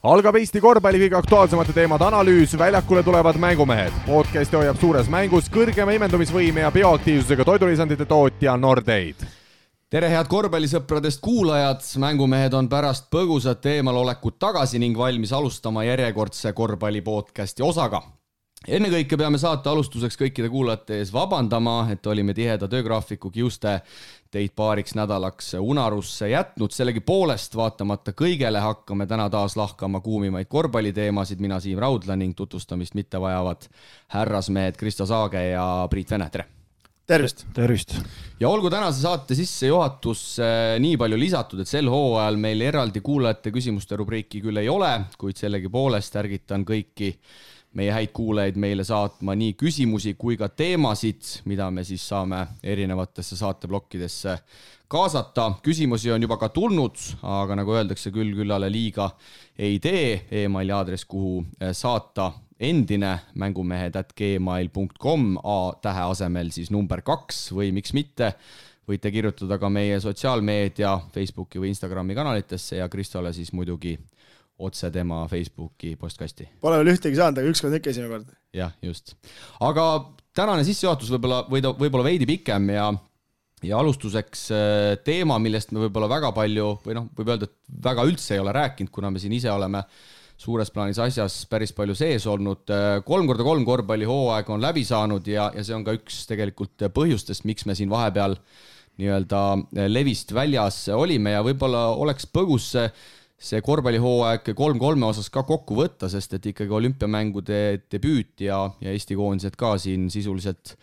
Algab Eesti korvpalli kõige aktuaalsemate teemade analüüs, väljakule tulevad mängumehed. Podcasti hoiab suures mängus kõrgema imendumisvõime ja bioaktiivsusega toidulisandite tootja Nordeid. Tere head korvpallisõpradest kuulajad, mängumehed on pärast põgusat eemalolekut tagasi ning valmis alustama järjekordse korvpallipodcasti osaga. Ennekõike peame saate alustuseks kõikide kuulajate ees vabandama, et olime tiheda töögraafiku kiuste teid paariks nädalaks unarusse jätnud. Sellegi poolest vaatamata kõigele hakkame täna taas lahkama kuumimaid korvpalliteemasid. Mina Siim Raudla ning tutvustamist mitte vajavad härrasmehed Kristo Saage ja Priit Vene. Tere! Tervist! Tervist! Ja olgu tänase saate sisse juhatus nii palju lisatud, et sel hooajal meil eraldi kuulajate küsimuste rubriiki küll ei ole, kuid sellegi poolest ärgitan kõiki meie häid kuulajaid meile saatma nii küsimusi kui ka teemasid, mida me siis saame erinevatesse saateblokkidesse kaasata. Küsimusi on juba ka tulnud, aga nagu öeldakse, küllale liiga ei tee. E-maili aadress, kuhu saata endine mängumehed@gmail.com, A-tähe asemel siis number 2 või miks mitte. Võite kirjutada ka meie sotsiaalmeedia, Facebooki või Instagrami kanalitesse ja Kristole siis muidugi otse tema Facebooki postkasti. Pole veel ühtegi saanud, aga ükskord ikka esimene kord. Jah, just. Aga tänane sissejuhatus võib-olla veidi pikem ja alustuseks teema, millest me võib-olla väga palju, või võib öelda, et väga üldse ei ole rääkinud, kuna me siin ise oleme suures plaanis asjas päris palju sees olnud. 3x3 korvpalli hooaeg on läbi saanud ja see on ka üks tegelikult põhjustest, miks me siin vahepeal nii-öelda levist väljas olime ja võib-olla oleks põgus see korvpallihooaeg 3-3 osas ka kokku võtta, sest et ikkagi olümpiamängude debüüt ja Eesti koondised ka siin sisuliselt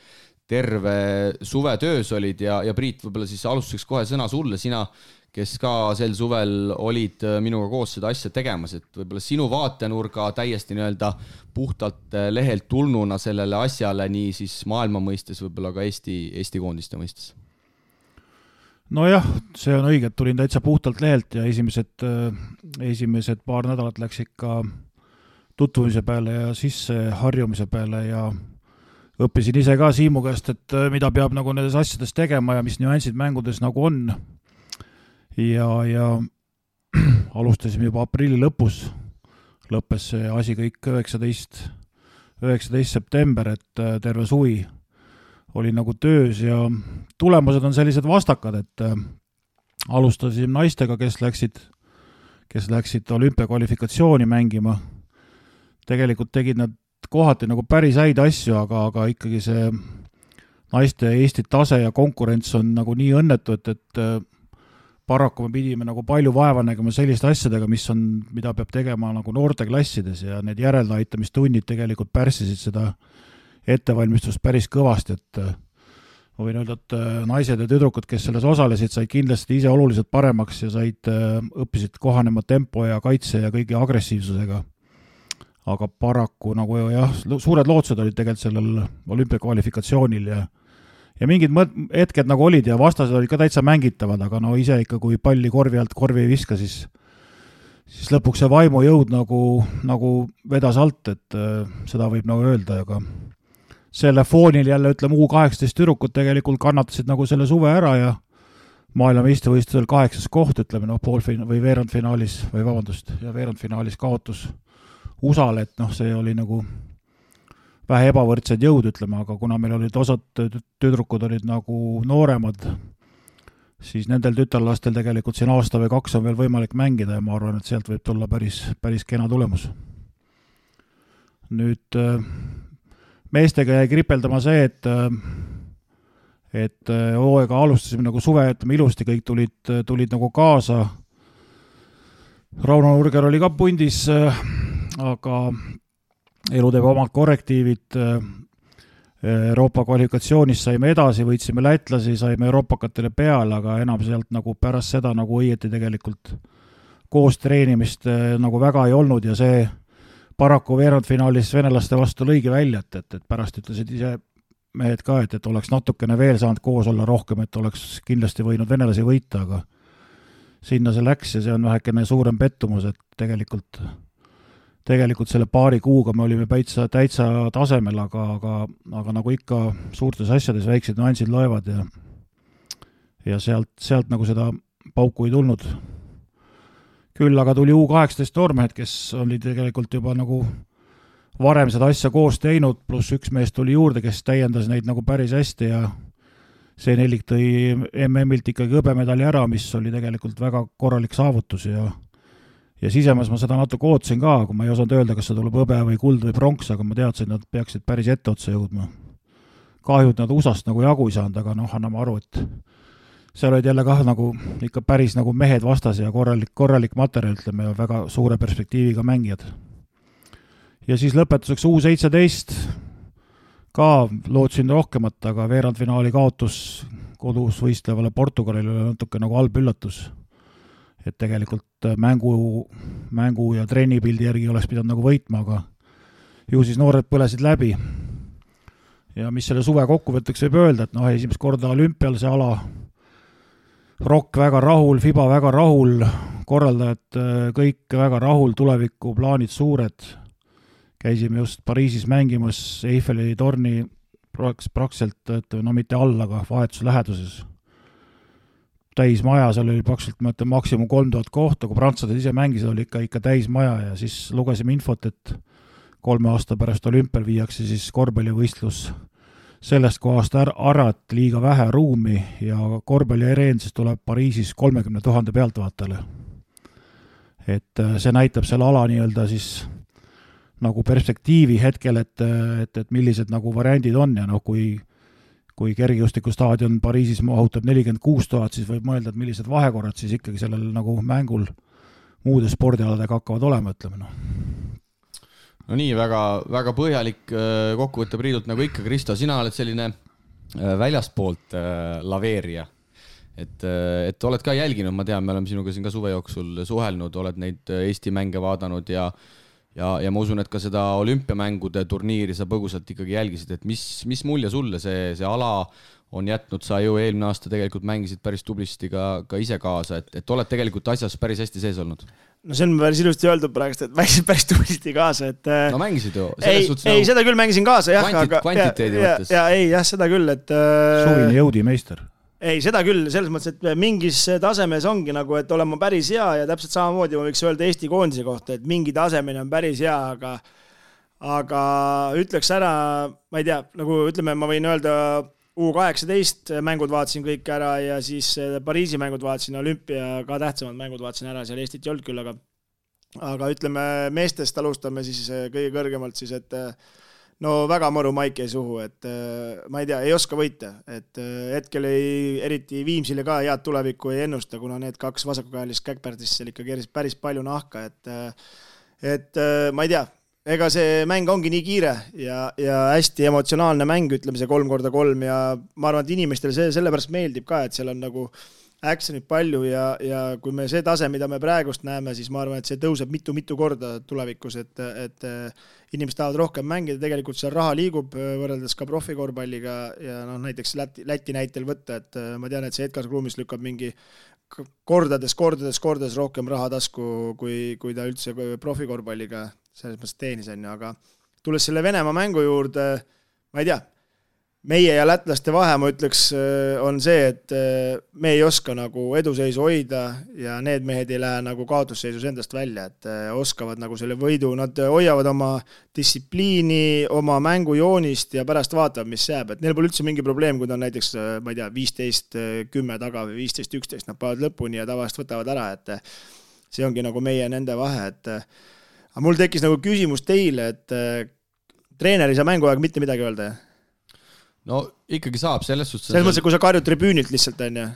terve suve töös olid ja Priit, võib-olla siis alustuseks kohe sõna sulle, sina, kes ka sel suvel olid minuga koos seda asja tegemas, et võib-olla sinu vaatenurga täiesti nii-öelda puhtalt lehelt tulnuna sellele asjale nii siis maailma mõistes, võib-olla ka Eesti koondiste mõistes. Nojah, see on õige, et tulin täitsa puhtalt lehelt ja esimesed paar nädalat läks ikka tutvumise peale ja sisse harjumise peale ja õppisin ise ka Siimu käest, et mida peab nagu nendes asjades tegema ja mis nüansid mängudes nagu on. Ja alustasime juba aprilli lõpus, lõppes see asi kõik 19. september, et terve suvi oli nagu töös ja tulemused on sellised vastakad, et alustasime naistega, kes läksid olümpiakvalifikatsiooni mängima. Tegelikult tegid nad kohati nagu päris häid asju, aga ikkagi see naiste Eesti tase ja konkurents on nagu nii õnnetu, et paraku me pidime nagu palju vaeva nägema selliste asjadega, mida peab tegema nagu noorteklassides ja need järeldaitamistunnid tegelikult pärssisid seda ettevalmistust päris kõvasti, et ma võin öelda, et naised ja tüdrukud, kes selles osalesid, said kindlasti ise oluliselt paremaks ja õppisid kohanema tempo ja kaitse ja kõigi agressiivsusega. Aga paraku nagu jah, suured lootused olid tegelikult sellel olümpiakvalifikatsioonil ja mingid hetked nagu olid ja vastased olid ka täitsa mängitavad, aga ise ikka, kui palli korvi alt korvi ei viska, siis lõpuks see vaimujõud nagu vedas alt, et seda võib nagu öelda, aga selle foonil jälle U18 tüdrukud tegelikult kannatasid nagu selle suve ära ja maailmameistrivõistlusel 8. koht, või veerandfinaalis kaotus USA-le, et see oli nagu vähe ebavõrdsed jõud, aga kuna meil olid osad tüdrukud olid nagu nooremad, siis nendel tütarlastel tegelikult siin aasta või 2 on veel võimalik mängida ja ma arvan, et sealt võib tulla päris kena tulemus. Nüüd meestega jäi kripeldama see, et hooaega alustasime nagu suve, ilusti kõik tulid nagu kaasa. Rauno Nurger oli ka pundis, aga elu teeb omad korrektiivid. Euroopa kvalifikatsioonist saime edasi, võitsime lätlasi, saime euroopakatele peale, aga enam sealt nagu pärast seda nagu õieti tegelikult koos treenimist nagu väga ei olnud ja see paraku veerandfinaalis venelaste vastu lõigi välja, et pärast ütlesid ise mehed ka, et oleks natukene veel saanud koos olla rohkem, et oleks kindlasti võinud venelasi võita, aga sinna see läks ja see on vähekene suurem pettumus, et tegelikult selle paari kuuga me olime täitsa tasemel, aga nagu ikka suurtes asjades väiksed nüansid loevad ja sealt nagu seda pauku ei tulnud. küll aga tuli U18 noormehed, kes oli tegelikult juba nagu varem seda asja koos teinud, pluss üks mees tuli juurde, kes täiendas neid nagu päris hästi ja see nelik tõi MM-ilt ikkagi hõbemedali ära, mis oli tegelikult väga korralik saavutus ja sisemas ma seda natuke ootasin ka, kui ma ei osanud öelda, kas see tuleb hõbe või kuld või pronks, aga ma teadsin, et nad peaksid päris etteotsa jõudma. Kahju, et nad USA-st nagu jagu ei saanud, aga anname aru, et seal olid jälle kah nagu ikka päris nagu mehed vastas ja korralik materjal, ütleme, ja väga suure perspektiiviga mängijad. Ja siis lõpetuseks U17 ka lootsin rohkemat, aga veerandfinaali kaotus kodus võistlevale Portugalile oli natuke nagu halb üllatus. Et tegelikult mängu ja trennipildi järgi oleks pidanud nagu võitma, aga ju siis noored põlesid läbi. Ja mis selle suve kokkuvõtteks võib öelda, et esimest korda olümpial see ala, Rock väga rahul, FIBA väga rahul, korraldajad kõik väga rahul, tuleviku plaanid suured. Käisime just Pariisis mängimas Eiffeli torni praktiliselt, mitte all, aga vahetus läheduses. Täis maja, seal oli praktiliselt maksimum 3000 kohta, kui prantslased ise mängisid, oli ikka täis maja ja siis lugesime infot, et 3 aasta pärast olümpial viiakse siis korvpallivõistlus sellest kohast ära, et liiga vähe ruumi ja korvpalliareen siis tuleb Pariisis 30 000 pealtvaatajale. Et see näitab selle ala nii-öelda siis nagu perspektiivi hetkel, et millised nagu variandid on ja kui kergejõustikustaadion Pariisis mahutab 46 000, siis võib mõelda, et millised vahekorrad siis ikkagi sellel nagu mängul muude spordialadega hakkavad olema, ütleme. No nii, väga põhjalik kokkuvõtte Priidult nagu ikka, Kristo, sina oled selline väljastpoolt laveerija. Et oled ka jälginud, ma tean, me oleme sinuga siin ka suve jooksul suhelnud, oled neid Eesti mänge vaadanud ja ma usun, et ka seda olümpiamängude turniiri sa põgusalt ikkagi jälgisid, et mis mulje sulle see ala on jätnud, sa ju eelmine aasta tegelikult mängisid päris tublisti ka ise kaasa, et oled tegelikult asjas päris hästi sees olnud? No see on päris ilusti öeldud praegust, et mängisid päris tublisti kaasa, et no mängisid ju. Ei, seda küll mängisin kaasa, jah. Kvantiteedi mõttes. Jah, seda küll, et suvine jõudimeister. Ei, seda küll, selles mõttes, et mingis tasemes ongi nagu, et olema päris hea ja täpselt samamoodi ma võiks öelda Eesti koondise kohta, et mingi tasemine on päris hea, aga ütleks ära, ma ei tea, nagu ütleme, ma võin öelda U18 mängud vaatasin kõik ära ja siis Pariisi mängud vaatasin, olümpia ka tähtsamad mängud vaatasin ära, seal Eestit ei olnud küll, aga ütleme meestest alustame siis kõige kõrgemalt siis, et no väga mõru maik ei suhu, et ma ei tea, ei oska võita, et hetkel eriti Viimsile ka head tulevikku ei ennusta, kuna need 2 vasakukäelist käkpärtist seal ikka päris palju nahka, et ma ei tea, ega see mäng ongi nii kiire ja hästi emotsionaalne mäng, ütleme see 3x3 ja ma arvan, et inimestele see sellepärast meeldib ka, et seal on nagu actionit palju ja kui me see tase, mida me praegust näeme, siis ma arvan, et see tõuseb mitu korda tulevikus, et inimesed tahavad rohkem mängida, tegelikult seal raha liigub võrreldes ka profikorvpalliga ja näiteks Läti näitel võtta, et ma tean, et see Edgar Kruumis lükkab mingi kordades rohkem raha tasku, kui ta üldse profikorvpalliga selles mõttes teenis on, aga tulles selle Venemaa mängu juurde, ma ei tea, meie ja lätlaste vahe, ma ütleks, on see, et me ei oska nagu eduseisu hoida ja need mehed ei lähe nagu kaotusseisus endast välja, et oskavad nagu selle võidu, nad hoiavad oma distsipliini, oma mängujoonist ja pärast vaatavad, mis jääb, et neil pole üldse mingi probleem, kui ta on näiteks, ma ei tea, 15-10 taga või 15-11, nad paavad lõpuni ja tavaliselt võtavad ära, et see ongi nagu meie nende vahe, et aga mul tekkis nagu küsimus teile, et treener ei saa mänguaeg mitte midagi öelda, jah? No ikkagi saab, selles suhtes... Selles mõttes, kui sa karjud tribüünilt lihtsalt on, jah?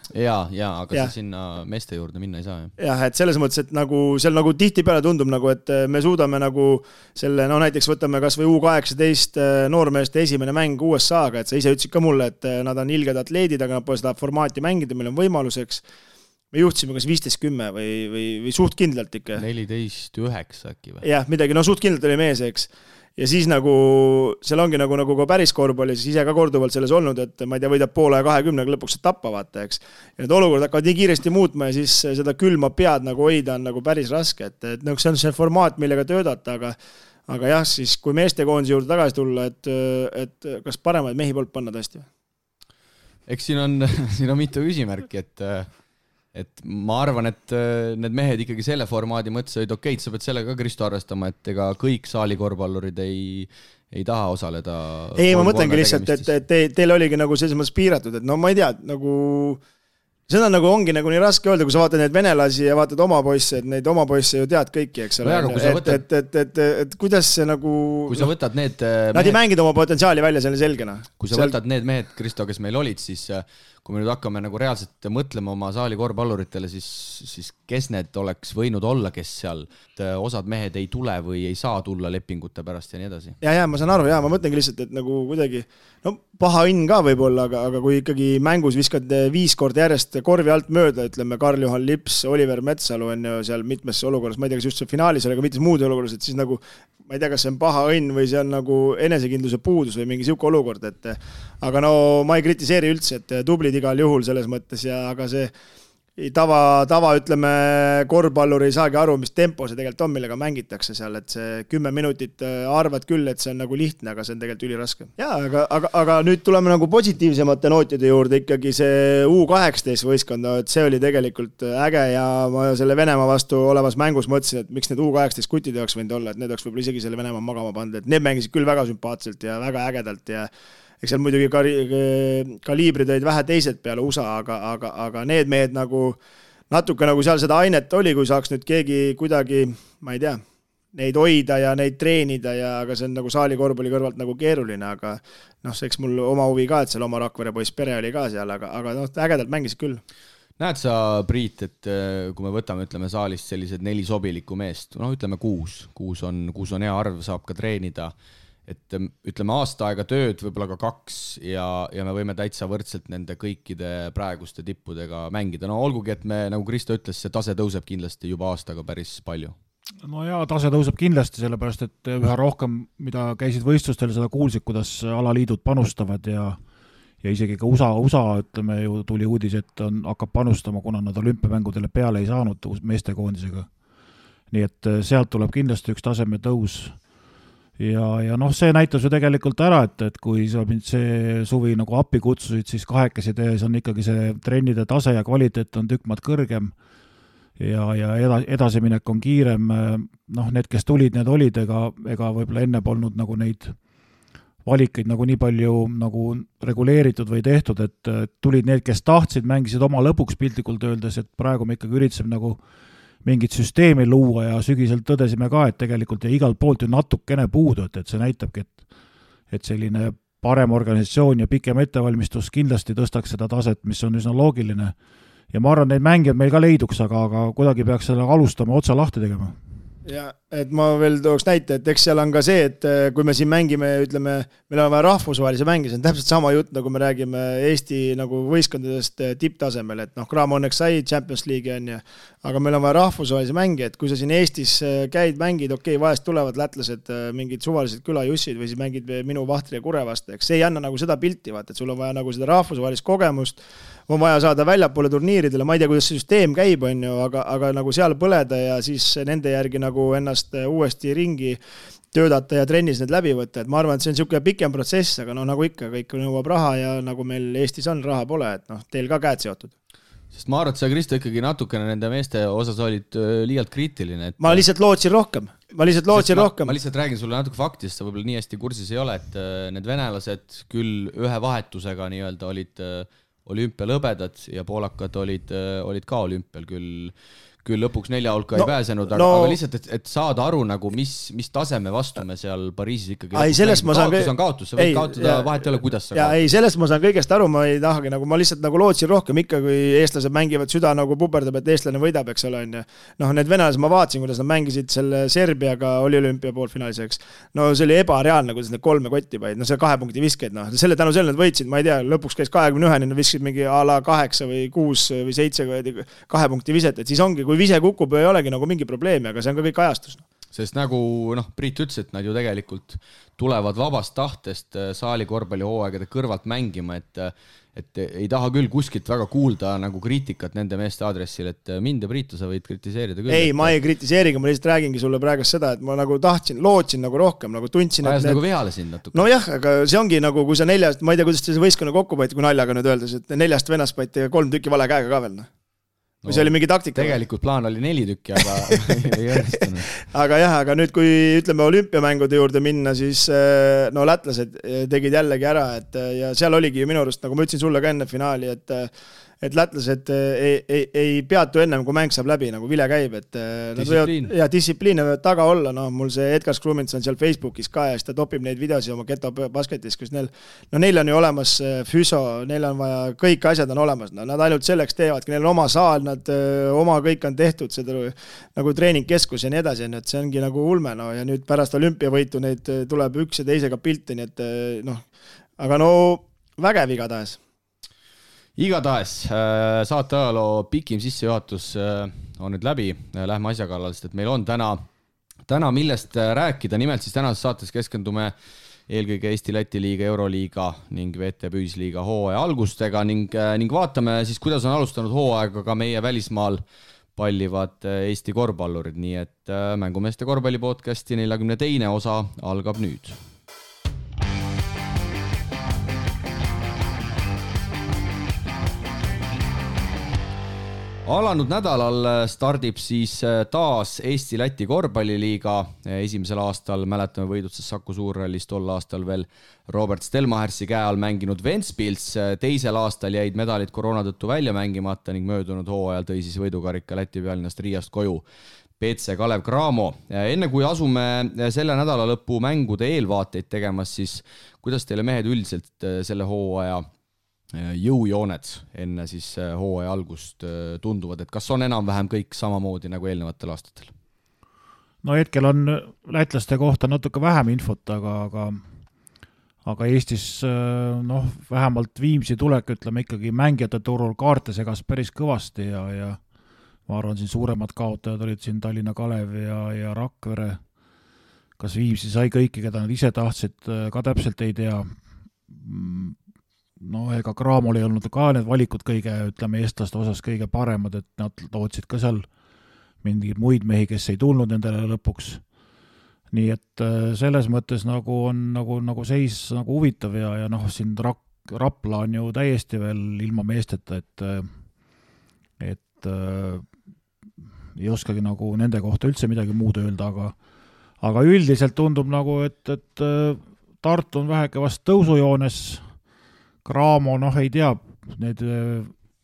Jaa, aga sa sinna meeste juurde minna ei saa, jah? Jah, et selles mõttes, et nagu seal nagu tihti peale tundub nagu, et me suudame nagu selle, näiteks võtame kas või U18 noormeeste esimene mäng USA-ga, et sa ise ütlesid ka mulle, et nad on ilged atleedid, aga nad pole seda formaati mängida, meil on võimaluseks. Me juhtisime kas 15-10 või suht kindlalt ikka. 14-9 äkki või? Jah, midagi, suht kindlalt oli mees, eks. Ja siis nagu, seal ongi nagu ka päris korvpalli, siis ise ka korduvalt selles olnud, et ma ei tea, võidab poole 20, lõpuks saab tappa, vaata, eks. Ja need olukorrad hakkavad nii kiiresti muutma ja siis seda külma pead nagu hoida on nagu päris raske, et see on see formaat, millega töödata, aga jah, siis kui meestekoondise juurde tagasi tulla, et kas paremaid mehi poolt panna tõesti? Eks siin on mitu küsimärki, et et ma arvan, et need mehed ikkagi selle formaadi mõtlesid, okei, sa pead sellega ka Kristo arvestama, et ega kõik saali korvpallurid ei taha osaleda. Ei, ma mõtlengi lihtsalt, et teil oligi nagu selles mõttes piiratud, et no ma ei tea, nagu seda nagu ongi nagu nii raske öelda, kui sa vaatad neid venelasi ja vaatad oma poisse, et neid oma poisse ju tead kõiki, eks ole. Et kuidas see nagu... Kui sa võtad need... Nad ei mängid oma potentsiaali välja selle selgena. Kui sa võtad need mehed, Kristo, kes meil olid, siis kui me nüüd hakkame nagu reaalselt mõtlema oma saali korvpalluritele, siis kes need oleks võinud olla, kes seal osad mehed ei tule või ei saa tulla lepingute pärast ja nii edasi. Ja, ma saan aru, ma mõtlengi lihtsalt, et nagu kuidagi, no paha õnn ka võib-olla, aga kui ikkagi mängus viskad 5 korda järjest korvi alt mööda, ütleme Karl-Juhan Lips, Oliver Metsalu on ju seal mitmes olukorras, ma ei tea, kas just see finaalis oli, aga mitmes muud olukorras, et siis nagu ma ei tea, kas see on paha õnn või see on nagu enesekindluse puudus või mingi siuke olukord, et aga no ma ei kritiseeri üldse, et tublid igal juhul selles mõttes ja aga see tava ütleme, korvpallur ei saagi aru, mis tempo see tegelikult on, millega mängitakse seal, et see 10 minutit arvad küll, et see on nagu lihtne, aga see on tegelikult üliraske. Jaa, aga nüüd tuleme nagu positiivsemate nootide juurde, ikkagi see U18 võistkond, et see oli tegelikult äge ja ma selle Venemaa vastu olevas mängus mõtlesin, et miks need U18 kutid oleks võinud olla, et need oleks võib-olla isegi selle Venemaa magama pandud, et need mängisid küll väga sümpaatselt ja väga ägedalt ja eks seal muidugi kaliibrid olid vähe teised peale USA, aga need mehed nagu natuke nagu seal seda ainet oli, kui saaks nüüd keegi kuidagi, ma ei tea, neid hoida ja neid treenida ja aga see on nagu saali korvpalli kõrvalt nagu keeruline, aga noh, see eks mul oma huvi ka, et seal oma Rakvere poiss pere oli ka seal, aga noh, ägedalt mängisid küll. Näed sa, Priit, et kui me võtame, ütleme saalist sellised 4 sobilikku meest, no ütleme 6 on hea arv, saab ka treenida, et ütleme aasta aega tööd, võib-olla ka 2 ja me võime täitsa võrdselt nende kõikide praeguste tippudega mängida. No olgugi, et me, nagu Kristo ütles, see tase tõuseb kindlasti juba aastaga päris palju. No jaa, tase tõuseb kindlasti, sellepärast, et üha rohkem, mida käisid võistlustel, seda kuulsid, kuidas alaliidud panustavad ja isegi ka USA, ütleme ju, tuli uudis, et hakkab panustama, kuna nad olümpiamängudele peale ei saanud meestekoondisega. Nii et sealt tuleb kindlasti üks taseme tõus. Ja noh, see näitas ju tegelikult ära, et kui sa mind see suvi nagu appi kutsusid, siis 2 tees on ikkagi see trennide tase ja kvaliteet on tükk maad kõrgem ja edasiminek on kiirem. Noh, need, kes tulid, need olid, ega võib-olla enne polnud nagu neid valikeid nagu nii palju nagu reguleeritud või tehtud, et tulid need, kes tahtsid, mängisid oma lõpuks piltlikult öeldes, et praegu me ikkagi üritasime nagu mingit süsteemi luua ja sügiselt tõdesime ka, et tegelikult ja igalt poolt ju natukene puudu, et see näitabki, et selline parem organisatsioon ja pikem ettevalmistus kindlasti tõstaks seda taset, mis on üsna loogiline. Ja ma arvan, neid mängijad meil ka leiduks, aga kuidagi peaks selle alustama otsa lahti tegema. Ja, et ma veel tooks näite, et eks seal on ka see, et kui me siin mängime, ütleme, meil on vaja rahvusvahelise mängi, see on täpselt sama jutt, nagu me räägime Eesti nagu võistkondadest tipptasemel, et noh, Graamo õnneks sai Champions League on ja, aga meil on vaja rahvusvahelise mängi, et kui sa siin Eestis käid, mängid, okei, vahest tulevad lätlased mingid suvalised külajussid või siis mängid minu Vahtri ja Kure vastu, eks see ei anna nagu seda pilti, vaata, et sul on vaja nagu seda rahvusvahelist kogemust, on vaja saada väljapoole turniiridele, ma ei tea, kuidas see süsteem käib, on ju, aga nagu seal põleda ja siis nende järgi nagu ennast uuesti ringi töödata ja trennis need läbi võtta, et ma arvan, et see on niisugune pikem protsess, aga no nagu ikka, kõik nõuab raha ja nagu meil Eestis on, raha pole, et noh, teil ka käed seotud. Sest ma arvan, et sa, Kristo, ikkagi natukene nende meeste osas olid liialt kriitiline. Et... Ma lihtsalt lootsin rohkem. Ma lihtsalt räägin sulle natuke faktist, sa võib-olla nii hästi kursis ei ole, et need venelased küll ühe vahetusega nii-öelda olid olümpialõbedad ja poolakad olid ka olümpial küll lõpuks 4 hulka ei pääsenud, aga lihtsalt, et saada aru nagu, mis taseme vastu me seal Pariisis ikkagi kaotus on kaotus, sa võid kaotada, vahet ei ole, kuidas sa kaotus. Ei, sellest ma saan kõigest aru, ma ei tahagi, nagu ma lihtsalt nagu lootsin rohkem ikka, kui eestlased mängivad süda nagu puperdab, et eestlane võidab, eks ole, on ju. Noh, need venelased ma vaatasin, kuidas nad mängisid selle Serbiaga oli olümpia poolfinaalis, no see oli ebareaalne, kuidas need 3 kotti paid, no see 2 punkti viskeid, noh, selle tänu selle nad võitsid, ma ei tea, lõpuks käis 21, nad viskasid mingi a la 8 või 6 või 7 2 punkti viset, et siis ongi, kui vise kukub, ei olegi nagu mingi probleemi, aga see on ka kõik ajastus. Sest nagu Priit ütles, et nad ju tegelikult tulevad vabast tahtest saali korvpallihooaegade kõrvalt mängima, et ei taha küll kuskilt väga kuulda nagu kriitikat nende meeste aadressil, et mind ja Priitu sa võid kritiseerida küll. Ei, ma ei kritiseeriga, ma lihtsalt räägingi sulle praegu seda, et ma nagu lootsin nagu rohkem, nagu tundsin, et nagu vihale sind natuke. No jah, aga see ongi nagu, kui sa 4, ma ei tea, kuidas see võistkonna kokku paiti, kui naljaga nüüd öeldes, et 4 venast paiti 3 tükki vale käega ka veel. või see oli mingi taktika? Tegelikult plaan oli 4 tükki, aga ei õnnestunud. aga nüüd, kui ütleme olümpiamängude juurde minna, siis no lätlased tegid jällegi ära, ja seal oligi minu arust, nagu ma ütlesin sulle ka enne finaali, et lätlased ei peatu ennem, kui mäng saab läbi, nagu vile käib, et distsipliin võivad taga olla, mul see Edgar Skrumins on seal Facebookis ka ja siis ta topib neid videosi oma Geto basketis, kus neil on ju olemas füso, neil on vaja, kõik asjad on olemas, nad ainult selleks teevadki, neil on oma saal, nad oma kõik on tehtud, seda nagu treeningkeskus ja nii edasi, et see ongi nagu ulme, ja nüüd pärast olümpiavõitu neid tuleb üks ja teisega pilti, nii et aga vägev igatahes. Igatahes saate ajaloo pikim sissejuhatus on nüüd läbi, lähme asja kallal, sest et meil on täna millest rääkida, nimelt siis tänases saates keskendume eelkõige Eesti-Läti liiga, Euroliiga ning VTB Ühisliiga hooaja algustega ning vaatame siis, kuidas on alustanud hooaega ka meie välismaal pallivad Eesti korvpallurid, nii et Mängumeeste korvpallipodcasti 42. osa algab nüüd. Alanud nädalal stardib siis taas Eesti-Läti korvpalliliiga. Esimesel aastal mäletame võidutses Saku Suurrallis, tol aastal veel Robert Stelmachersi käe all mänginud Ventspils. Teisel aastal jäid medalid koroona tõttu välja mängimata ning möödunud hooajal tõi siis võidukarika Läti pealinnast Riiast koju PC Kalev Cramo. Enne kui asume selle nädala lõpu mängude eelvaateid tegemas, siis kuidas teile mehed üldiselt selle hooaja jõujooned enne siis hooaja algust tunduvad, et kas on enam-vähem kõik samamoodi nagu eelnevatel aastatel? No hetkel on lätlaste kohta natuke vähem infot, aga Eestis vähemalt Viimsi tulek, ütleme ikkagi mängijate turul kaarte segas päris kõvasti ja ma arvan, siin suuremad kaotajad olid siin Tallinna Kalev ja Rakvere. Kas Viimsi sai kõiki, keda nad ise tahtsid, ka täpselt ei tea. Ega Cramol ei olnud ka need valikud kõige, ütleme, eestlaste osas kõige paremad, et nad lootsid ka seal mingeid muid mehi, kes ei tulnud nendele lõpuks. Nii et selles mõttes nagu on nagu seis nagu huvitav ja siin Rapla on ju täiesti veel ilma meesteta, et ei oskagi nagu nende kohta üldse midagi muud öelda, aga üldiselt tundub nagu, et Tartu on väheke vast tõusujoones. Cramo, ei tea, need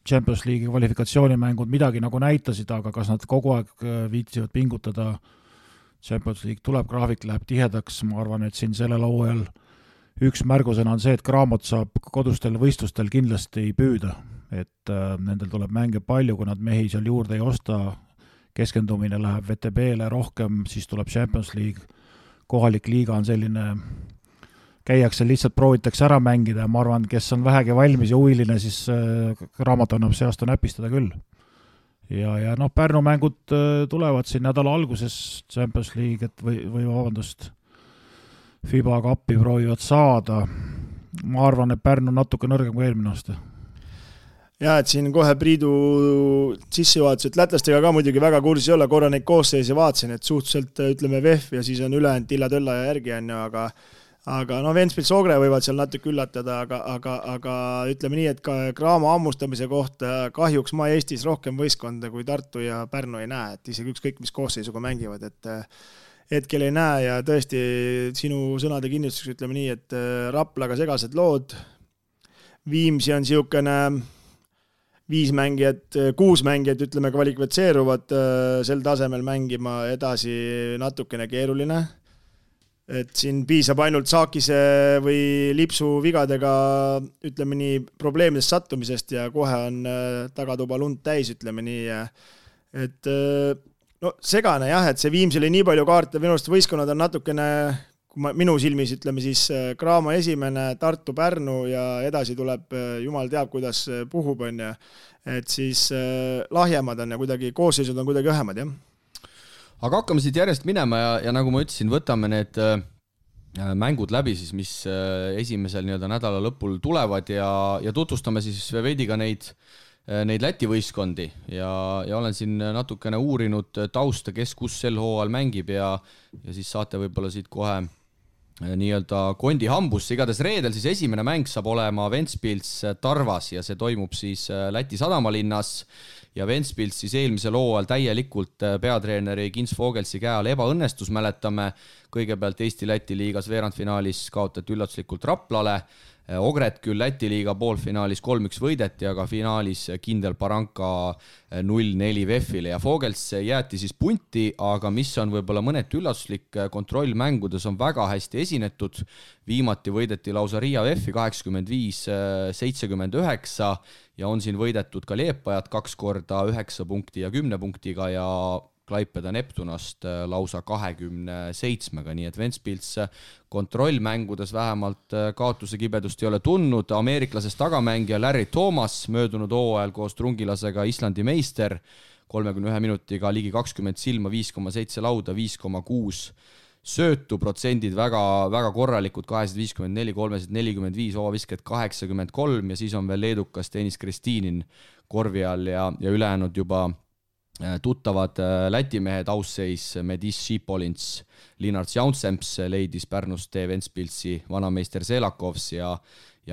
Champions League'i kvalifikatsioonimängud midagi nagu näitasid, aga kas nad kogu aeg viitsivad pingutada, Champions League tuleb, graafik läheb tihedaks, ma arvan, et siin sellel hooajal üks märgusena on see, et Cramot saab kodustel võistlustel kindlasti püüda, et nendel tuleb mänge palju, kui nad mehi seal juurde ei osta, keskendumine läheb VTB-le rohkem, siis tuleb Champions League, kohalik liiga on selline käiakse lihtsalt proovitakse ära mängida ja ma arvan, kes on vähegi valmis ja huviline, siis Raamat annab see aasta näpistada küll. Ja Pärnu mängud tulevad siin nädala alguses Champions League või vabandust, FIBA kappi proovivad saada. Ma arvan, et Pärnu on natuke nõrgem kui eelmine aasta. Ja, et siin kohe Priidu sissejuhatus, et lätlastega ka muidugi väga kursis ei ole, korra neid koosseisi vaatasin, et suhteliselt ütleme VEF ja siis on ülejäänud Tilla-Tölla ja järgi on ju, aga Ventspils Ogre võivad seal natuke üllatada, aga ütleme nii, et ka Cramo ammustamise kohta kahjuks ma Eestis rohkem võistkonda kui Tartu ja Pärnu ei näe, et isegi ükskõik mis koosseisuga mängivad, et hetkel ei näe ja tõesti sinu sõnade kinnistuseks ütleme nii, et Raplaga segased lood, Viimsi on siukene 5 mängijat, 6 mängijat ütleme kvalifitseeruvad sel tasemel mängima, edasi natukene keeruline. Et siin piisab ainult Saakise või Lipsu vigadega ütleme nii probleemidest sattumisest ja kohe on tagatuba lund täis, ütleme nii. Et segane jah, et see Viimsi oli nii palju kaarte, minu arust võistkonnad on natukene, minu silmis ütleme siis Cramo esimene, Tartu, Pärnu ja edasi tuleb, jumal teab, kuidas puhub on ja et siis lahjemad on ja kuidagi koosseisud on kuidagi õhemad, jah. Aga hakkame siit järjest minema ja nagu ma ütlesin, võtame need mängud läbi, siis, mis esimesel nädala lõpul tulevad ja tutvustame siis veidi ka neid Läti võistkondi ja olen siin natukene uurinud tausta, kes kus sel hooajal mängib ja siis saate võib-olla siit kohe kondi hambusse. Igatahes reedel siis esimene mäng saab olema Ventspils Tarvas ja see toimub siis Läti sadamalinnas ja Ventspils siis eelmisel hooajal täielikult peatreeneri Kins Vogelsi käe all ebaõnnestus, mäletame kõigepealt Eesti-Läti liigas veerandfinaalis kaotati üllatuslikult Raplale, Ogret küll Läti liiga poolfinaalis 3-1 võideti, aga finaalis kindel Baranka 0-4 VEF-ile ja Vogels jäeti siis punti, aga mis on võib-olla mõneti üllatuslik, kontrollmängudes on väga hästi esinetud, viimati võideti lausa Riia VEF-i 85-79 ja on siin võidetud ka Liepajat 2 korda 9 punkti ja 10 punktiga ja Klaipeda Neptunast lausa 27-ga, nii et Ventspils kontrollmängudes vähemalt kaotuse kibedust ei ole tundnud. Ameeriklasest tagamängija Larry Thomas möödunud hooajal koos Trungilasega Islandi meister 31 minutiga ligi 20 silma, 5,7 lauda, 5,6 söötu, protsendid väga, väga korralikud, 254, 345, ovavisked 83 ja siis on veel leedukas Deniss Kristinin korvi all ja ülejäänud juba tuttavad Läti mehed, ausseis Medis Šipolins, Linnart Jaunsemps leidis Pärnust tee Ventspilsi vanameister Selakovs ja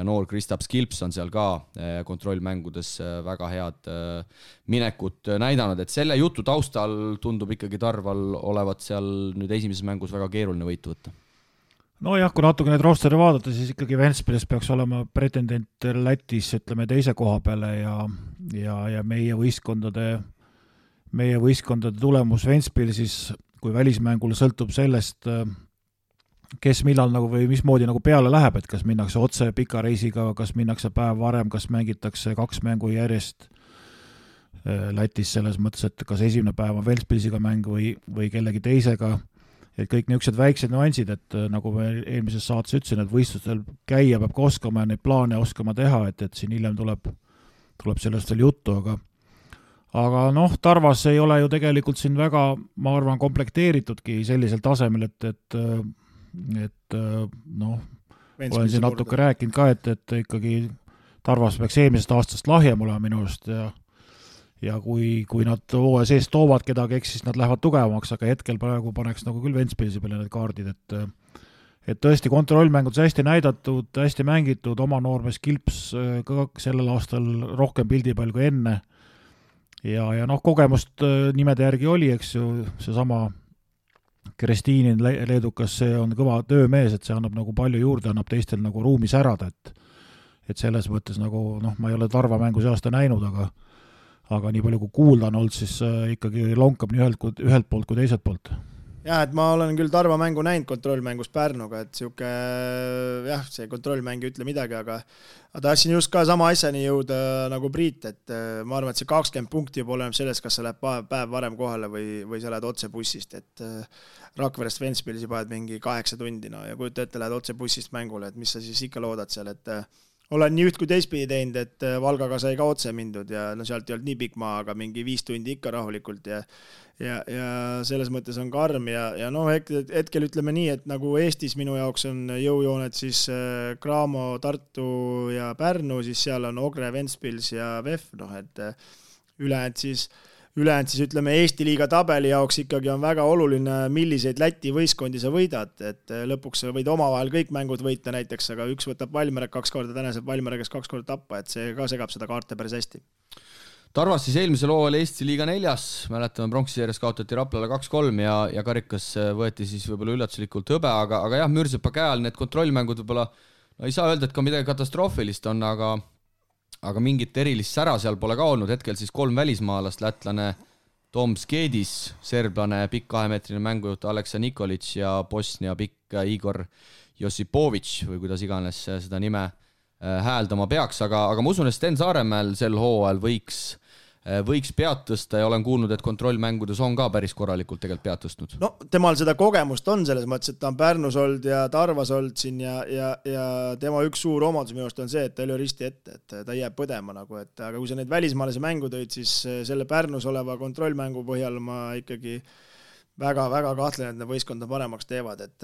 noor Kristaps Kilps on seal ka kontrollmängudes väga head minekut näidanud, et selle jutu taustal tundub ikkagi Tarval olevat seal nüüd esimeses mängus väga keeruline võitu võtta. No jah, kui natuke need rosteri vaadata, siis ikkagi Ventspilis peaks olema pretendent Lätis, ütleme, teise koha peale ja meie võistkondade tulemus Ventspilsis, kui välismängul sõltub sellest, kes millal nagu või mismoodi nagu peale läheb, et kas minnakse otse pika reisiga, kas minnakse päev varem, kas mängitakse 2 mängu järjest Lätis selles mõttes, et kas esimene päev on Ventspilsiga mäng või kellegi teisega, et kõik niisugused väiksed nüansid, et nagu me eelmises saates ütlesin, et võistlustel käia peab ka oskama ja neid plaane oskama teha, et siin hiljem tuleb sellest veel juttu, aga Tarvas ei ole ju tegelikult siin väga, ma arvan, komplekteeritudki sellisel tasemel, et olen siin natuke rääkinud ka, et ikkagi Tarvas peaks eelmisest aastast lahjem olema minu arust ja kui nad hooaja sees toovad kedagi, eks siis nad lähevad tugevamaks, aga hetkel praegu paneks nagu küll Ventspilsi peale need kaardid, et tõesti kontrollmängudes hästi näidatud, hästi mängitud, oma noormees Kilps ka sellel aastal rohkem pildipall kui enne ja kogemust nimede järgi oli, eks ju, seesama Kristinin leedukas, see on kõva töömees, et see annab nagu palju juurde, annab teistel nagu ruumi särada, et selles mõttes nagu, ma ei ole Tarva mängu see aasta näinud, aga nii palju kui kuulda on olnud, siis ikkagi lonkab nii ühelt poolt kui teiselt poolt. Jah, et ma olen küll Tarva mängu näinud kontrollmängus Pärnuga, et see kontrollmäng ei ütle midagi, aga tahtsin just ka sama asjani jõuda nagu Priit, et ma arvan, et see 20 punkti juba oleneb sellest, kas sa lähed päev varem kohale või sa lähed otse bussist, et Rakverest Ventspilsi paned mingi 8 tundi ja kujuta ette, lähed otse bussist mängule, et mis sa siis ikka loodad seal, et olen nii üht kui teistpidi teinud, et Valgaga sai ka otse mindud ja sealt ei olnud nii pikk maa, aga mingi 5 tundi ikka rahulikult ja selles mõttes on karm ja hetkel ütleme nii, et nagu Eestis minu jaoks on jõujooned siis Cramo, Tartu ja Pärnu, siis seal on Ogre, Ventspils ja VEF, et ülejäänud siis ütleme Eesti liiga tabeli jaoks ikkagi on väga oluline, milliseid Läti võistkondi sa võidad, et lõpuks sa võid omavahel kõik mängud võita näiteks, aga üks võtab Valmiera 2 korda, tänased Valmieragas 2 korda tappa, et see ka segab seda kaarte päris hästi. Tarvas siis eelmisel hooajal Eesti liiga 4, mäletame pronksisjärjes kaotati Raplale 2-3 ja karikas võeti siis võib-olla üllatuslikult hõbe, aga jah, Mürsepa käe all need kontrollmängud võib-olla, ei saa öelda, et ka midagi katastroofilist on, aga mingit erilist sära seal pole ka olnud, hetkel siis 3 välismaalast, lätlane Tom Skedis, serblane pikk 2-meetrine mängujuht Aleksa Nikolic ja Bosnia pikk Igor Josipovic või kuidas iganes seda nime hääldama peaks, aga ma usun, et Sten Saaremäel sel hooajal võiks pead tõsta ja olen kuulnud, et kontrollmängudes on ka päris korralikult tegelikult pead tõstnud. No temal seda kogemust on selles mõttes, et ta on Pärnus olnud ja Tarvas olnud siin ja tema üks suur omadus minu arust on see, et ta ei ole risti ette, et ta jääb põdema nagu, aga kui sa neid välismaalase mängu tõid, siis selle Pärnus oleva kontrollmängu põhjal ma ikkagi väga kahtlen, et need võistkonda paremaks teevad, et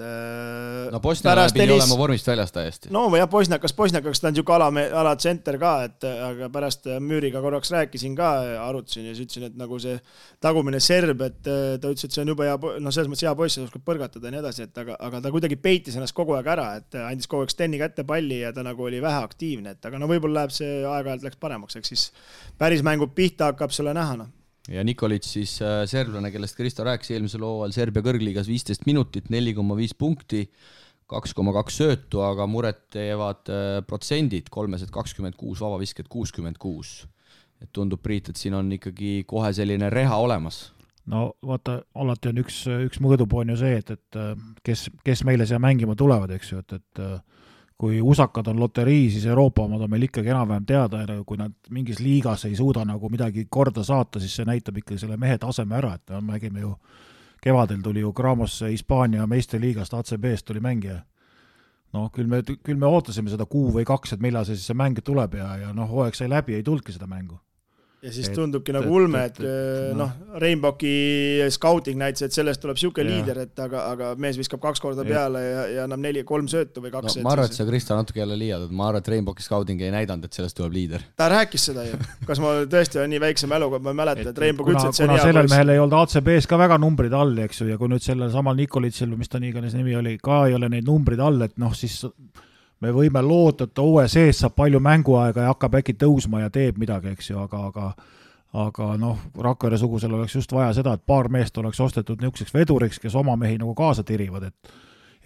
no Bosnia pidi olema vormist väljas täiesti. No jah, Bosniakaks ta on niisugune alatsenter ka, et aga pärast Müüriga korraks rääkisin ka, arutasin ja siis ütlesin, et nagu see tagumine serb, et ta ütles, et see on juba hea, no selles mõttes hea poiss, ta oskab põrgatada ja nii edasi, et aga ta kuidagi peitis ennast kogu aeg ära, et andis kogu aeg Steni kätte palli ja ta nagu oli vähe aktiivne, et aga no võib-olla läheb see aeg-ajalt läks paremaks, eks siis päris mängu pihta hakkab selle näha, no. Ja Nikolic siis serblane, kellest Kristo rääkis eelmisel hooajal Serbia kõrgliigas 15 minutit, 4,5 punkti, 2,2 söötu, aga muret teevad protsendid, 326, vabavisked 66. Et tundub, Priit, et siin on ikkagi kohe selline reha olemas. No vaata, alati on üks mõõdupuu on ju see, et kes meile siia mängima tulevad, eks ju, et kui usakad on loterii, siis Euroopa omad on meil ikkagi enam-vähem teada ja kui nad mingis liigas ei suuda nagu midagi korda saata, siis see näitab ikkagi selle mehe taseme ära, et me nägime ju, kevadel tuli ju Gramosse Hispaania meistriliigast, ACB-st tuli mängija. No küll me ootasime seda 1 või 2, et millal see mäng tuleb ja hooaeg sai läbi, ei tulnudki seda mängu. Ja siis tundubki nagu ulme, et Rainbowki scouting näitas, et sellest tuleb siuke liider, et aga mees viskab 2 korda peale ja annab 3 söötu või 2. No, ma arvan, et sa, Kristo, natuke jälle liiad, ma arvan, et Rainbowki scouting ei näidanud, et sellest tuleb liider. Ta rääkis seda ju. Kas ma tõesti on nii väikse mäluga, ma mäletan, et Rainbow ütles, et see on hea sellel mehel ei olnud ACB-s ka väga numbrid all, eks ju, ja kui nüüd sellel samal Nikolitsil, mis ta nii iganes nimi oli, ka ei ole neid numbrid all, et siis me võime loota, et OE sees saab palju mänguaega ja hakkab äkki tõusma ja teeb midagi, eks ju, aga Rakvere sugusel oleks just vaja seda, et paar meest oleks ostetud niisuguseks veduriks, kes oma mehi nagu kaasa tirivad, et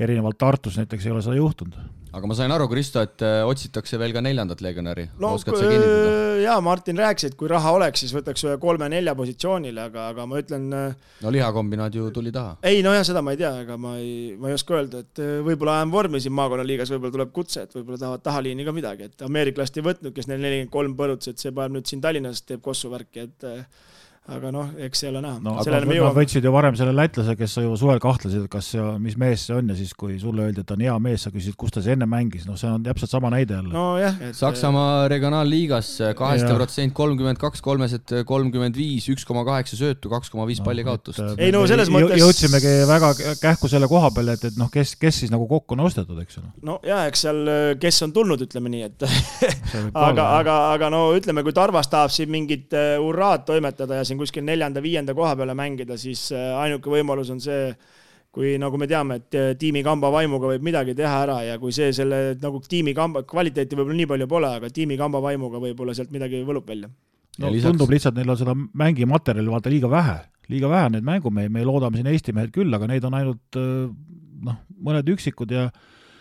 erinevalt Tartus näiteks ei ole seda juhtunud. Aga ma sain aru, Kristo, et otsitakse veel ka 4. legionäri. Oskad sa kinnitada? Jaa, Martin rääkis, et kui raha oleks, siis võtaks 3-4 positsioonile, aga ma ütlen... No lihakombinaat ju tuli taha. Ei, no jah, seda ma ei tea, aga ma ei oska öelda, et võib-olla ajan vormi siin maakonnaliigas, võib-olla tuleb kutse, et võib-olla tahavad tahaliini ka midagi, et ameeriklast ei võtnud, kes neil 43 põruts, et see paneb nüüd siin Tallinnas teeb kossu värki, et aga eks see ole näha. No, nad võtsid ju varem selle lätlase, kes sa ju suvel kahtlesid, kas mis mees see on ja siis kui sulle öeldi, et on hea mees, sa küsid, kus ta see enne mängis, see on täpselt sama näide jälle. No jah. Saksamaa regionaalliigas 8%, 32, 335, 1,8 söötu, 2,5 palli kaotust. Ei no selles mõttes... Jõudsimegi väga kähku selle koha peale, et kes siis nagu kokku on ostetud, eks ole? No jah, eks seal, kes on tulnud, ütleme nii, et aga no ütleme, kui Tarvas tahab siin mingit urraad toimetada ja siin kuskil 4.-5. koha peale mängida, siis ainuke võimalus on see, kui nagu me teame, et tiimi kamba vaimuga võib midagi teha ära ja kui see selle nagu tiimi kamba, kvaliteeti võib-olla nii palju pole, aga tiimi kamba vaimuga võib-olla sealt midagi võlub välja. No, tundub lihtsalt, neil on seda mängimaterjali vaata liiga vähe need mängumehed, me loodame siin Eesti mehed küll, aga neid on ainult mõned üksikud ja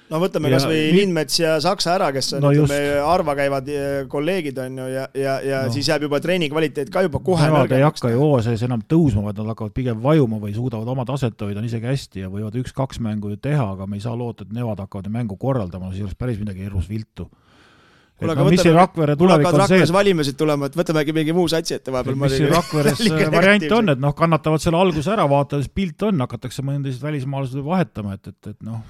no võtame kas või Lindmets ja Saksa ära, kes on arva käivad kolleegid on ju ja siis jääb juba treeni kvaliteet ka juba kohe nõrgemaks. Nad ei hakka ju OSS enam tõusma, vaid nad hakkavad pigem vajuma või suudavad oma taset hoida isegi hästi ja võivad 1-2 mängu ju teha, aga me ei saa loota, et nemad hakkavad mängu korraldama, siis oleks päris midagi hirmus viltu. Mis see Rakvere tulevik on see, valimised tulema, et võtamegi mingi muu satsi ette vahepeal. Mis see Rakveres variant on, et kannatavad selle alguse ära, vaatades pilt on, hakatakse mõndasid välismaalased vahetama, et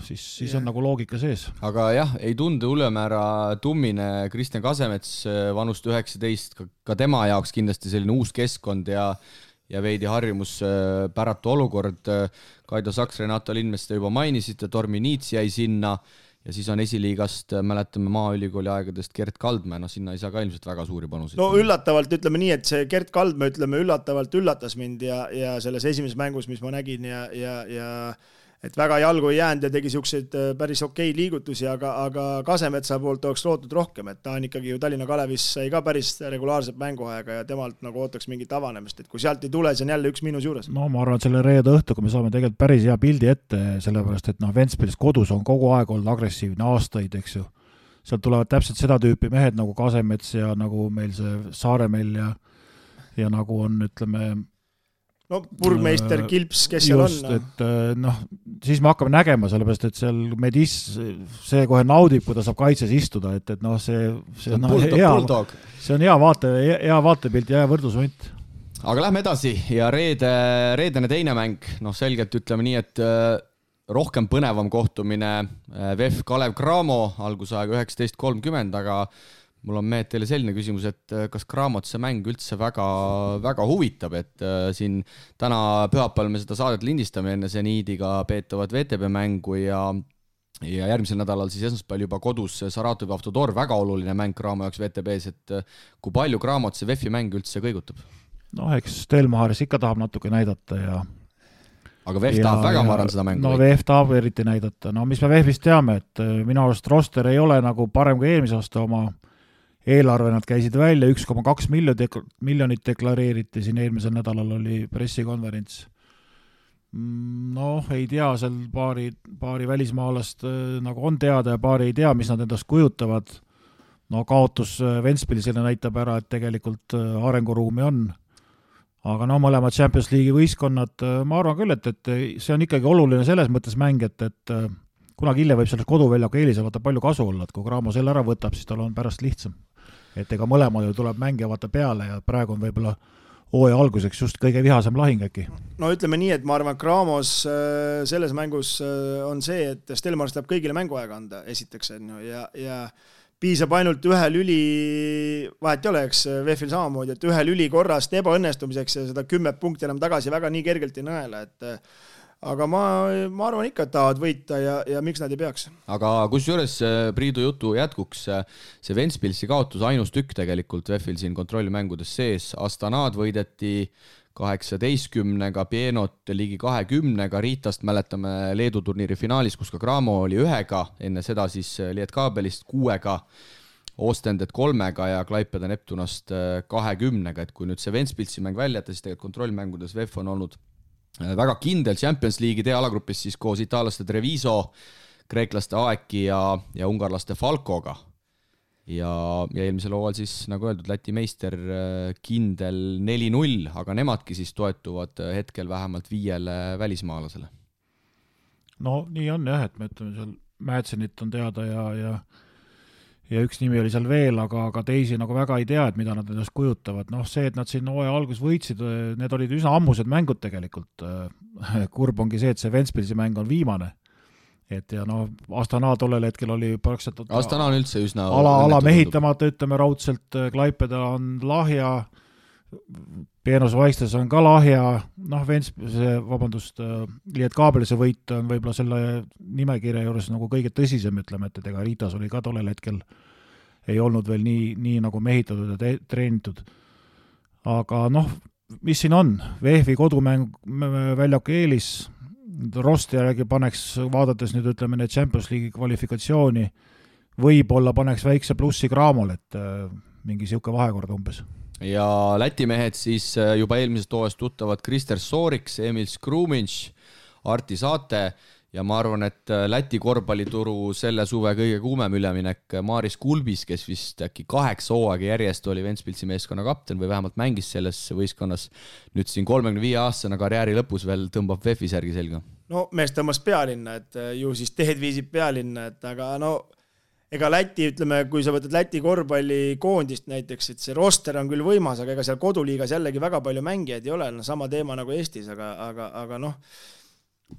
siis on nagu loogika sees. Aga jah, ei tunde ülemäära tummine Kristjan Kasemets vanust 19, ka tema jaoks kindlasti selline uus keskkond ja veidi harjumus päratu olukord. Kaido Saks, Renato Lindmets te juba mainisite, Tormi Niits jäi sinna ja siis on esiliigast, mäletame Maaülikooli aegadest Gert Kaldmäe, sinna ei saa ka ilmselt väga suuri panuseid. No üllatavalt ütleme nii, et see Gert Kaldmäe üllatavalt üllatas mind ja selles esimeses mängus, mis ma nägin ja et väga jalgu ei jäänud ja tegi siukseid päris okei liigutusi, aga Kasemetsa poolt oleks lootud rohkem, et ta on ikkagi ju Tallinna Kalevis sai ka päris regulaarset mänguaega ja temalt nagu ootaks mingit avanemist, et kui sealt ei tule, see on jälle 1 miinus juures. No ma arvan, et selle reede õhtuga me saame tegelikult päris hea pildi ette, sellepärast et Ventspils kodus on kogu aeg olnud agressiivne aastaid, eks ju. Sealt tulevad täpselt seda tüüpi mehed nagu Kasemets ja nagu meil see Saaremäel ja nagu on, ütleme, no burgmeister Kilps, kes seal just, on? Et siis me hakkame nägema, sellepärast, et seal Medis see kohe naudib, kui ta saab kaitses istuda, et see on hea vaatepilt ja hea võrdlusvõnt. Aga lähme edasi ja reedene teine mäng, selgelt ütleme nii, et rohkem põnevam kohtumine VEF Kalev Cramo algusaega 19.30, aga mul on mehed teile selline küsimus, et kas Cramot see mäng üldse väga, väga huvitab, et siin täna pühapäeval me seda saadet lindistame enne Zeniidiga peetavat VTB mängu ja järgmisel nädalal siis esmaspäeval juba kodus Saratovi Avtodor, väga oluline mäng Cramo jaoks VTB-s, et kui palju Cramot see VEF-i mäng üldse kõigutab? Noh, eks Stelmaris ikka tahab natuke näidata ja aga VEF tahab väga, ma arvan, seda mängu. No VEF tahab eriti näidata. No mis me VEF-ist teame, et minu arust roster ei ole nagu parem kui eelmise aasta oma eelarve, nad käisid välja, 1,2 miljonit deklareeriti, siin eelmisel nädalal oli pressikonverents. Noh, ei tea, seal paari välismaalast nagu on teada ja paari ei tea, mis nad endast kujutavad. No kaotus Ventspilisele näitab ära, et tegelikult arenguruumi on. Aga no mõlemad Champions League'i võistkonnad, ma arvan küll, et see on ikkagi oluline selles mõttes mäng, et kunagi hiljem võib sellest koduväljaku eelise vaata palju kasu olla, et kui Cramo selle ära võtab, siis tal on pärast lihtsam. Et ega mõlemal ju tuleb mängija vaata peale ja praegu on võib-olla hooaja alguseks just kõige vihasem lahing äkki. No ütleme nii, et ma arvan, Cramos selles mängus on see, et Stelmars tahab kõigile mänguaega anda, esiteks ja piisab ainult ühe lüli, vahet ei ole, eks VEF-il samamoodi, et ühe lüli korrast ebaõnnestumiseks ja seda 10 punkti enam tagasi väga nii kergelt ei nõela, aga ma arvan ikka, et tahavad võita ja miks nad ei peaks. Aga kusjuures Priidu jutu jätkuks, see Ventspilsi kaotus ainus tükk tegelikult VEF-il siin kontrollimängudes sees, Astanad võideti 18-ga, Pienot ligi 20-ga, Riitast mäletame Leedu turniiri finaalis, kus ka Cramo oli 1-ga, enne seda siis Lietkabelist 6-ga, Ostendet 3-ga ja Klaipeda Neptunast 20-ga, et kui nüüd see Ventspilsi mäng välja jätta, siis tegelikult kontrollmängudes VEF on olnud väga kindel Champions League'i D-alagrupis siis koos itaallaste Treviso, kreeklaste Aeki ja ungarlaste Falkoga. Ja eelmisel hooajal siis, nagu öeldud, Läti meister kindel 4-0, aga nemadki siis toetuvad hetkel vähemalt 5 välismaalasele. No nii on jah, et me ütleme seal Mätsenit on teada ja üks nimi oli seal veel, aga teisi nagu väga ei tea, et mida nad endast kujutavad. Noh, see, et nad siin hooaja algus võitsid, need olid üsna ammused mängud tegelikult. Kurb ongi see, et see Ventspilsi mäng on viimane. Et ja no Astana tollel hetkel oli praktiliselt Astana on üldse üsna ala mehitamata, ütleme raudselt, Klaipeda on lahja, Peenos Vaistes on ka lahja, noh Lietkabelise võit on võib-olla selle nimekirja juures nagu kõige tõsisem, ütleme, et ega Riitas oli ka tollel hetkel ei olnud veel nii nagu mehitatud ja treenitud. Aga noh, mis siin on? VEF-i kodumäng väljaku eelis, rosti järgi paneks, vaadates nüüd ütleme need Champions League'i kvalifikatsiooni, võib-olla paneks väikse plussi Cramol, et mingi siuke vahekord umbes. Ja Läti mehed siis juba eelmisest hooajast tuttavad Krister Sooriks, Emil Skruminš, Arti Saate ja ma arvan, et Läti korvpallituru selle suve kõige kuumem üleminek Maris Kulbis, kes vist äkki 8 hooaega järjest oli Ventspilsi meeskonna kapten või vähemalt mängis selles võistkonnas. Nüüd siin 35-aastasena karjääri lõpus veel tõmbab VEF-i särgi selga. No mees tõmbas pealinna, et ju siis teed viisib pealinna, et aga no ega Läti, ütleme, kui sa võtad Läti korvpallikoondist näiteks, et see roster on küll võimas, aga ega seal koduliigas jällegi väga palju mängijaid ei ole, sama teema nagu Eestis, aga noh,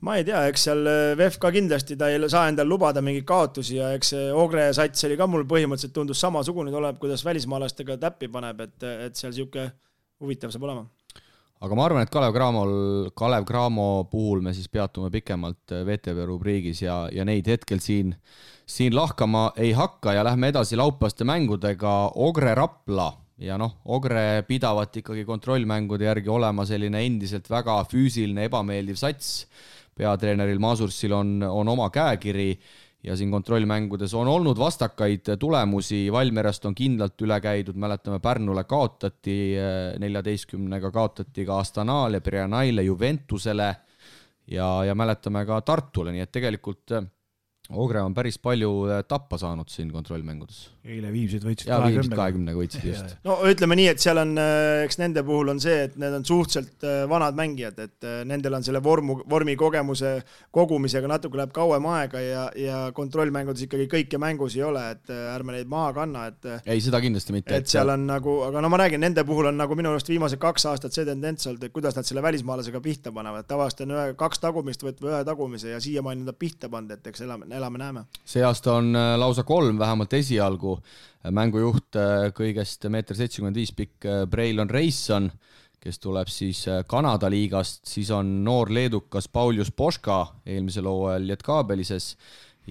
ma ei tea, eks seal VEF ka kindlasti ta ei saa endal lubada mingeid kaotusi ja eks Ogre sats oli ka mul põhimõtteliselt tundus samasugune tuleb, kuidas välismaalastega täppi paneb, et seal siuke huvitav saab olema. Aga ma arvan, et Kalev Cramo puhul me siis peatume pikemalt VTV rubriigis ja neid hetkel siin lahkama ei hakka ja lähme edasi laupäevaste mängudega. Ogre Rapla ja noh, Ogre pidavat ikkagi kontrollmängude järgi olema selline endiselt väga füüsiline ebameeldiv sats. Peatreeneril Masursil on oma käekiri ja siin kontrollmängudes on olnud vastakaid tulemusi. Valmierast on kindlalt üle käidud, mäletame Pärnule kaotati, 14-ga kaotati ka Astanaale, Brianaile, Juventusele ja mäletame ka Tartule, nii et tegelikult Ogre on päris palju tappa saanud siin kontrollmängudes. Eile Viimsid võitsid 20-ga võitsid just. No ütleme nii, et seal on, eks nende puhul on see, et need on suhteliselt vanad mängijad, et nendel on selle vormi kogemuse kogumisega natuke läheb kauem aega ja kontrollmängudes ikkagi kõike mängus ei ole, et ärme neid maha kanna. Ei, seda kindlasti mitte. Et seal on nagu, aga no ma räägin, nende puhul on nagu minu arust viimased 2 aastat see tendents olnud, et kuidas nad selle välismaalasega pihta panevad. Tavaliselt on 2 tagumist või 1 tagumise ja siiamaani nad pihta pand, et eks elame-näeme. See aasta on lausa 3 vähemalt esialgu. Mängujuht kõigest 1,75 m pikk Braylon Rayson, kes tuleb siis Kanada liigast, siis on noor leedukas Paulius Poška eelmisel hooajal Lietkabelises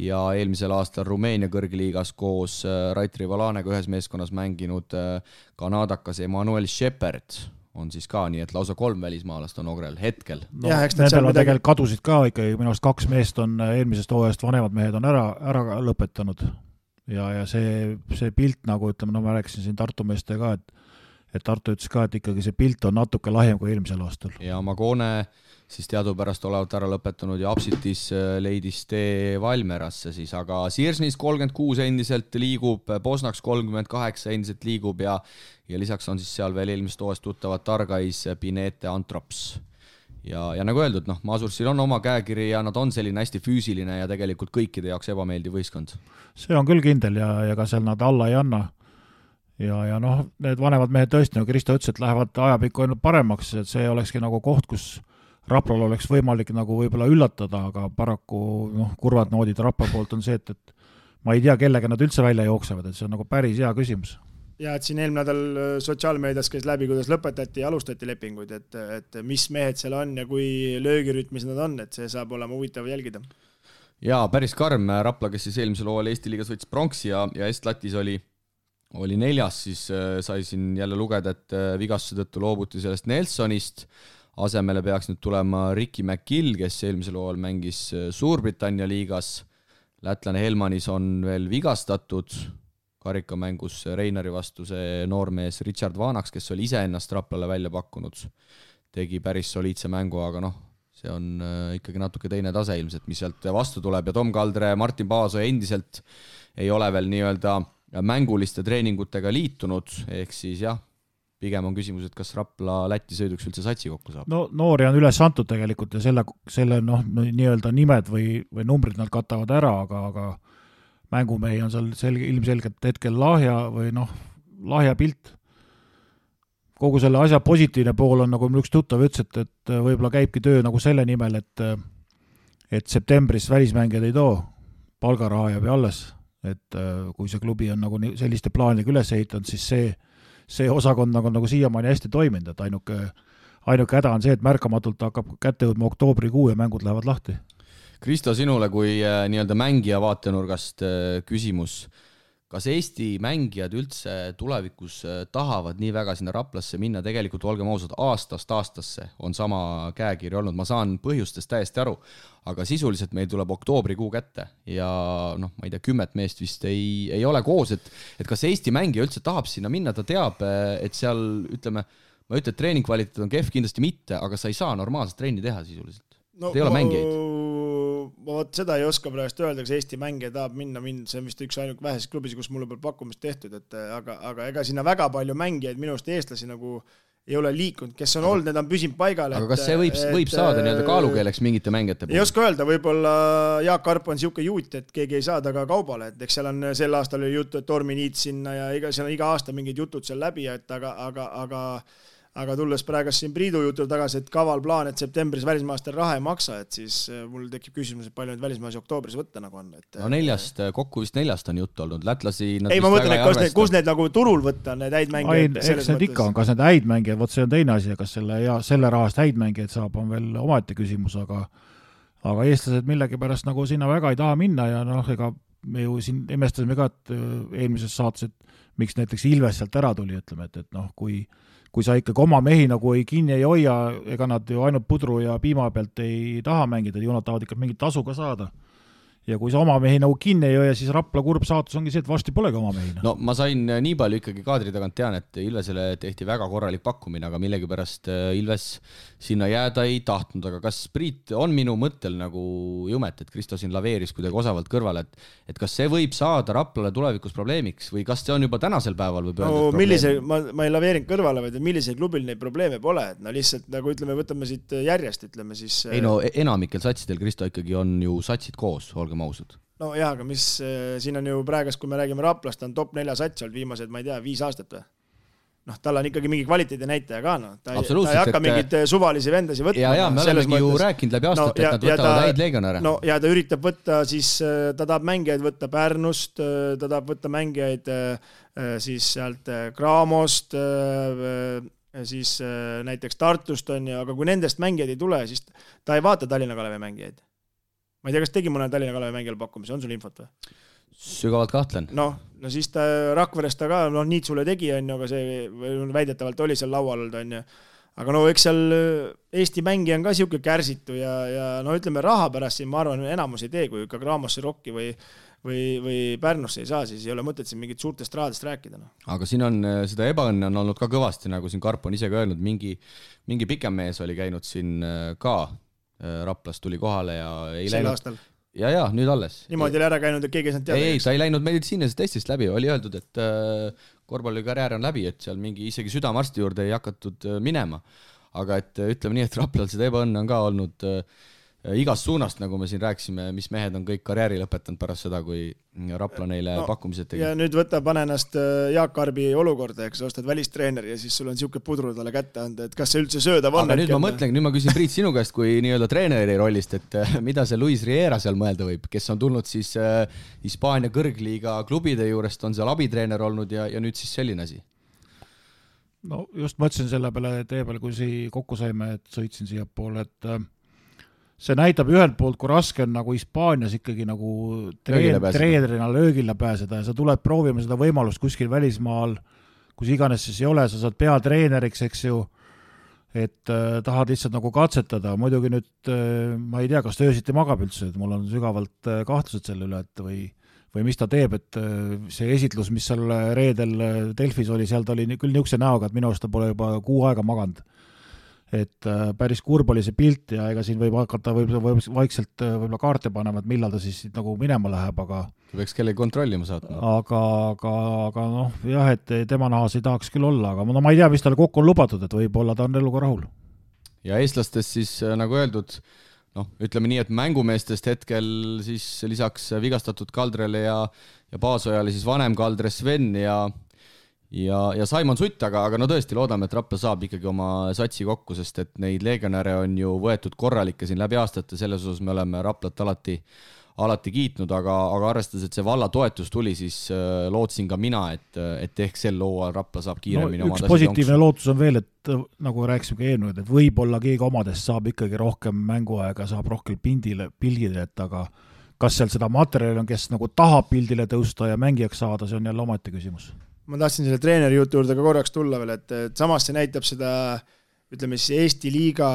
ja eelmisel aastal Rumeenia kõrgliigas koos Raitri Valanega ühes meeskonnas mänginud kanadakas Emmanuel Shepard on siis ka, nii et lausa 3 välismaalast on Ogrel hetkel. No, nendel on tegelikult kadusid ka ikkagi, minu arust 2 meest on eelmisest hooajast, vanemad mehed on ära lõpetanud ja see pilt, nagu ütleme, no ma rääkisin siin Tartu meeste ka, et Tartu ütles ka, et ikkagi see pilt on natuke lahjem kui eelmisel aastal. Ja Magone siis teadupärast olevat ära lõpetanud ja Apsitis leidis tee Valmerasse siis, aga Siirsnis 36 endiselt liigub, Bosnaks 38 endiselt liigub ja lisaks on siis seal veel eelmist hooajast tuttavad Targais, Pinete, Antrops. Ja nagu öeldud, Masursil on oma käekiri ja nad on selline hästi füüsiline ja tegelikult kõikide jaoks ebameeldiv võistkond. See on küll kindel ja ka seal nad alla ei anna. Ja need vanemad mehed tõesti, nagu Kristo ütles, et lähevad ajapikku ainult paremaks, et see olekski nagu koht, kus Raplal oleks võimalik nagu võib-olla üllatada, aga paraku kurvad noodid Rapla poolt on see, et ma ei tea, kellega nad üldse välja jooksevad, et see on nagu päris hea küsimus. Ja et siin eelmine nädal sotsiaalmeedias käis läbi, kuidas lõpetati ja alustati lepinguid, et mis mehed seal on ja kui löögirütmis nad on, et see saab olema huvitav jälgida. Ja päris karm Rapla, kes siis eelmisel hooajal Eesti liigas võttis pronksi ja Est-Latis oli 4, siis sai siin jälle lugeda, et vigastuse tõttu loobuti sellest Nelsonist. Asemele peaks nüüd tulema Ricky McGill, kes eelmisel hooajal mängis Suurbritannia liigas. Lätlane Helmanis on veel vigastatud. Karikamängus Reinari vastu see noormees Richard Vanaks, kes oli ise ennast Raplale välja pakkunud. Tegi päris soliidse mängu, aga see on ikkagi natuke teine tase ilmselt, mis sealt vastu tuleb. Ja Tom Kaldre, Martin Paaso endiselt ei ole veel nii-öelda mänguliste treeningutega liitunud, ehk siis pigem on küsimus, et kas Rapla Läti sõiduks üldse satsi kokku saab. No noori on üles antud tegelikult ja selle nii-öelda nimed või numbrid nad katavad ära, aga mängumehi on seal ilmselgelt hetkel lahja pilt. Kogu selle asja positiivne pool on, nagu üks tuttav ütles, et võib-olla käibki töö nagu selle nimel, et septembris välismängijad ei too, palgaraha jääb alles, et kui see klubi on nagu selliste plaanidega üles ehitanud, siis see osakond nagu siiamaani hästi toiminud, et ainuke häda on see, et märkamatult hakkab kätte jõudma oktoobrikuu ja mängud lähevad lahti. Kristo, sinule kui nii-öelda mängija vaatenurgast küsimus. Kas Eesti mängijad üldse tulevikus tahavad nii väga sinna Raplasse minna? Tegelikult olgem ausad, aastast aastasse on sama käekiri olnud. Ma saan põhjustest täiesti aru, aga sisuliselt meil tuleb oktoobrikuu kätte ja ma ei tea, 10 meest vist ei ole koos, et kas Eesti mängija üldse tahab sinna minna, ta teab, et seal, ütleme, ma ütlen, et treeningkvaliteet on kehv, kindlasti mitte, aga sa ei saa normaalselt trenni teha sisuliselt. Ei ole mängijaid. Ma seda ei oska praegust öelda, kas Eesti mängija tahab minna, see on vist üks ainult väheses klubis, kus mulle pole pakkumist tehtud, aga ega sinna väga palju mängijaid minust eestlasi nagu ei ole liikunud, kes on olnud, need on püsinud paigal. Aga kas see võib saada nii-öelda kaalukeeleks mingite mängijate puhul? Ei oska öelda, võib-olla Jaak Arp on siuke juut, et keegi ei saada ka kaubale, et eks seal on sel aastal oli juttu, et Tormi Niit sinna ja seal on iga aasta mingid jutud seal läbi, aga tulles praegust siin Priidu jutul tagasi, et kaval plaan, et septembris välismaastel raha ei maksa, et siis mul tekib küsimus, et palju nüüd välismaasi oktoobris võtta nagu on. Kokku vist 4 on juttu olnud. Lätlasi ei, ma mõtlen, et kus need nagu turul võtta, need häid mängijad. Eks need ikka on, kas need häid mängijad, võt see on teine asi, kas selle rahast häid mängijad saab, on veel omaette küsimus, aga eestlased millegipärast nagu sinna väga ei taha minna ja ega me ju siin imestasime ka, et eelmises saates, et miks näiteks Ilves sealt ära tuli, ütleme, et kui sa ikkagi oma mehi nagu kinni ei hoia, ega nad ju ainult pudru ja piima pealt ei taha mängida, ju nad tahavad ikka mingit tasu ka saada. Ja kui sa oma mehi nagu kinni ei hoia, siis Rapla kurb saatus ongi see, et varsti polegi oma mehi. No ma sain nii palju ikkagi kaadri tagant tean, et Ilvesele tehti väga korralik pakkumine, aga millegipärast Ilves sinna jääda ei tahtnud. Aga kas Priit on minu mõttel nagu jumet, et Kristo siin laveeris kuidagi osavalt kõrvale, et kas see võib saada Raplale tulevikus probleemiks või kas see on juba tänasel päeval võib öelda? Ma ei laveerinud kõrvale, vaid millisel klubil neid probleeme pole, et lihtsalt nagu ütleme, võtame siit järjest, ütleme siis. Ei enamikel satsidel, Kristo, ikkagi on ju satsid koos, mausud. No jah, aga mis siin on ju praegast, kui me räägime Raplast, on top 4 sats olnud viimased, ma ei tea, 5 aastat või? noh, tal on ikkagi mingi kvaliteedi näitaja ka, noh. Ta ei hakka et... mingid suvalisi vendasi võtma. Ja me olemegi ju rääkinud läbi aastat, et nad võtavad häid legionäre. No, ja ta üritab võtta siis, ta tahab mängijaid võtta Pärnust, ta tahab võtta mängijaid siis sealt Craamost, siis näiteks Tartust on ju, aga kui nendest mängijaid ei tule, siis ta ei vaata Tallinna Kalevi mängijaid. Ma ei tea, kas tegi mõne Tallinna Kalevi mängijal pakkumise, on sul infot või? Sügavalt kahtlen. No siis ta Rakverest ta ka, Niitsule tegi, on ju, aga see väidetavalt oli seal laual olnud, on ju. Aga eks seal Eesti mängi on ka siuke kärsitu ja ütleme raha pärast siin, ma arvan, enamus ei tee, kui ikka Craamosse Rocki või Pärnusse ei saa, siis ei ole mõtet siin mingit suurtest rahadest rääkida. No. Aga siin on seda ebaõnne on olnud ka kõvasti, nagu siin Karp on ise ka öelnud, mingi pikem mees oli käinud siin ka, Raplas tuli kohale ja ei sel läinud. Aastal. Ja, nüüd alles. Niimoodi oli ära käinud, et keegi ei saanud teada. Ei, ta ei läinud meditsiinilisest testist läbi, oli öeldud, et korvpallikarjäär on läbi, et seal mingi isegi südamarsti juurde ei hakatud minema. Aga et ütleme nii, et Raplal seda ebaõnne on ka olnud igast suunast, nagu me siin rääkisime, mis mehed on kõik karjääri lõpetanud pärast seda, kui Rapla neile pakkumised tegi. Ja nüüd pane ennast Jaak Arbi olukorda, eks ostad välistreeneri ja siis sul on siuke pudru talle kätte anda, et kas see üldse söödav on. Aga nüüd ma küsin Priit sinu käest kui nii-öelda treeneri rollist, et mida see Luis Riera seal mõelda võib, kes on tulnud siis Hispaania kõrgliiga klubide juurest, on seal abitreener olnud ja nüüd siis selline asi? No just mõtlesin selle peale tee peale, kui kokku saime, et sõitsin siia poole, et see näitab ühelt poolt, kui raske on nagu Hispaanias ikkagi nagu treenerina löögile pääseda ja sa tuled proovima seda võimalust kuskil välismaal, kus iganes siis ei ole, sa saad peatreeneriks, eks ju, et tahad lihtsalt nagu katsetada. Muidugi nüüd ma ei tea, kas ta öösiti magab üldse, et mul on sügavalt kahtlused selle üle, et või mis ta teeb, et see esitlus, mis seal reedel Delfis oli, seal ta oli küll niisuguse näoga, et minu arust ta pole juba 6 aega maganud. Et päris kurb oli see pilt ja ega siin võib hakata vaikselt võib-olla kaarte panema, et millal ta siis nagu minema läheb, aga võiks kellegi kontrollima saatma. Aga jah, et tema nahas ei tahaks küll olla, aga ma ei tea, mis talle kokku on lubatud, et võib-olla ta on eluga rahul. Ja eestlastest siis nagu öeldud, ütleme nii, et mängumeestest hetkel siis lisaks vigastatud Kaldrele ja Paasojale siis vanem Kaldre Sven ja Saimon Sutt, aga tõesti loodame, et Rapla saab ikkagi oma satsi kokku, sest et neid legionäre on ju võetud korralikke siin läbi aastate, selles osas me oleme Raplat alati kiitnud, aga arvestades, et see valla toetus tuli, siis lootsin ka mina, et ehk sel looal Rapla saab kiiremini üks positiivne lootus on veel, et nagu rääkisime ka eelnud, et võib-olla keegi omadest saab ikkagi rohkem mänguaega, saab rohkem pildile, et aga kas seal seda materjali on, kes nagu tahab pildile tõusta ja mängijaks saada, see on jälle omati küsimus. Ma tahtsin selle treeneri jutu juurde ka korraks tulla veel, et samas see näitab seda, ütleme siis Eesti liiga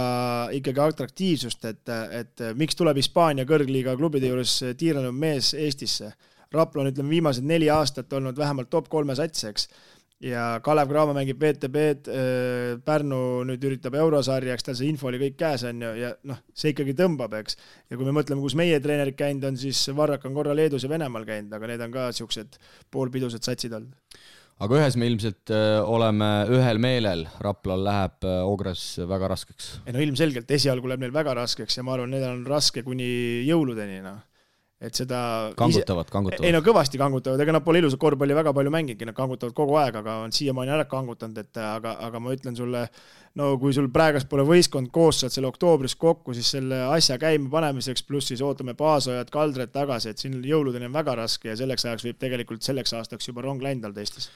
ikkagi atraktiivsust, et miks tuleb Hispaania kõrgliiga klubide juures tiiranud mees Eestisse. Rapla on, ütleme, viimased 4 aastat olnud vähemalt top 3 satseks ja Kalev Cramo mängib VTB-d, Pärnu nüüd üritab eurosarjaks, tal see info oli kõik käes on ja see ikkagi tõmbab, eks. Ja kui me mõtleme, kus meie treenerid käinud on, siis Varrak on korra Leedus ja Venemaal käinud, aga need on ka siuksed poolpidused satsid olnud. Aga ühes me ilmselt oleme ühel meelel, Raplal läheb Ogres väga raskeks. Ilmselgelt esialgu läheb neil väga raskeks ja ma arvan, need on raske kuni jõuludeni. Et seda kangutavad. Kõvasti kangutavad, ega nad pole ilusat korvpalli väga palju mängidki, nad kangutavad kogu aeg, aga on siiamaani ära kangutanud, aga ma ütlen sulle, kui sul praegast pole võistkond koos saad selle oktoobris kokku, siis selle asja käima panemiseks, pluss siis ootame Paasojad, Kaldred tagasi, et siin jõuludeni on väga raske ja selleks ajaks võib tegelikult selleks aastaks juba rong läinud Eestis.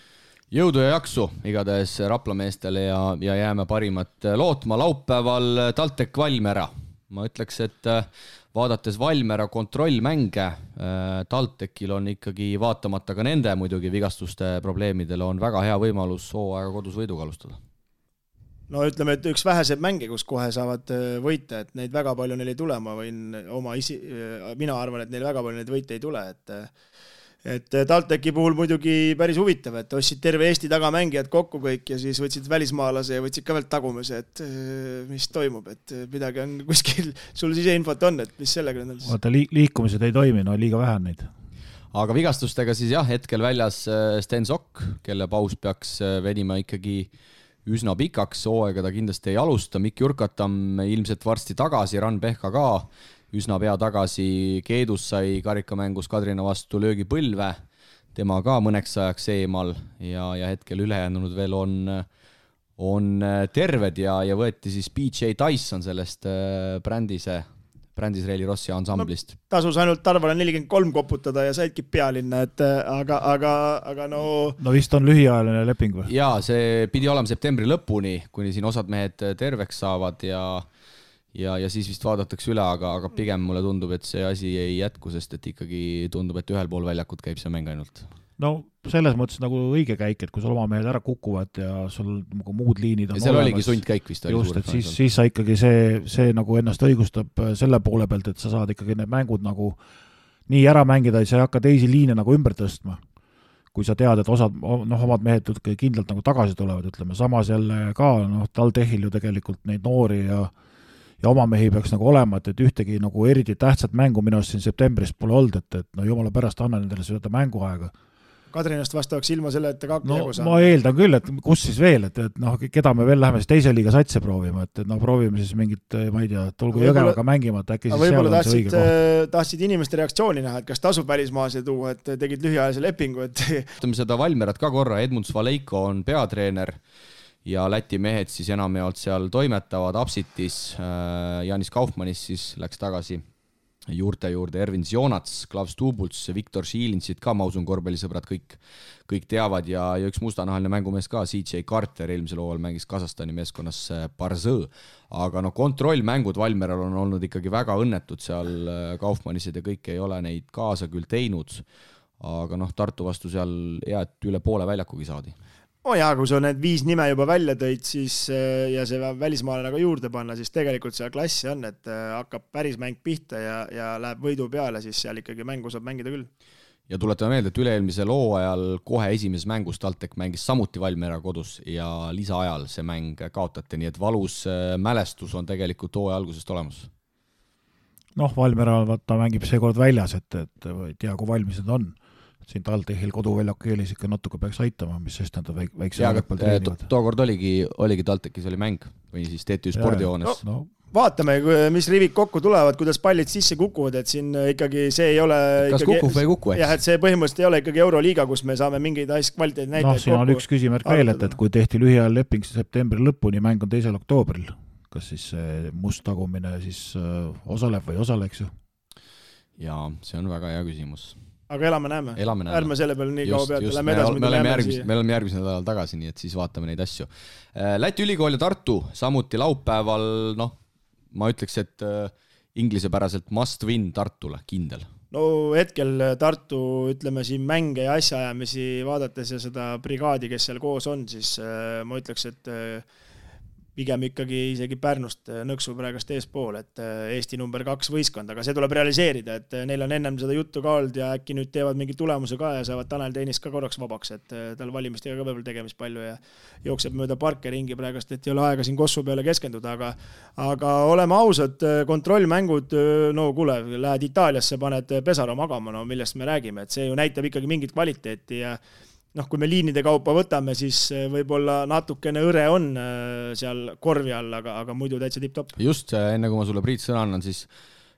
Jõudu ja jaksu igatahes Rapla meestele ja jääme parimat lootma. Laupäeval TalTech Valmiera. Ma ütleks, et vaadates Valmiera kontrollmänge, TalTechil on ikkagi vaatamata ka nende muidugi vigastuste probleemidele on väga hea võimalus hooaega kodus võiduga alustada. Ütleme, et üks väheseid mänge, kus kohe saavad võita, et neid väga palju neil ei tule, mina arvan, et neil väga palju neid võite ei tule, et TalTechi puhul muidugi päris huvitav, et ostsid terve Eesti tagamängijad kokku kõik ja siis võtsid välismaalase ja võtsid ka veel tagumise, et mis toimub, et midagi on kuskil, sul siseinfot on, et mis sellega on? Vaata, liikumised ei toimi, liiga vähe on neid. Aga vigastustega siis jah, hetkel väljas Sten Sokk, kelle paus peaks venima ikkagi üsna pikaks, hooaega ta kindlasti ei alusta, Mikk Jurkatam ilmselt varsti tagasi, Ran Pehka ka, üsna pea tagasi, Keedus sai karikamängus Kadrina vastu löögi põlve, tema ka mõneks ajaks eemal ja hetkel ülejäänud veel on terved ja võeti siis BJ Tyson sellest Brändis Reili Rossi ansamblist. Tasus ainult Tarvale 43 koputada ja saidki pealinna, et aga no... No vist on lühiajaline leping või? Jaa, see pidi olema septembri lõpuni, kuni siin osad mehed terveks saavad ja siis vist vaadatakse üle, aga pigem mulle tundub, et see asi ei jätku, sest et ikkagi tundub, et ühel pool väljakut käib see mäng ainult. No selles mõttes nagu õige käik, et kui sul oma mehed ära kukuvad ja sul nagu muud liinid on ja seal olemas, oligi sundkäik vist. Just, et siis sa ikkagi see nagu ennast õigustab selle poole pealt, et sa saad ikkagi need mängud nagu nii ära mängida, et sa ei hakka teisi liine nagu ümber tõstma. Kui sa tead, et omad mehed kindlalt nagu tagasi tulevad, ütleme, samas jälle ka, TalTechil ju tegelikult neid noori ja oma mehi peaks nagu olema, et ühtegi nagu eriti tähtsat mängu minu arust siin septembris pole olnud, et no jumala pärast anna nendele seda mänguaega. Kadrinast vastavaks ilma selle, et ta kaks jagu saab. Ma eeldan küll, et kus siis veel, et keda me veel läheme siis teise liiga satse proovima, et proovime siis mingit, ma ei tea, tulgu Jõgevaga mängima, et äkki siis seal on see õige koht. Tahtsid inimeste reaktsiooni näha, et kas tasub välismaase tuua, et tegid lühiajalise lepingu, et... Ütleme seda Valmerat ka korra, Edmunds Valeiko on peatreener ja Läti mehed siis enamjaolt seal toimetavad Apsitis, Janis Kaufmannis siis läks tagasi juurde Ervin Zionats, Klaus Tuubults, Viktor Šiilinsit ka, ma usun, korvpallisõbrad kõik teavad ja üks mustanahaline mängumees ka, CJ Carter eelmisel hooajal mängis Kasahstani meeskonnas Barzõ, aga kontrollmängud Valmeral on olnud ikkagi väga õnnetud seal, Kaufmannised ja kõik ei ole neid kaasa küll teinud, aga Tartu vastu seal hea, et üle poole väljakugi saadi. Kui sa need 5 nime juba välja tõid, siis, ja see välismaale nagu juurde panna, siis tegelikult seal klassi on, et hakkab päris mäng pihta ja läheb võidu peale, siis seal ikkagi mängu saab mängida küll. Ja tuletame meelde, et üle-eelmisel hooajal kohe esimeses mängus TalTech mängis samuti Valmiera kodus ja lisaajal see mäng kaotati, nii et valus mälestus on tegelikult hooaja algusest olemas. Valmiera ta mängib seekord väljas, et ei tea, kui valmis need on. Siin TalTechil koduväljaku keelis ikka natuke peaks aitama, mis sest nad väikse väljakul treenivad. Tookord oligi TalTechis oli mäng või siis TTÜ spordihoones. Vaatame, mis rivid kokku tulevad, kuidas pallid sisse kukuvad, et siin ikkagi see ei ole... Kas kukub või ei kuku? Jah, et see põhimõtteliselt ei ole ikkagi Euroliiga, kus me saame mingeid kvaliteedi näitajaid siin on üks küsimärk veel, et kui tehti lühiajal leping septembri lõpuni, mäng on 2. oktoobril. Kas siis must tagumine siis osaleb või osaleks ju? Jaa, see on väga hea küsimus. Aga elame-näeme. Ärme selle peale nii kaua pealt. Me oleme järgmisel nädalal tagasi, nii et siis vaatame neid asju. Läti ülikool ja Tartu, samuti laupäeval, ma ütleks, et inglisepäraselt must win Tartule, kindel. No hetkel Tartu, ütleme siin mänge ja asjaajamisi vaadates ja seda brigaadi, kes seal koos on, siis ma ütleks, et pigem ikkagi isegi Pärnust nõksu praegast eespool, et Eesti number 2 võistkond, aga see tuleb realiseerida, et neil on ennem seda juttu ka olnud ja äkki nüüd teevad mingi tulemuse ka ja saavad Tanel Teenis ka korraks vabaks, et tal valimistega ka veel tegemist palju ja jookseb mööda parke ringi praegast, et ei ole aega siin Kossu peale keskenduda, aga oleme ausad, kontrollmängud, kuule, lähed Itaaliasse, paned Pesaro magama, millest me räägime, et see ju näitab ikkagi mingit kvaliteeti ja kui me liinide kaupa võtame, siis võib-olla natukene õre on seal korvi all, aga muidu täitsa tipp-topp. Just, enne kui ma sulle Priit sõna annan, siis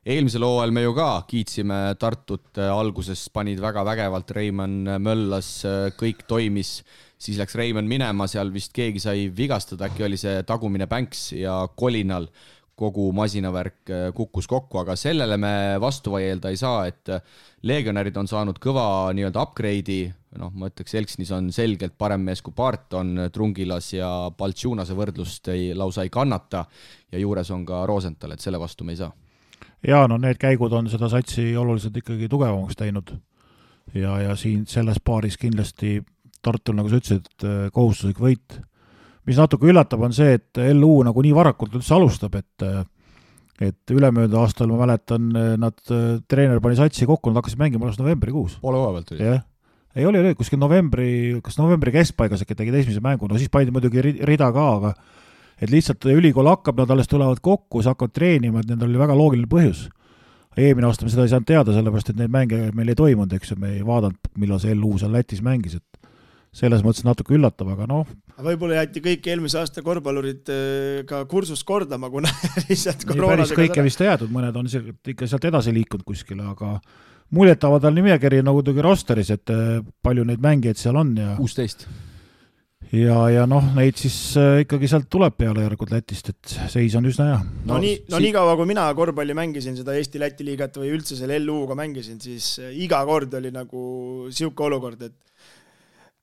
eelmisel hooajal me ju ka kiitsime Tartut alguses, panid väga vägevalt, Reimann möllas, kõik toimis, siis läks Reimann minema, seal vist keegi sai vigastada, äkki oli see tagumine Banks ja kolinal kogu masinavärk kukkus kokku, aga sellele me vastu vaielda ei saa, et legionärid on saanud kõva nii-öelda upgrade'i, ma ütleks, Elksnis on selgelt parem mees kui Barton, Trungilas ja Baltšunase võrdlust lausa ei kannata ja juures on ka Rosenthal, et selle vastu me ei saa. Ja need käigud on seda satsi oluliselt ikkagi tugevamaks teinud ja siin selles paaris kindlasti Tartul, nagu sa ütlesid, kohustuslik võit. Mis natuke üllatab on see, et LU nagu nii varakult üldse alustab, et ülemööda aastal ma mäletan, nad treener pani satsi kokku, nad hakkasid mängima alles novembrikuus. Poole hooaja pealt oli. Ei oli kuskil novembri keskpaigas äkki tegid esimese mängu, siis paidi muidugi rida ka, aga et lihtsalt ülikool hakkab, nad alles tulevad kokku, siis hakkavad treenima, et nendel oli väga loogiline põhjus. Eelmine aasta me seda ei saanud teada, sellepärast, et neid mänge meil ei toimunud, eks me ei vaadanud, millal see LU seal Lätis mängis, et selles mõttes natuke üllatab, aga Võib-olla jäeti kõik eelmise aasta korvpallurid ka kursust kordama, kuna lihtsalt koroonadega... Päris kõike vist jäädud, mõned on ikka sealt edasi liikunud kuskile, aga muljetaval nimekiri nagu tegi rosteris, et palju neid mängijaid seal on ja 16. Ja noh, neid siis ikkagi sealt tuleb peale järgud Lätist, et seis on üsna hea. Nii kaua, kui mina korvpalli mängisin seda Eesti-Läti liigat või üldse selle LU-ga mängisin, siis iga kord oli nagu siuke olukord, et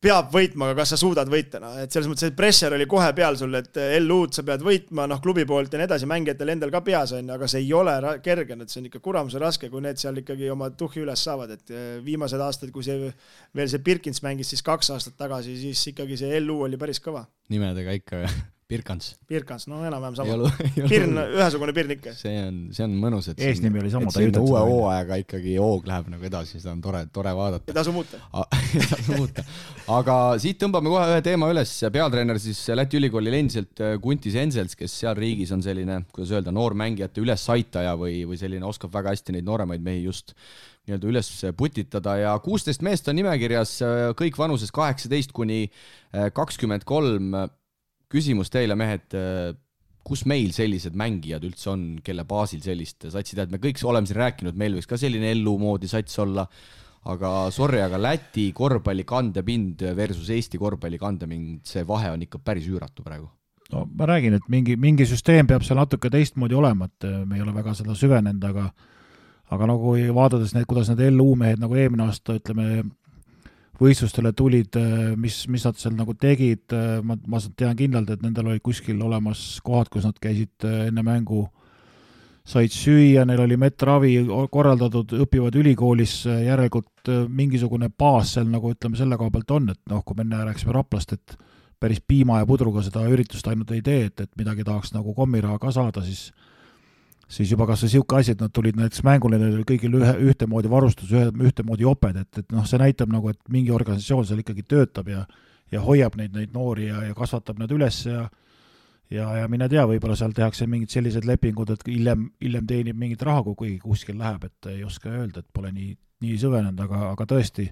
peab võitma, aga kas sa suudad võita, et selles mõttes, et pressure oli kohe peal sul, et LU-d sa pead võitma, klubi poolt ja nii edasi, mängijatel endal ka peas on, aga see ei ole kerge, et see on ikka kuramuse raske, kui need seal ikkagi oma tuhhi üles saavad, et viimased aastad, kui veel see Birkins mängis siis 2 aastat tagasi, siis ikkagi see LU oli päris kõva. Nimedega ikka Birkans, no enam-vähem sama. Pirn, ühesugune Pirn ikka. See on mõnus, et eesnimi oli sama. Et uue hooajaga ikkagi hoog läheb nagu edasi, seda on tore vaadata. Ja tasu muuta. Aga siit tõmbame kohe ühe teema üles. Peatreener siis Läti ülikoolil endiselt Guntis Ensels, kes seal riigis on selline, kuidas öelda, noormängijate ülesaitaja või selline oskab väga hästi neid nooremaid mehi just nii-öelda üles putitada ja 16 meest on nimekirjas, kõik vanuses 18 kuni 23. Küsimus teile, mehed, kus meil sellised mängijad üldse on, kelle baasil sellist satsi tead? Me kõik oleme siin rääkinud, meil võiks ka selline LU moodi sats olla, aga sorry, aga Läti korvpalli kandepind versus Eesti korvpalli kandepind, see vahe on ikka päris üüratu praegu. No ma räägin, et mingi süsteem peab seal natuke teistmoodi olema, et me ei ole väga seda süvenenud, aga nagu vaadades need, kuidas need LU mehed nagu eelmine aasta, ütleme, võistlustele tulid, mis nad seal nagu tegid, ma tean kindlalt, et nendel oli kuskil olemas kohad, kus nad käisid enne mängu, said süüa, neil oli metravi korraldatud, õpivad ülikoolis, järelikult mingisugune baas seal nagu ütleme selle koha pealt on, et kui me rääksime Raplast, et päris piima ja pudruga seda üritust ainult ei tee, et midagi tahaks nagu kommiraha ka saada, siis juba kas see siuke asi, et nad tulid näiteks mängule, neil oli kõigil ühtemoodi varustus, ühtemoodi oped, et see näitab nagu, et mingi organisatsioon seal ikkagi töötab ja hoiab neid noori ja kasvatab nad üles ja mine tea, võib-olla seal tehakse mingid sellised lepingud, et hiljem teenib mingit raha, kui kuskil läheb, et ei oska öelda, et pole nii süvenenud, aga tõesti,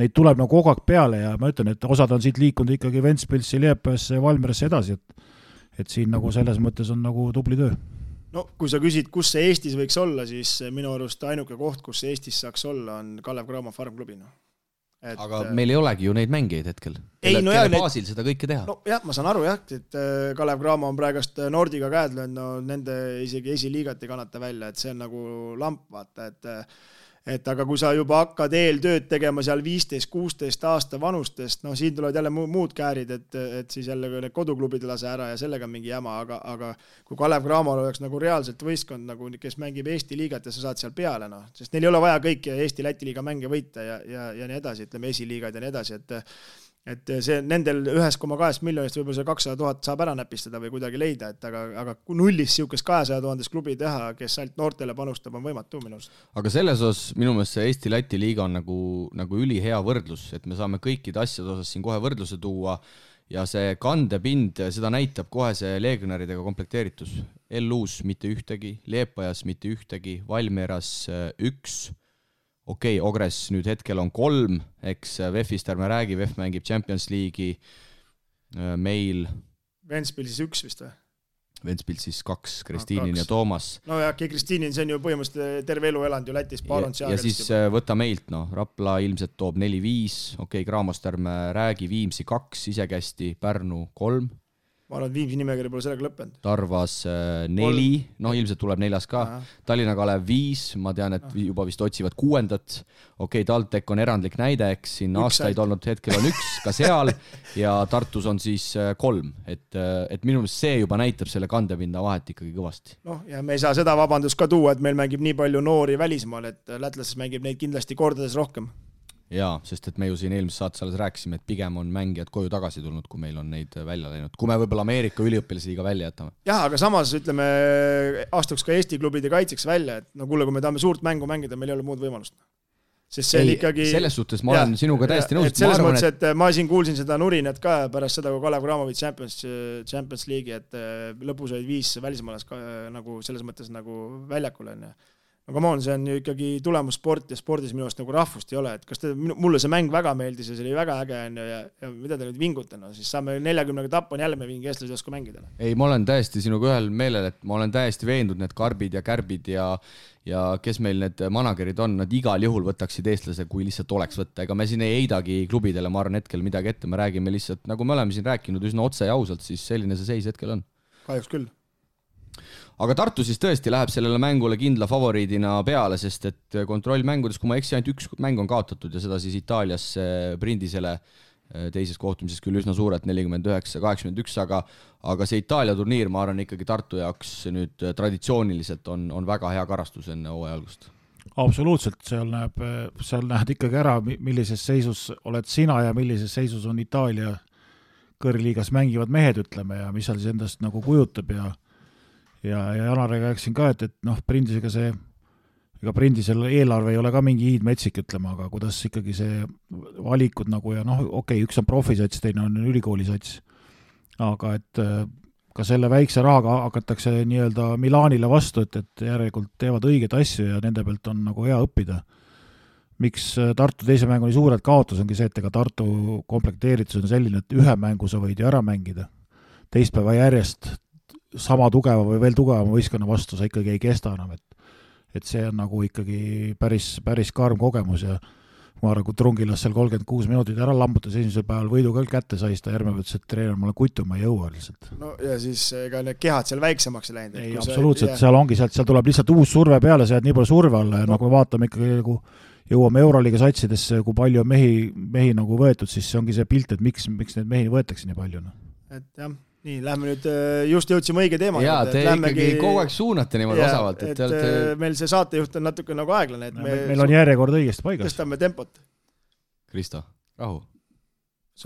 neid tuleb nagu kogu aeg peale ja ma ütlen, et osad on siit liikunud ikkagi Ventspilsi, Liepajasse ja Valmierasse edasi, et siin nagu selles mõttes on nagu tubli töö. No kui sa küsid, kus see Eestis võiks olla, siis minu arust ainuke koht, kus see Eestis saaks olla, on Kalev Cramo farmklubina. Aga meil ei olegi ju neid mängijaid hetkel. Kelle baasil seda kõike teha? No jah, ma saan aru jah, et Kalev Cramo on praegust Nordiga käed löönud, nende isegi esiliigat ei kannata välja, et see on nagu lamp, vaata, et aga kui sa juba hakkad eeltööd tegema seal 15-16 aasta vanustest, siin tulevad jälle muud käärid, et siis jälle need koduklubid lase ära ja sellega on mingi jäma, aga kui Kalev Cramol oleks nagu reaalselt võistkond, nagu, kes mängib Eesti liigat ja sa saad seal peale, sest neil ei ole vaja kõiki Eesti-Läti liiga mänge võita ja nii edasi, ütleme esiliigad ja nii edasi, et see nendel 1,2 miljonist võib-olla see 200 000 saab ära näpistada või kuidagi leida, aga nullist siukest 200 000 klubi teha, kes ainult noortele panustab, on võimatu minu arust. Aga selles osas minu meelest see Eesti-Läti liiga on nagu ülihea võrdlus, et me saame kõikide asjade osas siin kohe võrdluse tuua ja see kandepind, seda näitab kohe see legionaridega komplekteeritus. LU-s mitte ühtegi, Liepajas mitte ühtegi, Valmieras 1. Okei, Ogres nüüd hetkel on 3, eks VEF-ist ärme räägi, VEF mängib Champions League'i, meil Ventspils 1 vist või? Ventspils siis 2, Kristiinin ja Toomas. No ja Kristiinin, see on ju põhimõtteliselt terve elu elanud ju Lätis, ja siis võta meilt, Rapla ilmselt toob 4-5, okei, Craamost ärme räägi, Viimsi 2, isekästi, Pärnu 3. Ma arvan, et Viimsi nimekiri pole sellega lõppenud. Tarvas 4, ilmselt tuleb 4 ka. Tallinna Kalev 5, ma tean, et juba vist otsivad 6. Okei, TalTech on erandlik näide, eks siin aastaid olnud, hetkel on 1 ka seal ja Tartus on siis 3. Et minu meelest see juba näitab selle kandepinda vahet ikkagi kõvasti. Ja me ei saa seda vabandust ka tuua, et meil mängib nii palju noori välismaal, et lätlases mängib neid kindlasti kordades rohkem. Jaa, sest et me ju siin eelmises saates alles rääkisime, et pigem on mängijad koju tagasi tulnud, kui meil on neid välja läinud. Kui me võib-olla Ameerika üliõpilasliiga välja jätame. Jah, aga samas ütleme, astuks ka Eesti klubide kaitseks välja, et kuule, kui me tahame suurt mängu mängida, meil ei ole muud võimalust. Sest see ikkagi... Selles suhtes ma olen sinuga täiesti nõus. Selles mõttes, et ma siin kuulsin seda nurinat ka pärast seda, kui Kalev Cramovic Champions League'i, et lõpus olid 5 välismaalas nagu selles mõttes nagu väljakul on. come on, see on ju ikkagi tulemussport ja spordis minu arust nagu rahvust ei ole, et kas mulle see mäng väga meeldis ja see oli väga äge ja mida te nüüd vingutena, siis saame 40 tappu on jälle me mingi eestlased oska mängida. Ei, ma olen täiesti sinuga ühel meelel, et ma olen täiesti veendunud need karbid ja kärbid ja kes meil need managerid on, nad igal juhul võtaksid eestlase, kui lihtsalt oleks võtta. Ega me siin ei heidagi klubidele, ma arvan hetkel midagi ette, me räägime lihtsalt, nagu me oleme siin rääkinud üsna otse ja ausalt, siis selline see seis hetkel on. Kahjuks küll. Aga Tartu siis tõesti läheb sellele mängule kindla favoriidina peale, sest et kontrollmängudes, kui ma eksi, ainult üks mäng on kaotatud ja seda siis Itaalias Brindisele teises kohtumises küll üsna suurelt 49-81, aga see Itaalia turniir, ma arvan ikkagi Tartu jaoks nüüd traditsiooniliselt on väga hea karastus enne hooaja algust. Absoluutselt, seal näed ikkagi ära, millises seisus oled sina ja millises seisus on Itaalia kõrgliigas mängivad mehed, ütleme, ja mis seal siis endast nagu kujutab ja Janarega rääksin ka, et Brindisega see ega Brindisel eelarve ei ole ka mingi hiidmetsik, ütlema, aga kuidas ikkagi see valikud nagu ja okei, üks on profisats, teine on ülikoolisats, aga et ka selle väikse rahaga hakatakse nii-öelda Milanile vastu, et järelikult teevad õiget asju ja nende pealt on nagu hea õppida. Miks Tartu teise mängu nii suurelt kaotus ongi see, et ega Tartu komplekteeritus on selline, et ühe mängu sa võid ju ära mängida. Teispäeva järjest sama tugeva või veel tugevama võistkonna vastu sa ikkagi ei kesta enam, et see on nagu ikkagi päris karm kogemus ja ma arvan, kui Trungilas seal 36 minutit ära lambutas esimesel päeval võidu ka kätte saist ja järgmine võttes, et treener, ma olen kutu, ma ei jõua lihtsalt. No ja siis ega need kehad seal väiksemaks läinud. Ei, absoluutselt, seal ongi, seal tuleb lihtsalt uus surve peale, sa jääd nii palju surve alla ja nagu vaatame ikkagi nagu jõuame Euroliiga satsidesse, kui palju on mehi nagu võetud, siis see ongi see pilt, et miks neid mehi võetakse nii palju. Et jah, nii, lähme nüüd, just jõudsime õige teema. Jaa, te ikkagi kogu aeg suunate niimoodi osavalt. Et meil see saatejuht on natuke nagu aeglane. Meil on järjekord õigesti paigas. Tõstame tempot. Kristo, rahu.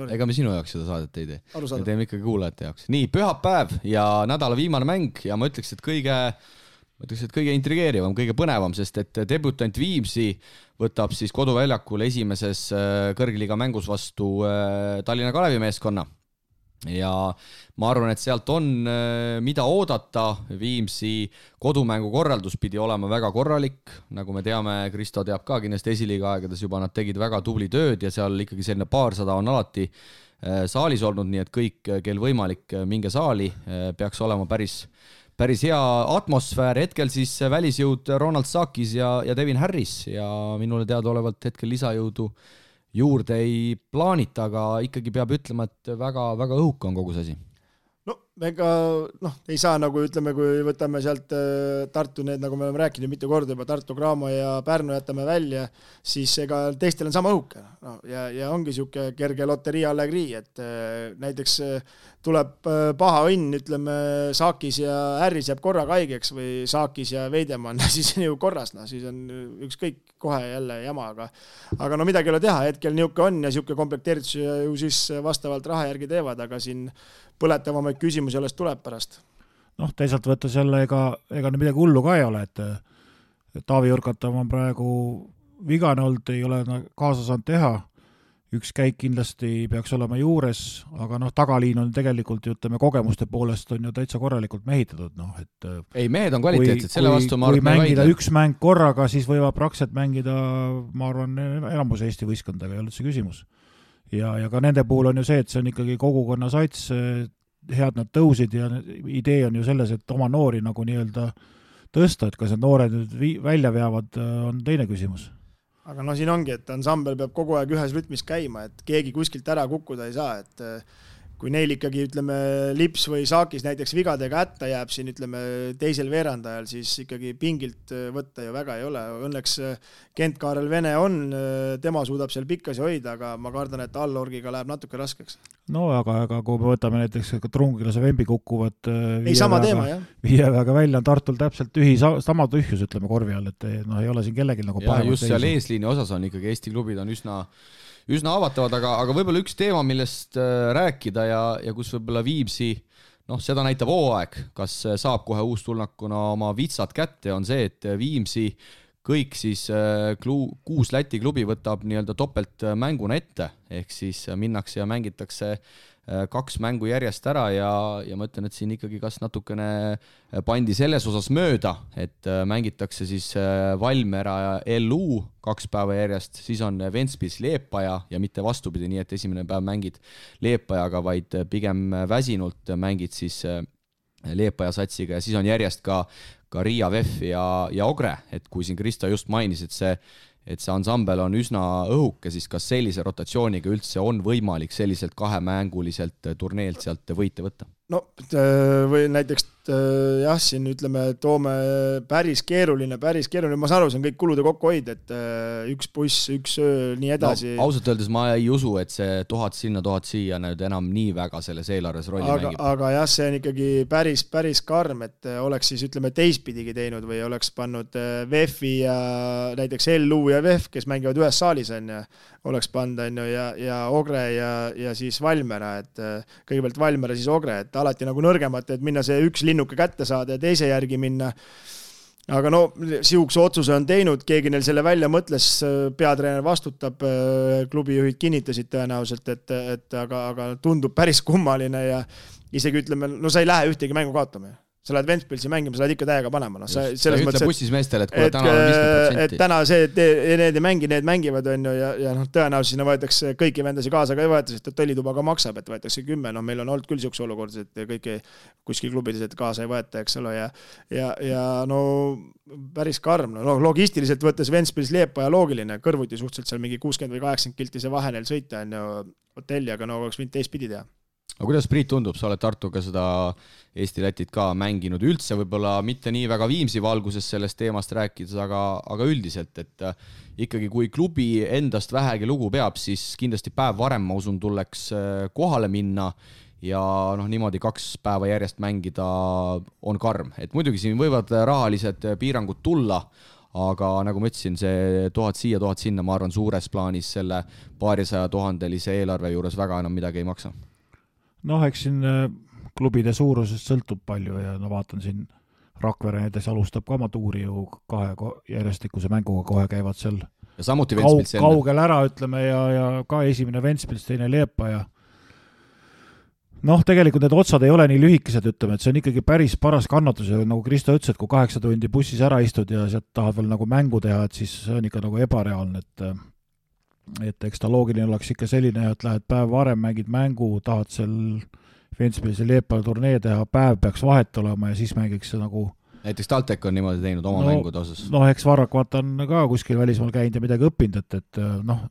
Ega me sinu jaoks seda saadet ei tee. Me teeme ikkagi kuulajate jaoks. Nii, pühapäev ja nädala viimane mäng ja ma ütleks, et kõige intrigeerivam, kõige põnevam, sest et debutant Viimsi võtab siis koduväljakul esimeses kõrgliiga mängus vastu Tallinna Kalevi meeskonna. Ja ma arvan, et sealt on mida oodata. Viimsi kodumängu korraldus pidi olema väga korralik. Nagu me teame, Kristo teab ka kindlasti esiliiga aegades juba, nad tegid väga tubli tööd ja seal ikkagi selline paarsada on alati saalis olnud, nii et kõik, kel võimalik minge saali, peaks olema päris hea atmosfäär. Hetkel siis välisjõud Ronald Sakis ja Devin Harris ja minule teadaolevalt hetkel lisajõudu juurde ei plaanita, aga ikkagi peab ütlema, et väga, väga õhuka on kogu see asi. No, ega ei saa nagu ütleme, kui võtame sealt Tartu need, nagu me oleme rääkinud mitu korda juba, Tartu, Graamo ja Pärnu jätame välja, siis ega teistel on sama õhuke. Ja ongi siuke kerge loterii allegrii, et näiteks tuleb paha õnn, ütleme, Saakis ja Harris jääb korraga haigeks või Saakis ja Veidemann, siis on ju korras, siis on ükskõik kohe jälle jama, aga no midagi ei ole teha, hetkel niuke on ja siuke komplekteeritus ju siis vastavalt raha järgi teevad, aga siin põletavamaid küsimusi alles tuleb pärast. Teisalt võttes jälle ega midagi hullu ka ei ole, et Taavi Jurkatav on praegu vigane olnud, ei ole kaasa saanud teha. Üks käik kindlasti peaks olema juures, aga tagaliin on tegelikult, ütleme, kogemuste poolest on ju täitsa korralikult mehitatud. Ei, mehed on kvaliteetsed, selle vastu ma arvan. Kui mängida üks mäng korraga, siis võivad praktiliselt mängida, ma arvan, enamus Eesti võistkondadega ei olnud see küsimus. Ja ka nende puhul on ju see, et see on ikkagi kogukonna sats, head nad tõusid ja idee on ju selles, et oma noori nagu nii-öelda tõsta, et kas need noored nüüd välja veavad, on teine küsimus. Aga siin ongi, et ansambel peab kogu aeg ühes rütmis käima, et keegi kuskilt ära kukkuda ei saa, et kui neil ikkagi, ütleme, Lips või Saakis näiteks vigadega hätta jääb siin, ütleme, teisel veerandajal, siis ikkagi pingilt võtta ju väga ei ole. Õnneks Kent-Kaarel Vene on, tema suudab seal pikkasi hoida, aga ma kardan, et allorgiga läheb natuke raskeks. No aga kui me võtame näiteks Trungilase Vembi kukkuvad viieväega välja, on Tartul täpselt sama tühjus, ütleme, korvi all, et ei ole siin kellelgi nagu pahemat. Just seal eesliini osas on ikkagi Eesti klubid on üsna avatavad, aga võib-olla üks teema, millest rääkida ja kus võib-olla Viimsi, seda näitab hooaeg, kas saab kohe uustulnakuna oma vitsad kätte, on see, et Viimsi kõik siis 6 Läti klubi võtab nii-öelda topelt mänguna ette, ehk siis minnakse ja mängitakse 2 mängu järjest ära ja ma ütlen, et siin ikkagi kas natukene pandi selles osas mööda, et mängitakse siis Valmiera ja LU 2 päeva järjest, siis on Ventspils Liepaja ja mitte vastupidi, nii et esimene päev mängid Liepajaga, vaid pigem väsinult mängid siis Liepaja satsiga ja siis on järjest ka Riia VEF ja Ogre, et kui siin Kristo just mainis, et see ansambel on üsna õhuke, siis kas sellise rotatsiooniga üldse on võimalik selliselt 2-mänguliselt turneelt sealt võite võtta? No või näiteks jah, siin ütleme, toome päris keeruline, ma saan aru, see on kõik kulude kokkuhoid, et üks buss, üks öö, nii edasi. No, ausalt öeldes ma ei usu, et see 1000 sinna, 1000 siia nüüd enam nii väga selles eelarves rolli mängib. Aga jah, see on ikkagi päris karm, et oleks siis ütleme teistpidigi teinud või oleks pannud VEF-i ja näiteks LU ja VEF, kes mängivad ühes saalis on ja oleks pannud ja Ogre ja siis Valmiera, et kõigepealt Valmiera, siis Ogre, et alati nagu nõrgemat, et minna see üks linnuke kätte saada ja teise järgi minna. Aga no, siukse otsuse on teinud, keegi neil selle välja mõtles, peatreener vastutab, klubijuhid kinnitasid tõenäoliselt, et aga tundub päris kummaline ja isegi ütleme, no sa ei lähe ühtegi mängu kaotama. Sa lähed Ventspilsi mängima, sa lähed ikka täiega panema. No, sa ütle bussis meestele, et kuule, täna on 50%. Et täna see, need ei mängi, need mängivad on ju ja no, tõenäoliselt sinna võetakse kõiki vendasi kaasa ka ei võeta, sest hotellituba ka maksab, et võetakse 10. No, meil on olnud küll siukse olukord, et kõiki kuskil klubides et kaasa ei võeta, eks ole, ja no päris karm. No, logistiliselt võttes Ventspils Liepaja loogiline, kõrvuti suhteliselt seal mingi 60 või 80 kilti see vahe neil sõita on ju hotelli, aga no oleks võinud teistpidi teha. Aga kuidas Priit tundub, sa oled Tartuga seda Eesti-Lätit ka mänginud üldse, võib-olla mitte nii väga Viimsi valguses sellest teemast rääkides, aga üldiselt, et ikkagi kui klubi endast vähegi lugu peab, siis kindlasti päev varem, ma usun, tulleks kohale minna ja noh, niimoodi 2 päeva järjest mängida on karm. Et muidugi siin võivad rahalised piirangud tulla, aga nagu ma ütlesin, see 1000 siia, 1000 sinna, ma arvan, suures plaanis selle 200 000 eelarve juures väga enam midagi ei maksa. Noh, eks siin klubide suurusest sõltub palju ja no vaatan siin Rakvere näiteks alustab ka oma tuuri ju 2 järjestikuse mänguga, kohe käivad seal ja samuti Ventspils kaugel ära, ütleme, ja ka esimene Ventspils, teine Liepaja. Noh, tegelikult need otsad ei ole nii lühikesed, ütleme, et see on ikkagi päris paras kannatus ja nagu Kristo ütles, et kui 8 tundi bussis ära istud ja sealt tahad veel nagu mängu teha, et siis see on ikka nagu ebareaalne, et eks ta loogiline oleks ikka selline, et lähed päev varem, mängid mängu, tahad seal Ventspilsi Liepaja turnee teha, päev peaks vahet olema ja siis mängiks see nagu näiteks TalTech on niimoodi teinud oma mängude osas. Noh, eks Varrak vaata on ka kuskil välismaal käinud ja midagi õppinud, et noh,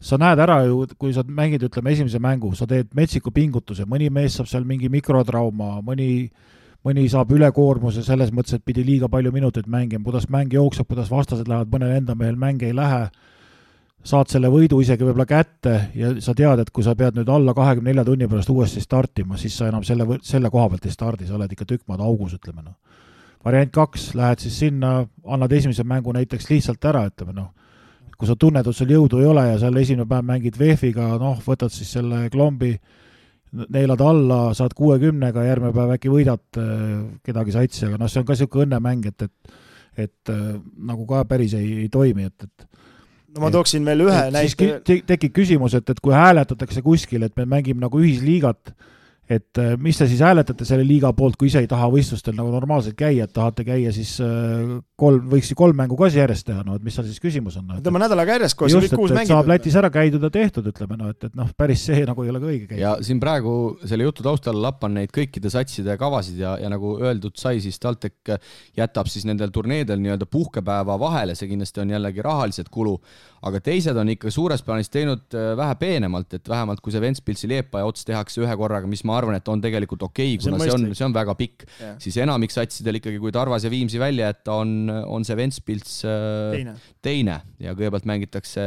sa näed ära ju, kui sa mängid, ütleme, esimese mängu, sa teed metsiku pingutuse, mõni mees saab seal mingi mikrotrauma, mõni saab ülekoormuse selles mõttes, et pidi liiga palju minutit mängima, kuidas mäng jookseb, kuidas vastased lähevad, mõnel enda mehel mäng ei lähe, saad selle võidu isegi võib-olla kätte ja sa tead, et kui sa pead nüüd alla 24 tunni pärast uuesti startima, siis sa enam selle koha pealt ei stardi, sa oled ikka tükk maad augus, ütleme. No. Variant 2, lähed siis sinna, annad esimese mängu näiteks lihtsalt ära, ütleme. No. Kui sa tunned, et sul jõudu ei ole ja seal esimene päev mängid VEF-iga, noh, võtad siis selle klombi, neelad alla, saad 60-ga, järgmine päev äkki võidad kedagi satsi, aga noh, see on ka siuke õnnemäng, et nagu ka päris ei toimi, et no ma tooksin veel ühe näite. Siis tekib küsimus, et kui hääletatakse kuskil, et me mängime nagu ühisliigat, et mis te siis hääletate selle liiga poolt, kui ise ei taha võistlustel nagu normaalselt käia, et tahate käia siis võiks 3 mängu ka järjest teha, no et mis seal siis küsimus on? Tõmba nädalaga järjest, kui just, et saab Lätis ära käidud ja tehtud, ütleme, no et noh, päris see nagu ei ole ka õige käia. Ja siin praegu selle jutu taustal lappan neid kõikide satside kavasid ja nagu öeldud sai, siis TalTech jätab siis nendel turneedel nii-öelda puhkepäeva vahele, see kindlasti on jällegi rahaliselt kulu, aga teised on ikka suures plaanis teinud vähe peenemalt, et vähemalt kui see Ventspilsi Liepaja ots tehakse ühe korraga, mis ma arvan, et on tegelikult okei, kuna see on väga pikk, siis enamik satsidel ikkagi, kui Tarvas ja Viimsi välja, et on see Ventspils teine ja kõigepealt mängitakse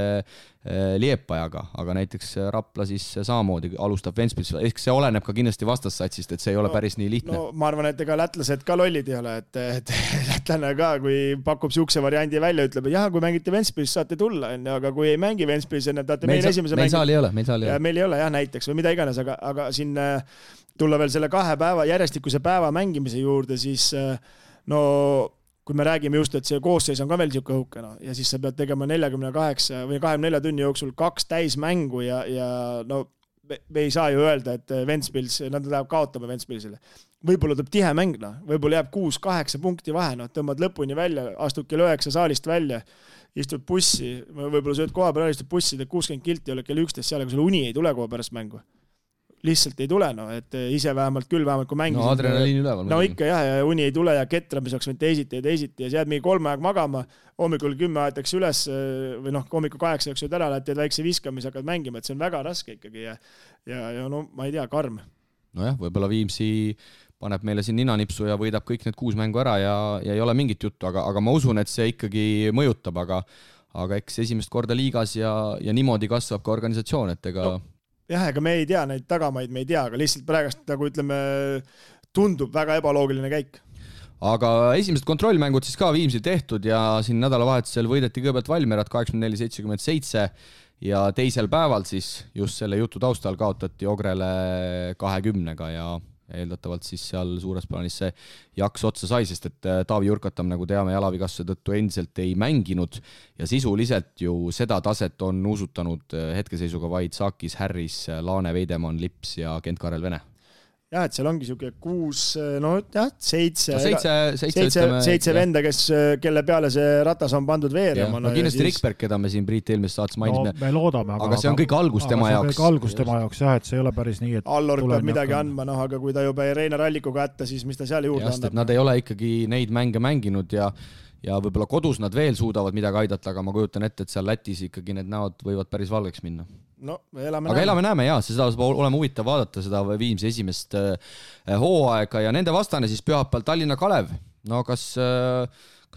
Liepajaga, aga näiteks Rapla siis samamoodi alustab Ventspils, ehk see oleneb ka kindlasti vastassatsist, et see ei ole päris nii lihtne. No ma arvan, et ega lätlased ka lollid ei ole, et lätlane ka, kui pakub siukse variandi välja, ütleb, et jah, kui mängite Ventspils, saate tulla, aga kui ei mängi Ventspils, tahate meil esimese meil saal ei ole. Meil ei ole jah, näiteks või mida iganes, aga siin tulla veel selle 2 päeva järjestikuse päeva mängimise juurde, siis no kui me räägime just, et see koosseis on ka veel niisugune õhuke, no, ja siis sa pead tegema 48 või 24 tunni jooksul 2 täismängu ja no me ei saa ju öelda, et Ventspils, nad läheb kaotama Ventspilsile. Võib-olla tuleb tihe mäng, no. Võib-olla jääb 6-8 punkti vahe, no. Tõmbad lõpuni välja, astud kell 9 saalist välja, istud bussi, võib-olla sööd koha peal, istud bussi, teed 60 kilti, oled kell 11 seal, aga sul uni ei tule koha pärast mängu. Lihtsalt ei tule, no, et ise vähemalt kui mängisid. No adrenaliin üleval. No ikka jah, ja uni ei tule ja ketramise võiks teisiti ja siis jääd mingi 3 aeg magama, hommikul 10 aetakse üles või noh, hommikul 8 sööd ära, teed väikse viskamise, hakkad mängima, et see on väga raske ikkagi ja no ma ei tea, karm. Nojah, võib-olla Viimsi paneb meile siin ninanipsu ja võidab kõik need 6 mängu ära ja ei ole mingit juttu, aga ma usun, et see ikkagi mõjutab, aga eks esimest korda liigas ja niimoodi kasvab ka organisatsioon, et ega... No. Jah, ega me ei tea neid tagamaid, me ei tea, aga lihtsalt praegast, nagu ütleme, tundub väga ebaloogiline käik. Aga esimesed kontrollmängud siis ka Viimsil tehtud ja siin nädalavahetusel võideti kõigepealt Valmierat 84-77 ja teisel päeval siis just selle jutu taustal kaotati Ogrele 20-ga ja eeldatavalt siis seal suures plaanis see jaks otsa sai, sest et Taavi Jurkatam, nagu teame, jalavigastuse tõttu endiselt ei mänginud ja sisuliselt ju seda taset on uusutanud hetkeseisuga vaid Saakis, Harris, Laane, Veidemann, Lips ja Kent-Karel Vene. Jah, et seal ongi siuke 6, no jah, 7 venda, kelle peale see ratas on pandud veerema. No kindlasti siis... Rikberg, keda me siin Priit eelmist saates mainisime. No me loodame, aga see on kõik algus tema jaoks. See on kõik algus tema jaoks, jah, et see ei ole päris nii, et... Allor peab midagi andma, noh, aga kui ta juba Reinar Allikuga ätta, siis mis ta seal juurde andab? Nad ei ole ikkagi neid mänge mänginud ja võib-olla kodus nad veel suudavad midagi aidata, aga ma kujutan ette, et seal Lätis ikkagi need näod võivad päris valgeks minna. No, elame näeme, jaa, seda saab olema huvitav vaadata seda Viimsi esimest hooaega ja nende vastane siis pühapäeval Tallinna Kalev. No kas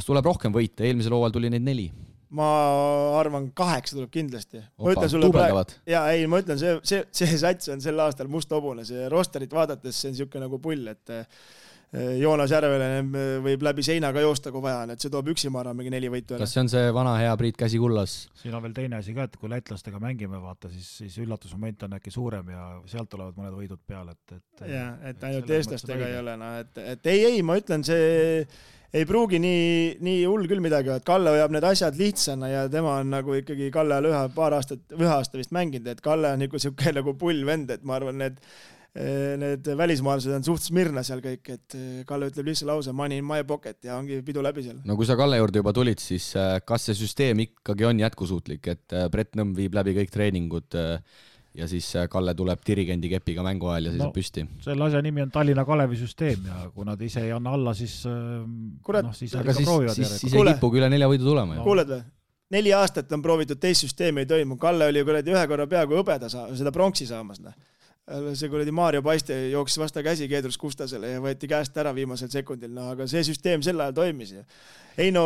tuleb rohkem võita? Eelmisel hooajal tuli neid 4. Ma arvan 8 tuleb kindlasti. Tuubeldavad. Ma ütlen, see sats on sel aastal must hobune, see rosterit vaadates see on niisugune nagu pull, et Joonas Järvele võib läbi seina ka joosta, kui vaja, et see toob üksi maara mingi 4 võitu. Kas see on see vana hea Priit käsi kullas? Siin on veel teine asi ka, et kui lätlastega mängime, vaata, siis üllatusmoment on äkki suurem ja sealt tulevad mõned võidud peale. Et ainult eestlastega ei ole. No, et ei, ma ütlen, see ei pruugi nii hull küll midagi, et Kalle hoiab need asjad lihtsana ja tema on nagu ikkagi Kalle ühe aasta vist mänginud, et Kalle on nagu pull vend, et ma arvan, need välismaalased on suht smirna seal kõik, et Kalle ütleb lihtsalt lause money in my pocket ja ongi pidu läbi seal. No kui sa Kalle juurde juba tulid, siis kas see süsteem ikkagi on jätkusuutlik, et Brett Nõmm viib läbi kõik treeningud ja siis Kalle tuleb dirigendi kepiga mängu ajal ja seisab püsti? Selle asja nimi on Tallinna Kalevi süsteem ja kui nad ise ei anna alla, siis siis ei kipugi üle 4 võidu tulema. Kuuled või? 4 aastat on proovitud teist süsteemi ei toimu. Kalle oli ühe korra peaaegu hõbeda seda pronksi saamas. See kuradi Maarjo Paiste jooksis vasta käsi Keedrus Kustasele ja võeti käest ära viimasel sekundil, no aga see süsteem sel ajal toimis. Ei no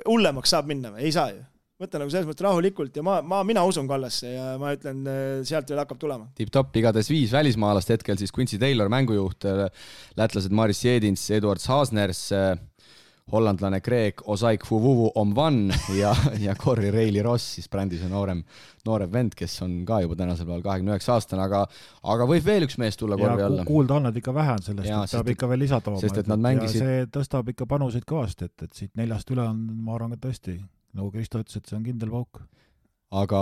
hullemaks saab minna, ei saa ju. Võtta nagu selles mõttes rahulikult ja mina usun Kallasse ja ma ütlen, sealt veel hakkab tulema. Tip-top igades 5 välismaalast hetkel, siis Quincy Taylor, mängujuht, lätlased Maris Jedins, Eduard Haasners, hollandlane Greg Osaik Fuvuvu Omvan ja Corey Reilly Ross, siis brändis on noorem vend, kes on ka juba tänasel päeval 29 aastane, aga võib veel üks mees tulla korvi alla. Kuulda on, et ikka vähe on sellest, et peab ikka veel lisatooma. Sest et nad mängisid... Ja see tõstab ikka panuseid kõvasti, et siit 4 üle on, ma arvan, ka tõesti, nagu Kristo ütles, et see on kindel pauk. Aga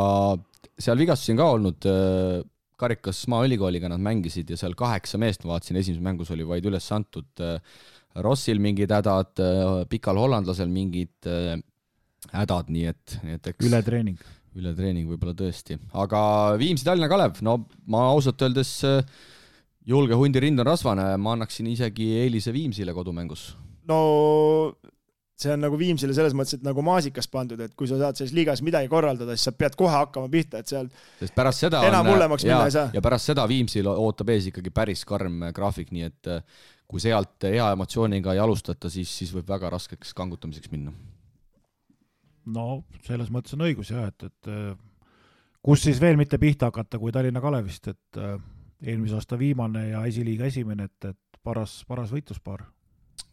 seal vigastusi on ka olnud, Karikas Maaülikooliga nad mängisid ja seal 8 meest, ma vaatasin, esimeses mängus oli vaid üles antud Rossil mingid hädad, pikal hollandlasel mingid hädad, nii et eks... Ületreening võib-olla tõesti. Aga Viimsi Tallinna Kalev, no ma ausalt öeldes julge hundi rind on rasvane, ma annaksin isegi eelise Viimsile kodumängus. No see on nagu Viimsile selles mõttes, et nagu maasikas pandud, et kui sa saad selles liigas midagi korraldada, siis sa pead kohe hakkama pihta, et seal sest pärast seda enam hullemaks minna ei saa. Ja pärast seda Viimsil ootab ees ikkagi päris karm graafik, nii et kui sealt hea emotsiooniga ei alustata, siis võib väga raskeks kangutamiseks minna. No selles mõttes on õigus jah, et kus siis veel mitte pihta hakata kui Tallinna Kalevist, et eelmise aasta viimane ja esiliiga esimene, et paras võitluspaar.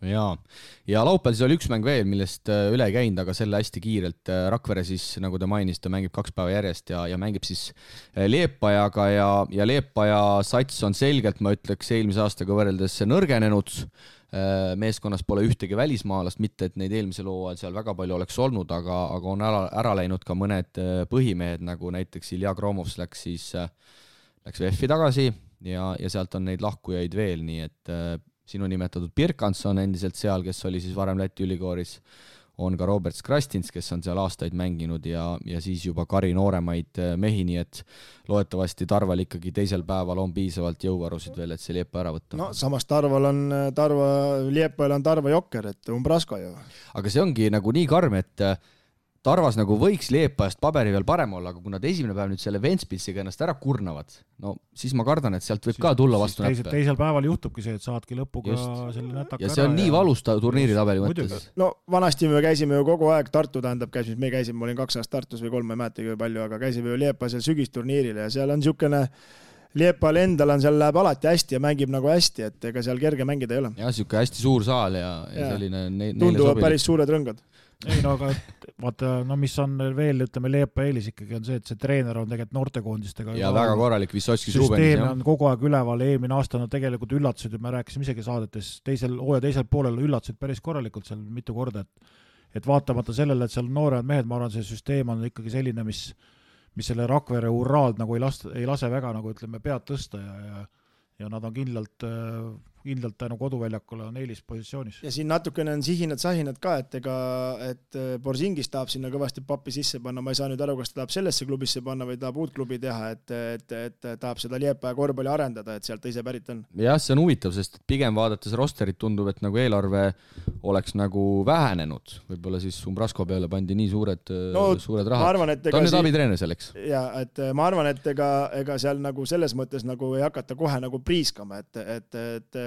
ja laupäeval siis oli üks mäng veel, millest üle ei käinud, aga selle hästi kiirelt. Rakvere siis, nagu te mainisite, mängib 2 päeva järjest ja mängib siis Liepajaga ja Liepaja sats on selgelt, ma ütleks, eelmise aastaga võrreldes nõrgenenud. Meeskonnas pole ühtegi välismaalast, mitte et neid eelmisel hooajal seal väga palju oleks olnud, aga on ära läinud ka mõned põhimehed, nagu näiteks Ilja Kromovs läks VF-i tagasi ja sealt on neid lahkujaid veel, nii et sinu nimetatud Birkanson endiselt seal, kes oli siis varem Läti ülikooris, on ka Robert Skrastins, kes on seal aastaid mänginud ja siis juba Kari nooremaid mehi, nii et loodetavasti Tarval ikkagi teisel päeval on piisavalt jõuvarusid veel, et see Liepa ära võtta. No samas Liepajal on Tarva jokker, et Umbrasko ju. Aga see ongi nagu nii karm, et Tarvas nagu võiks Liepajast paberi veel parem olla, aga kui nad esimene päev nüüd selle Ventspilsiga ennast ära kurnavad, no siis ma kardan, et sealt võib ka tulla vastu näppe. Teisel päeval juhtubki see, et saadki lõpuga selle nätaka ära. Ja see on nii valus turniiritabeli mõttes. No vanasti me käisime ju kogu aeg Tartu, me käisime, ma olin 2 aastat Tartus või 3, ma ei mäleta kui palju, aga käisime ju Liepa seal sügisturniiril ja seal on niisugune Liepal endal on seal läheb alati hästi ja mängib nagu hästi, et ega seal kerge mängida ei ole. Ja niisugune hästi suur saal ja selline tunduvad päris suured rõngad. Ei no aga vaata, mis on veel, ütleme, Liepa eelis ikkagi on see, et see treener on tegelikult noortekoondistega. Ja väga korralik Vissotskis Rubenis. Süsteem on kogu aeg üleval, eelmine aasta nad tegelikult üllatasid, me rääkisime isegi saadetes, teisel poolel üllatasid päris korralikult seal mitu korda, et vaatamata sellele, et seal nooremad mehed, ma arvan, see süsteem on ikkagi selline, mis selle Rakvere uraalt nagu ei lase väga nagu ütleme pead tõsta ja nad on kindlalt tänu koduväljakule on eelispositsioonis. Ja siin natukene on sahinad ka, et Borzingis tahab sinna kõvasti pappi sisse panna, ma ei saa nüüd aru, kas ta tahab sellesse klubisse panna või tahab uut klubi teha, et tahab seda Liepaja korvpalli arendada, et sealt ise pärit on. Jah, see on huvitav, sest pigem vaadates rosterit tundub, et nagu eelarve oleks nagu vähenenud. Võib-olla siis Umbrasko peale pandi nii suured rahad. Ta on nüüd abitreener selleks. Ja, et ma arvan, et ega seal nagu selles mõttes nagu ei hakata kohe nagu priiskama, et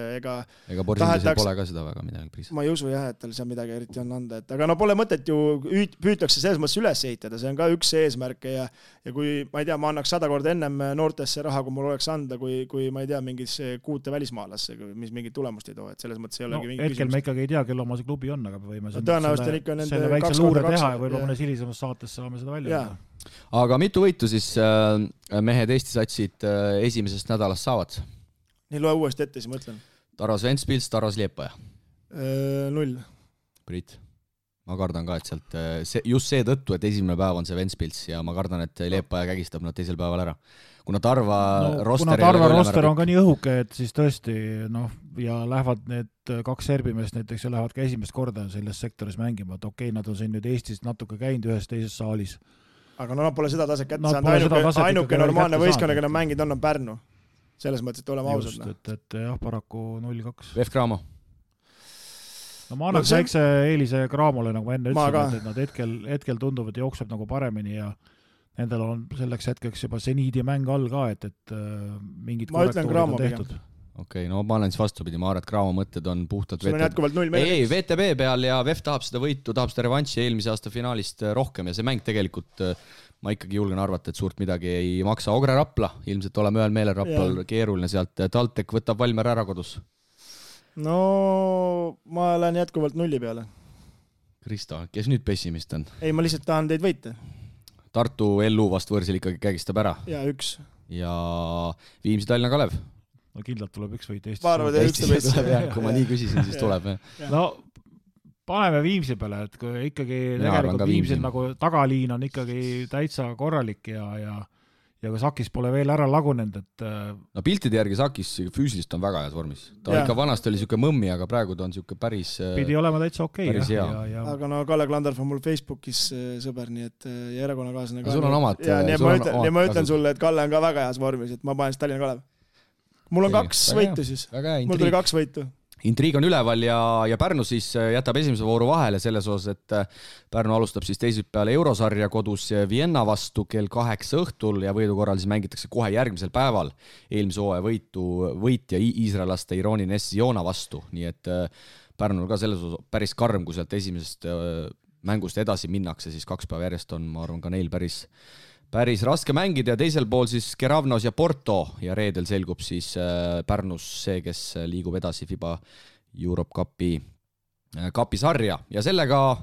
ega Borsingisel pole ka seda väga midagi priis. Ma ei usu jah, et tal seal midagi eriti on anda, aga no pole mõtet ju püütakse selles mõttes üles ehitada, see on ka üks eesmärke ja kui ma ei tea, ma annaks 100 korda ennem noortesse raha, kui mul oleks anda, kui ma ei tea, mingis 6 välismaalasse, mis mingit tulemust ei too, et selles mõttes ei olegi mingi hetkel küsimus. Me ikkagi ei tea, kelle oma see klubi on, aga võime selle väikse luure teha ja võib-olla mõnes hilisemas saates saame seda välja. Aga mitu võitu siis mehed Eesti satsid esimesest nädalast saavad? Nii loe uuesti ette, siis ma ütlen. Tarvas Ventspils, Tarvas Liepaja. 0. Priit, ma kardan ka, et sealt just see tõttu, et esimene päev on see Ventspils ja ma kardan, et Liepaja kägistab nad teisel päeval ära. Kuna Tarva roster on ka nii õhuke, et siis tõesti ja lähevad need 2 serbimeest näiteks ja lähevad ka esimest korda selles sektoris mängima, et okei, nad on siin nüüd Eestis natuke käinud ühes teises saalis. Aga nad pole seda taset kätte saanud, ainuke normaalne võistkonna, keda mängid on Pärnu. Selles mõttes, et oleme ausad. Just, et jah, paraku 0-2. VF Cramo. No ma annaks väikse eelise Cramole, nagu ma enne ütlesin, et nad hetkel tunduvad jookseb nagu paremini ja nendel on selleks hetkeks juba seniidi mäng all ka, et mingid korrektuurid on tehtud. Okei, no ma olen siis vastupidi, ma arvan, et Cramo mõtted on puhtalt sul on jätkuvalt 0 meelega. Ei, VTB peal ja VF tahab seda võitu, tahab seda revanši eelmise aasta finaalist rohkem ja see mäng tegelikult ma ikkagi julgen arvata, et suurt midagi ei maksa. Ogre Rapla, ilmselt oleme ühel meelel Raplal keeruline sealt. Taltek võtab Valmer ära kodus. No ma olen jätkuvalt 0 peale. Kristo, kes nüüd pessimist on? Ei, ma lihtsalt tahan teid võita. Tartu LU vast võrsil ikkagi kägistab ära. Ja 1. Ja Viimsi Tallinna Kalev. No kindlalt tuleb 1 võit Eestis. Ma arvan, et 1 tuleb. Kui ma nii küsisin, siis tuleb. No paneme Viimsi peale, et kui ikkagi tegelikult Viimsil nagu tagaliin on ikkagi täitsa korralik ja kui Sakis pole veel ära lagunenud, et no piltide järgi Sakis füüsilist on väga heas vormis. Ta ikka vanast oli niisugune mõmmi, aga praegu ta on niisugune päris pidi olema täitsa okei. Aga no Kalle Klandorf on mul Facebookis sõber, nii et ja erakonnakaaslane ka. Sul on omad. Ja ma ütlen sulle, et Kalle on ka väga heas vormis, et ma panen Tallinna Kalev. Mul on 2 võitu siis. Mul tuli 2 võitu. Intriig on üleval ja Pärnu siis jätab esimese vooru vahele selles osas, et Pärnu alustab siis teisipäeval Eurosarja kodus Vienna vastu kell 8 õhtul ja võidu korral siis mängitakse kohe järgmisel päeval eelmise hooaja võitja iisraelaste Ironi Nessiona vastu, nii et Pärnul ka selles osas päris karm, kui sealt esimesest mängust edasi minnakse, siis 2 päeva järjest on, ma arvan, ka neil päris raske mängida ja teisel pool siis Keravnos ja Porto ja reedel selgub siis Pärnus see, kes liigub edasi FIBA Europe Cupi kapisarja ja sellega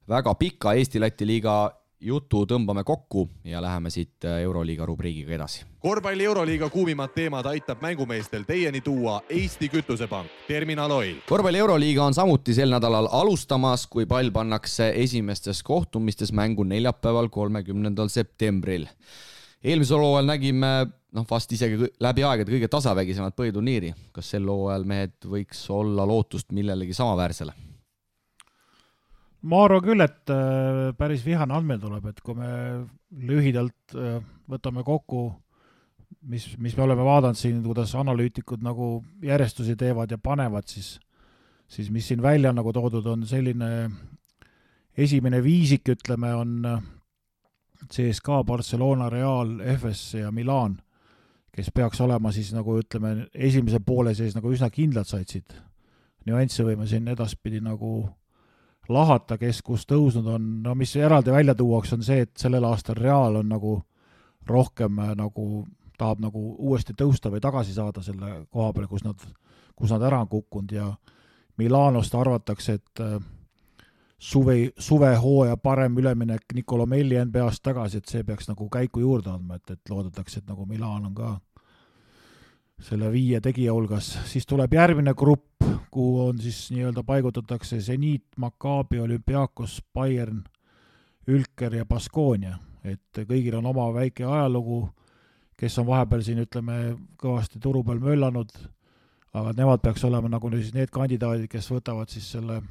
väga pika Eesti-Läti liiga jutu tõmbame kokku ja läheme siit Euroliiga rubriigiga edasi. Korvpalli Euroliiga kuumimad teemad aitab mängumeestel teieni tuua Eesti Kütusepank, Terminal Oil. Korvpalli Euroliiga on samuti sel nädalal alustamas, kui pall pannakse esimestes kohtumistes mängu neljapäeval 30. septembril. Eelmisel hooajal nägime vast isegi läbi aegade kõige tasavägisemat põhiturniiri. Kas sel hooajal mehed võiks olla lootust millelegi samaväärsele? Ma arvan küll, et päris vihane andmel tuleb, et kui me lühidalt võtame kokku, mis me oleme vaadanud siin, kuidas analüütikud nagu järjestusi teevad ja panevad, siis mis siin välja nagu toodud on selline esimene viisik, ütleme, on CSKA, Barcelona, Real, FS ja Milan, kes peaks olema siis nagu ütleme esimese poole sees nagu üsna kindlad saitsid. Nüansse võime siin edaspidi nagu lahata, kes kus tõusnud on, mis eraldi välja tuuaks on see, et sellel aastal Real on nagu rohkem nagu tahab nagu uuesti tõusta või tagasi saada selle koha peale, kus nad ära on kukkunud ja Milanost arvatakse, et suvehooaja parem üleminek Nicolo Melli NBA-st tagasi, et see peaks nagu käiku juurde andma, et loodetakse, et nagu Milan on ka selle 5 tegija hulgas. Siis tuleb järgmine grupp, kuhu on siis nii-öelda paigutatakse Zenit, Maccabi, Olympiakos, Bayern, Ülker ja Baskonia. Et kõigil on oma väike ajalugu, kes on vahepeal siin, ütleme, kõvasti turu peal möllanud, aga nemad peaks olema nagu siis need kandidaadid, kes võtavad siis selle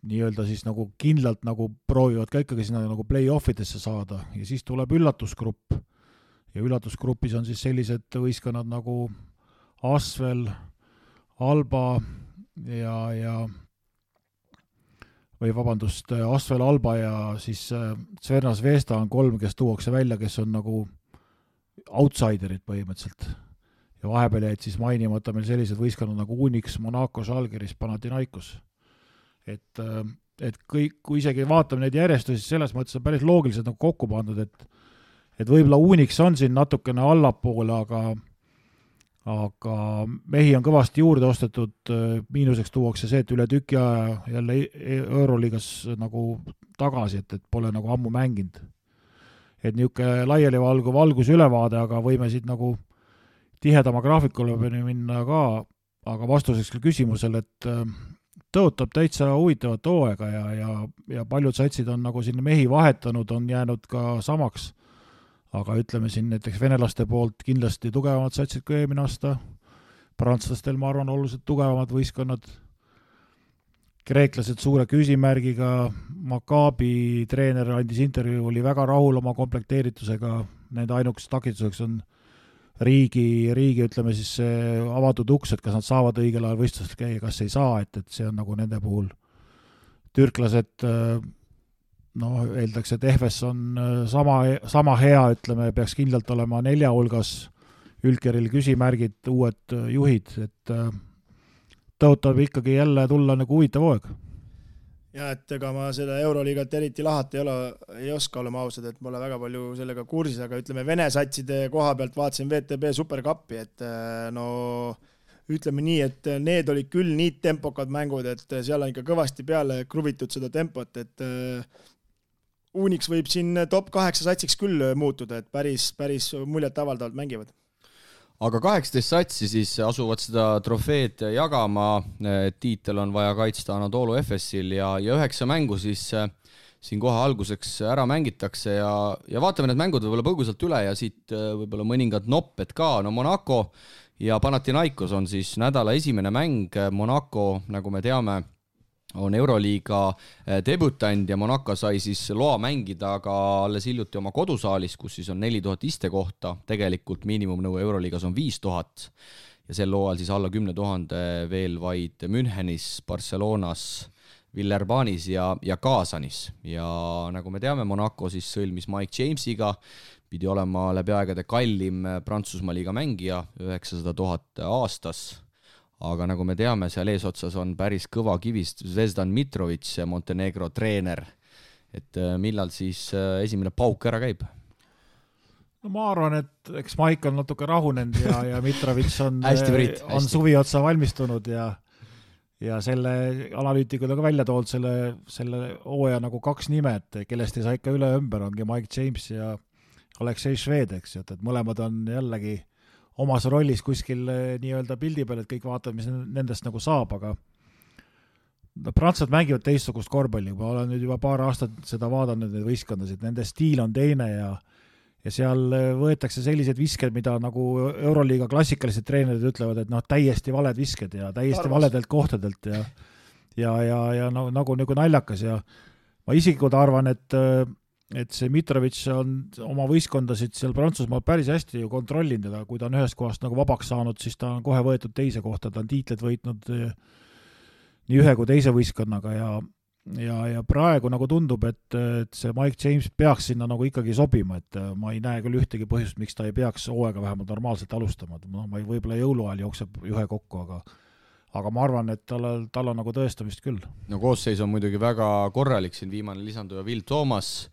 nii-öelda siis nagu kindlalt nagu proovivad ka ikkagi sinna nagu play-offidesse saada ja siis tuleb üllatusgrupp. Ja üllatusgrupis on siis sellised võistkonnad nagu Asvel, Alba Asvel, Alba ja siis Crvena Zvezda on 3, kes tuuakse välja, kes on nagu outsiderid põhimõtteliselt. Ja vahepeal jäid siis mainimata meil sellised võistkonnad nagu Unix, Monaco, Žalgiris, Panathinaikos. Et kõik, kui isegi vaatame neid järjestusi, selles mõttes on päris loogiliselt nagu kokku pandud, et võib-olla Unix on siin natukene allapoole, aga mehi on kõvasti juurde ostetud, miinuseks tuuakse see, et üle tüki aja jälle Euroliigas nagu tagasi, et pole nagu ammu mänginud. Et niisugune laiali valgus ülevaade, aga võime siit nagu tihedama graafikule minna ka, aga vastuseks küsimusele, et tõotab täitsa huvitavat hooaega ja paljud satsid on nagu siin mehi vahetanud, on jäänud ka samaks. Aga ütleme siin näiteks venelaste poolt kindlasti tugevamad satsid kui eelmine aasta. Prantslastel, ma arvan, oluliselt tugevamad võistkonnad. Kreeklased suure küsimärgiga. Maccabi treener andis intervjuu, oli väga rahul oma komplekteeritusega. Nende ainukeseks takistuseks on riigi, ütleme siis avatud uks, et kas nad saavad õigel ajal võistlusel käia, kas ei saa, et see on nagu nende puhul. Türklased eeldaks, et EFS on sama hea, ütleme, peaks kindlalt olema 4 hulgas, Ülkeril küsimärgid, uued juhid, et tõotab ikkagi jälle tulla nagu huvitav hooaeg. Ja, et ega ma seda Euroliigat eriti lahata ei oska olema ausad, et pole väga palju sellega kursis, aga ütleme Vene satside koha pealt vaatasin VTB Supercupi, et ütleme nii, et need olid küll nii tempokad mängud, et seal on ikka kõvasti peale kruvitud seda tempot, et Unix võib siin top 8 satsiks küll muutuda, et päris muljet avaldavalt mängivad. Aga 18 satsi siis asuvad seda trofeed jagama, tiitel on vaja kaitsta Anadolu FS-il ja 9 mängu siis siin kohe alguseks ära mängitakse ja vaatame need mängud võib-olla põgusalt üle ja siit võib-olla mõningad nopped ka. No Monaco ja Panathinaikos on siis nädala esimene mäng. Monaco, nagu me teame, on Euroliiga debütant ja Monaco sai siis loa mängida aga alles hiljuti oma kodusaalis, kus siis on 4000 istekohta. Tegelikult miinimumnõue Euroliigas on 5000 ja sel loal siis alla 10 000 veel vaid Münchenis, Barcelonas, Villerbanis ja Kaasanis. Ja nagu me teame, Monaco siis sõlmis Mike Jamesiga, pidi olema läbi aegade kallim Prantsusmaa liiga mängija, 900 000 aastas. Aga nagu me teame, seal eesotsas on päris kõva kivist Zvezdan Mitrovic, Montenegro treener. Et millal siis esimene pauk ära käib? No ma arvan, et eks Maik on natuke rahunenud ja Mitrovic on hästi. Suvi otsa valmistunud ja ja selle analüütikud on ka välja toonud selle hooaja nagu 2 nime, et kellest ei saa ikka üle ümber, ongi Mike James ja Aleksei Šved, eks ju, et mõlemad on jällegi omas rollis kuskil nii-öelda pildi peal, et kõik vaatavad, mis nendest nagu saab, aga prantslased mängivad teistsugust korvpalli, ma olen nüüd juba paar aastat seda vaadanud, neid võistkondasid, nende stiil on teine ja seal võetakse sellised visked, mida nagu Euroliiga klassikalised treenerid ütlevad, et täiesti valed visked ja täiesti valedelt kohtadelt ja nagu naljakas ja ma isiklikult arvan, et see Mitrovic on oma võistkondasid seal Prantsusmaal päris hästi ju kontrollinud ja kui ta on ühest kohast nagu vabaks saanud, siis ta on kohe võetud teise kohta, ta on tiitled võitnud nii ühe kui teise võistkonnaga ja praegu nagu tundub, et see Mike James peaks sinna nagu ikkagi sobima, et ma ei näe küll ühtegi põhjust, miks ta ei peaks hooaega vähemalt normaalselt alustama, ma võib-olla jõuluajal jookseb ühe kokku, aga ma arvan, et tal on nagu tõestamist küll. No koosseis on muidugi väga korralik, siin viimane lisanduja Will Thomas,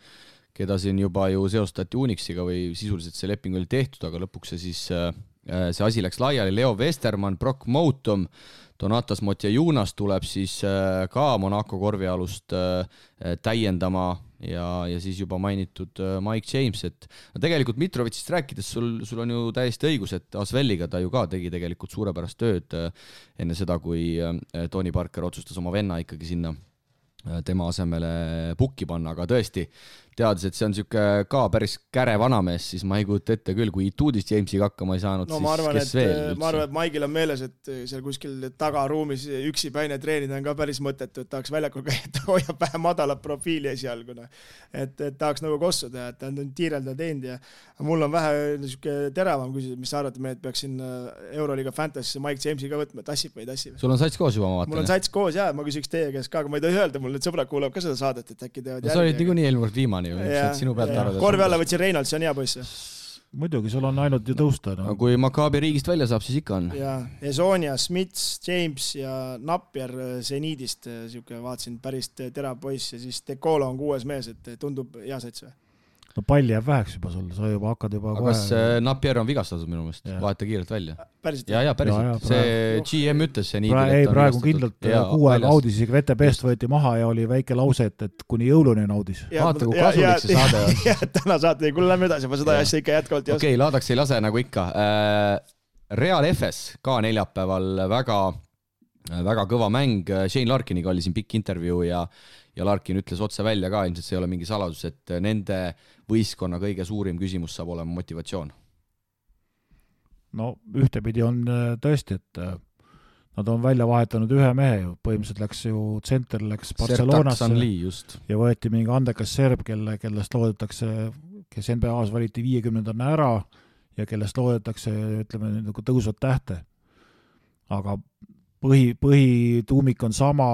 keda siin juba ju seostati Unixiga või sisuliselt see leping oli tehtud, aga lõpuks see asi läks laiali, Leo Westermann, Brock Moutom, Donatas Motjajunas tuleb siis ka Monaco korvialust täiendama ja siis juba mainitud Mike James, et tegelikult Mitrovicist rääkides sul on ju täiesti õigus, et Asvelliga ta ju ka tegi tegelikult suurepärast tööd enne seda, kui Tony Parker otsustas oma venna ikkagi sinna tema asemele pukki panna, aga tõesti, teades, et see on siuke ka päris käre vanamees, siis ma ei kujuta ette küll, kui Ituudist Jamesiga hakkama ei saanud, siis kes veel üldse? Ma arvan, et Maigil on meeles, et seal kuskil tagaruumis üksi päine treenida on ka päris mõttetu, et tahaks väljakul käia, et hoiab vähe madalat profiili esialguna. Et tahaks nagu kossu teha, et ta on tiirelda teinud ja mul on vähe niisugune teravam küsimus, mis sa arvad, et peaksin Euroliiga Fantasy Mike Jamesi ka võtma, tassib või ei tassib? Sul on sats koos juba, ma vaatan. Mul on sats koos, jah, ma küsiks teie käest ka, aga ma ei tohi öelda, mul need sõbrad kuulavad ka seda saadet, et äkki teevad järgi. Sa olid niikuinii eelmine kord viimane ju, sinu pealt arvada. Korvi alla võtsin Reinald, see on hea poiss. Muidugi, sul on ainult ju tõusta. No. Kui Maccabi riigist välja saab, siis ikka on. Ja Esonia, Smits, James ja Napier Zeniidist, vaatasin päris terav poiss ja siis Dekolo on 6. mees, et tundub hea sats või? No palli jääb väheks juba sul, sa juba hakkad juba kohe... Kas Napier on vigastatud minu meelest? Vaata kiirelt välja. Päriselt? Ja, päriselt. See GM ütles see nii. Praegu kindlalt 6 aega audis, isegi VTB-st võeti maha ja oli väike lause, et kuni jõuluni on audis. Vaata, kui kasulik see saade on. Ja, täna saate, kuule lähme edasi, ma seda asja ikka jätkavalt ei oska. Okei, laadaks ei lase nagu ikka. Real FS ka neljapäeval väga kõva mäng. Shane Larkiniga oli siin pikk intervjuu ja Larkin ütles otse välja ka, ilmselt see ei ole mingi saladus, et nende võistkonna kõige suurim küsimus saab olema motivatsioon. No ühtepidi on tõesti, et nad on välja vahetanud ühe mehe ju, põhimõtteliselt läks ju tsenter, läks Barcelonasse ja võeti mingi andekas serb, kellest loodetakse, kes NBA-s valiti 50-ndana ära ja kellest loodetakse, ütleme, nagu tõusvad tähte. Aga põhituumik on sama,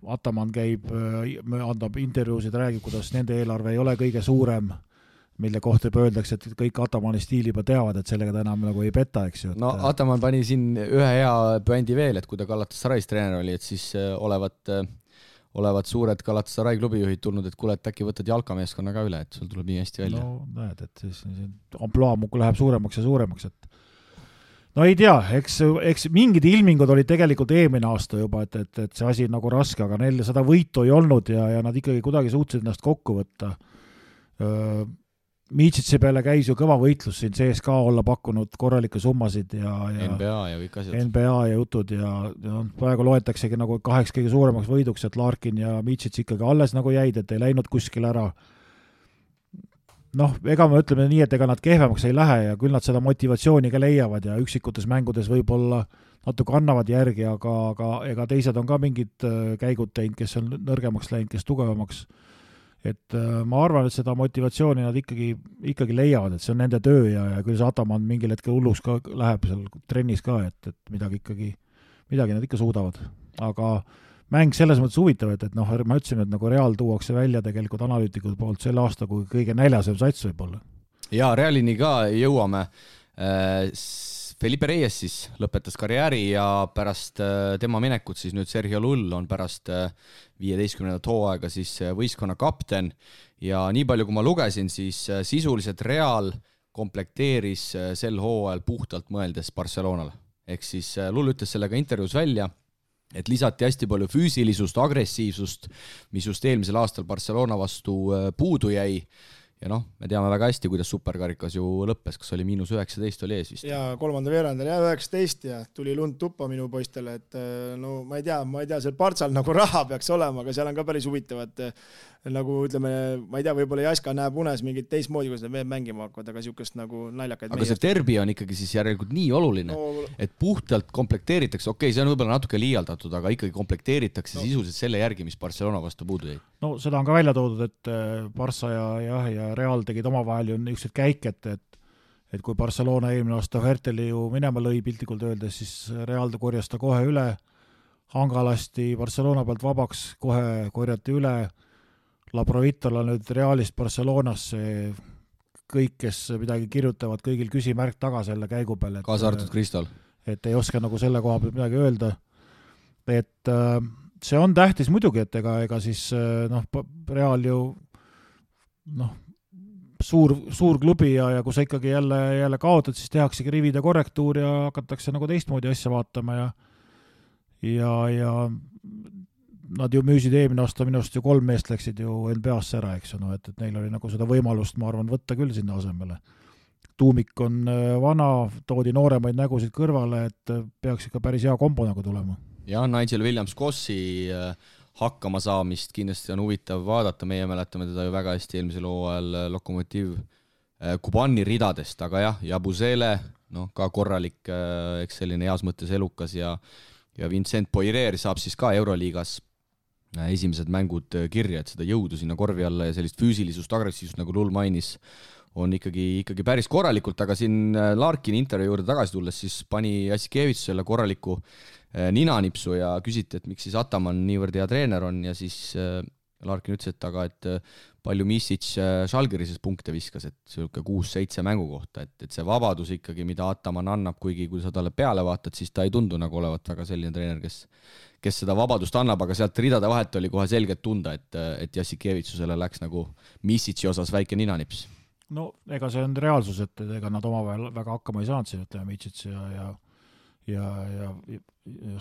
Ataman käib, andab intervjuusid, räägib, kuidas nende eelarve ei ole kõige suurem, mille kohta öeldakse, et kõik Atamani stiili juba teavad, et sellega ta enam nagu ei peta, eks ju. No Ataman pani siin ühe hea bändi veel, et kui ta Galatasarais treener oli, et siis olevat suured Galatasarai klubijuhid tulnud, et kuule, et äkki võtad jalkameeskonna ka üle, et sul tuleb nii hästi välja. No näed, et siis amploa muku läheb suuremaks ja suuremaks, et no ei tea, eks mingid ilmingud olid tegelikult eelmine aasta juba, et see asi on nagu raske, aga neil seda võitu ei olnud ja nad ikkagi kuidagi suutsid ennast kokku võtta. Miitsitsi peale käis ju kõva võitlus siin CSK olla pakkunud korralikke summasid ja NBA ja kõik asjad. NBA ja jutud ja praegu loetaksegi nagu 8 kõige suuremaks võiduks, et Larkin ja Miitsits ikkagi alles nagu jäid, et ei läinud kuskil ära. Noh, ega me ütleme nii, et ega nad kehvemaks ei lähe ja küll nad seda motivatsiooni ka leiavad ja üksikutes mängudes võib-olla natuke annavad järgi, aga ega teised on ka mingid käigud teinud, kes on nõrgemaks läinud, kes tugevamaks. Et ma arvan, et seda motivatsiooni nad ikkagi leiavad, et see on nende töö ja küll see Ataman mingil hetkel hulluks ka läheb seal trennis ka, et midagi nad ikka suudavad. Aga mäng selles mõttes huvitav, et ma ütlesin, et nagu Real tuuakse välja tegelikult analüütikud poolt selle aasta, kui kõige näljasem sats võib olla. Ja Realini ka jõuame. Felipe Reyes siis lõpetas karjääri ja pärast tema minekut siis nüüd Sergio Lull on pärast 15. hooaega siis võistkonna kapten ja nii palju kui ma lugesin, siis sisuliselt Real komplekteeris sel hooajal puhtalt mõeldes Barcelonale. ehk siis Lull ütles sellega intervjuus välja, et lisati hästi palju füüsilisust, agressiivsust, mis just eelmisel aastal Barcelona vastu puudu jäi. Ja noh, me teame väga hästi, kuidas superkarikas ju lõppes, kas oli -19 oli ees vist. Ja 3. veerandal 19 ja tuli lund tuppa minu poistele, et no ma ei tea, seal Partsal nagu raha peaks olema, aga seal on ka päris huvitavad, nagu ütleme, ma ei tea, võib-olla Jaska näeb unes mingit teistmoodi, kuidas need mängima hakkavad, aga siukest nagu naljakaid. Aga see derbi on ikkagi siis järelikult nii oluline, et puhtalt komplekteeritakse, okei, see on võib-olla natuke liialdatud, aga ikkagi komplekteeritakse sisuliselt selle järgi, mis Barcelona vastu puudu jäi. No seda on ka välja toodud, et Barça ja Real tegid omavahel ju niisugused käik, et kui Barcelona eelmine aasta Herteli ju minema lõi piltlikult öeldes, siis Real korjas ta kohe üle, hangalasti Barcelona pealt vabaks, kohe korjati üle, Labrovitola nüüd Realist Barcelonasse, kõik, kes midagi kirjutavad, kõigil küsimärk taga selle käigu peale. Kaasa arvatud Kristal. Et ei oska nagu selle koha pealt midagi öelda. Et see on tähtis muidugi, et ega siis Real ju suur klubi ja kui sa ikkagi jälle kaotad, siis tehaksegi rivide korrektuur ja hakatakse nagu teistmoodi asja vaatama ja nad ju müüsid eelmine aasta minust ju 3 meest läksid ju NBA-sse ära, eks ju, et neil oli nagu seda võimalust, ma arvan, võtta küll sinna asemele. Tuumik on vana, toodi nooremaid nägusid kõrvale, et peaks ikka päris hea kombo nagu tulema. Ja Nigel Williams-Gossi hakkama saamist kindlasti on huvitav vaadata, meie mäletame teda ju väga hästi eelmisel hooajal Lokomotiv Kubani ridadest, aga jah, Jabusele, ka korralik, eks selline heas mõttes elukas ja Vincent Poirier saab siis ka Euroliigas esimesed mängud kirja, et seda jõudu sinna korvi alla ja sellist füüsilisust, agressiivsust, nagu Lull mainis, on ikkagi päris korralikult, aga siin Larkini intervjuu juurde tagasi tulles siis pani Jassikevitš selle korraliku ninanipsu ja küsiti, et miks siis Ataman niivõrd hea treener on ja siis Larkin ütles, et palju Misic Žalgirises punkte viskas, et selline 6-7 mängu kohta, et see vabadus ikkagi, mida Ataman annab, kuigi kui sa talle peale vaatad, siis ta ei tundu nagu olevat väga selline treener, kes seda vabadust annab, aga sealt ridade vahet oli kohe selgelt tunda, et Jassikevitsusele läks nagu Misic'i osas väike ninanips. No ega see on reaalsus, et ega nad omavahel väga hakkama ei saanud siin, ütleme Misic ja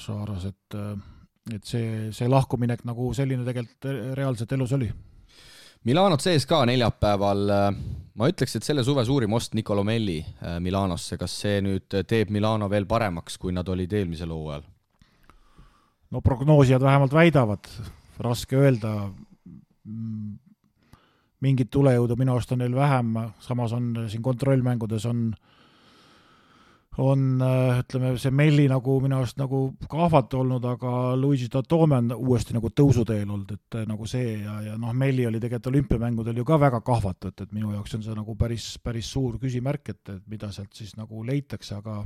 Šaaras, et see lahkuminek nagu selline tegelikult reaalselt elus oli. Milanot sees ka neljapäeval, ma ütleks, et selle suve suurim ost Nicolo Melli Milanosse, kas see nüüd teeb Milano veel paremaks, kui nad olid eelmisel hooajal? No prognoosijad vähemalt väidavad, raske öelda, mingit tulejõudu minu arust on neil vähem, samas on siin kontrollmängudes on ütleme, see Melli nagu minu arust nagu kahvat olnud, aga Luigi Tatome on uuesti nagu tõusuteel olnud, et nagu see ja Melli oli tegelikult olümpiamängudel ju ka väga kahvat, et minu jaoks on see nagu päris suur küsimärk, et mida sealt siis nagu leitakse, aga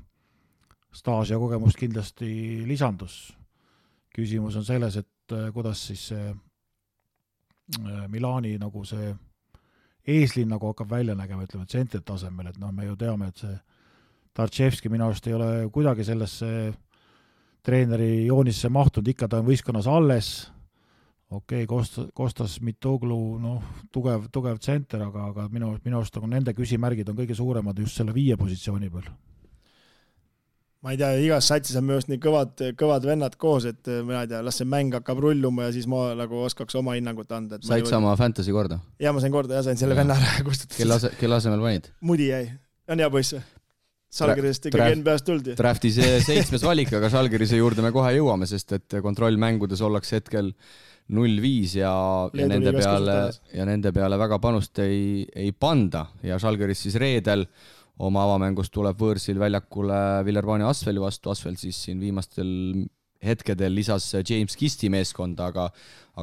staaž ja kogemust kindlasti lisandus. Küsimus on selles, et kuidas siis see Milani nagu see eeslinn nagu hakkab välja nägema, ütleme, tsentri tasemel, et me ju teame, et see Tartševski minu arust ei ole kuidagi sellesse treeneri joonisse mahtunud, ikka ta on võistkonnas alles, Kostas Mitoglu, tugev tsenter, aga minu arust nagu nende küsimärgid on kõige suuremad just selle 5 positsiooni peal. Ma ei tea, igas satsis on minu arust nii kõvad vennad koos, et ma ei tea, las see mäng hakkab rulluma ja siis ma nagu oskaks oma hinnangut anda. Said sama fantasy korda? Ja ma sain korda ja sain selle venna ära kustutada. Kelle asemel panid? Mudi jäi. On hea poiss. Žalgirisest ikkagi NBA-st tuldi. Draftis 7. valik, aga Žalgirise juurde me kohe jõuame, sest et kontrollmängudes ollakse hetkel 0-5 ja nende peale väga panust ei panda ja Žalgiris siis reedel oma avamängust tuleb võõrsil väljakule Villerbani Asfeli vastu, Asfel siis siin viimastel hetkedel lisas James Kisti meeskonda, aga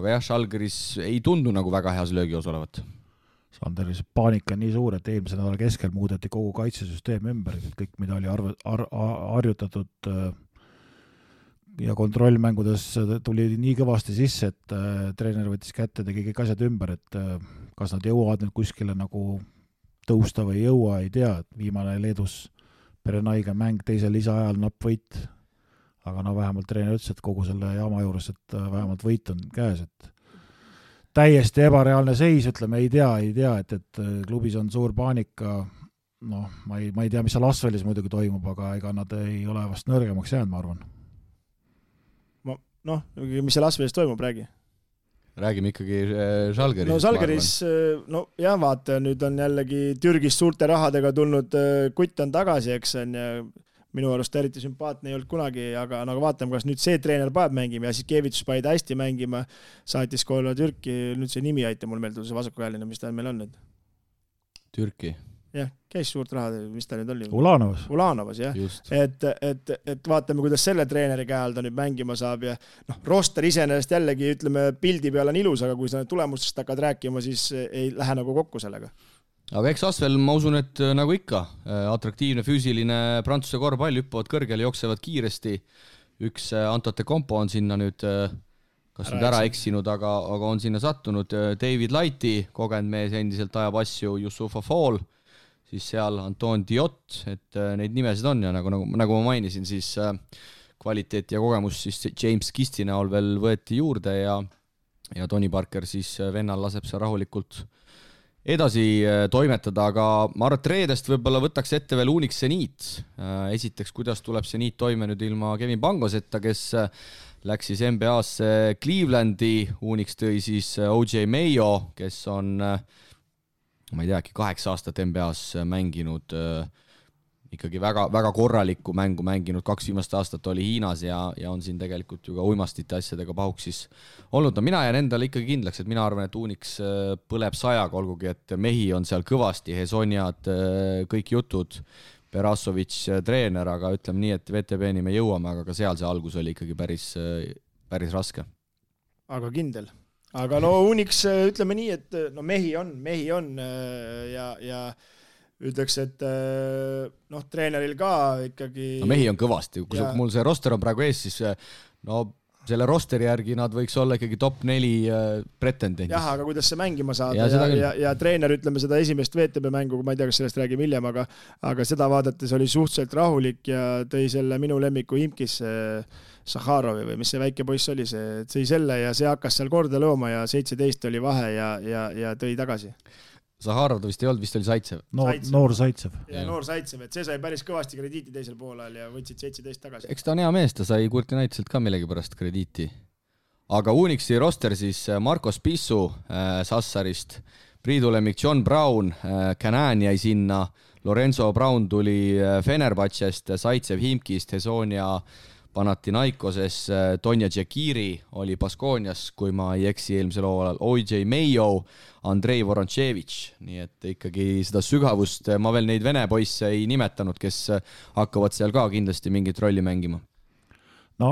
jah, Žalgiris ei tundu nagu väga heas löögios olevat. Sanderi paanika on nii suur, et eelmise nädala keskel muudeti kogu kaitsesüsteem ümber, kõik mida oli harjutatud ja kontrollmängudes tuli nii kõvasti sisse, et treener võttis kätte, tegi kõik asjad ümber, et kas nad jõuavad nüüd kuskile nagu tõusta või jõua, ei tea, et viimane Leedus Perenaiga mäng teisel lisaajal napp võit, aga vähemalt treener ütles, et kogu selle jaama juures, et vähemalt võit on käes, et täiesti ebareaalne seis, ütleme, ei tea, et klubis on suur paanika, noh, ma ei tea, mis seal Asvelis muidugi toimub, aga ega nad ei ole vast nõrgemaks jäänud, ma arvan. Noh, mis seal Asvelis toimub, räägi. Räägime ikkagi Žalgiris. No Žalgiris, no jah, vaata, nüüd on jällegi Türgis suurte rahadega tulnud, Kutt on tagasi, eks on, ja minu arust eriti sümpaatne ei olnud kunagi, aga nagu vaatame, kas nüüd see treener paneb mängima ja siis Kevitus pani ta hästi mängima, saatis koolile Türki, nüüd see nimi aita mul meelde, see vasakukäeline, mis ta meil on nüüd? Türki. Jah, käis suurt raha, mis ta nüüd oli? Ulanovas, jah. Et vaatame, kuidas selle treeneri käe all ta nüüd mängima saab ja roster iseenesest jällegi, ütleme, pildi peal on ilus, aga kui sa need tulemustest hakkad rääkima, siis ei lähe nagu kokku sellega. Aga eks Asvel, ma usun, et nagu ikka, atraktiivne, füüsiline Prantsuse korvpall, hüppavad kõrgele, jooksevad kiiresti. Üks Antote Kompo on sinna nüüd, kas nüüd ära eksinud, aga on sinna sattunud. David Lighti, kogenud mees, endiselt ajab asju, Yusufa Fall, siis seal Anton Diot, et neid nimesid on ja nagu ma mainisin, siis kvaliteet ja kogemus siis James Kisti näol veel võeti juurde ja Tony Parker siis vennal laseb seal rahulikult edasi toimetada, aga ma arvan, et reedest võib-olla võtaks ette veel Unix Zenit. Esiteks, kuidas tuleb Zenit toime nüüd ilma Kevin Pangoseta, kes läks siis NBA-sse Clevelandi, Unix tõi siis OJ Mayo, kes on ma ei tea, 8 aastat NBA-s mänginud, ikkagi väga, väga korralikku mängu mänginud, 2 viimast aastat oli Hiinas ja on siin tegelikult ju ka uimastite asjadega pahuksis olnud. No mina jään endale ikkagi kindlaks, et mina arvan, et Unix põleb 100, olgugi, et mehi on seal kõvasti, Hesoniad, kõik jutud, Berasovic treener, aga ütleme nii, et VTB-ni me jõuame, aga ka seal see algus oli ikkagi päris raske. Aga kindel. Aga no Unix, ütleme nii, et no mehi on ja ütleks, et noh, treeneril ka ikkagi... No mehi on kõvasti, kui mul see roster on praegu ees, siis no selle rosteri järgi nad võiks olla ikkagi top 4 pretendendis. Jah, aga kuidas see mängima saada ja treener, ütleme seda esimest VTB mängu, ma ei tea, kas sellest räägib hiljem, aga seda vaadates oli suhteliselt rahulik ja tõi selle minu lemmiku Imkis Sahharovi või mis see väike poiss oli, see tõi selle ja see hakkas seal korda looma ja 17 oli vahe ja tõi tagasi. Sahharov ta vist ei olnud, vist oli Saitsev. Noor Saitsev. Ja noor Saitsev, et see sai päris kõvasti krediiti teisel poolel ja võtsid 17 tagasi. Eks ta on hea mees, ta sai Kurtinaiselt ka millegi pärast krediiti. Aga Unixi roster siis Marcos Pissu Sassarist, Priidu lemmik John Brown, Canan jäi sinna, Lorenzo Brown tuli Fenerbahcest, Saitsev Himkist, Hesonia Panathinaikoses, Tonja Džekiri oli Baskonias, kui ma ei eksi eelmisel hooajal, OJ Mayo, Andrei Voronchevich, nii et ikkagi seda sügavust, ma veel neid vene poisse ei nimetanud, kes hakkavad seal ka kindlasti mingit rolli mängima. No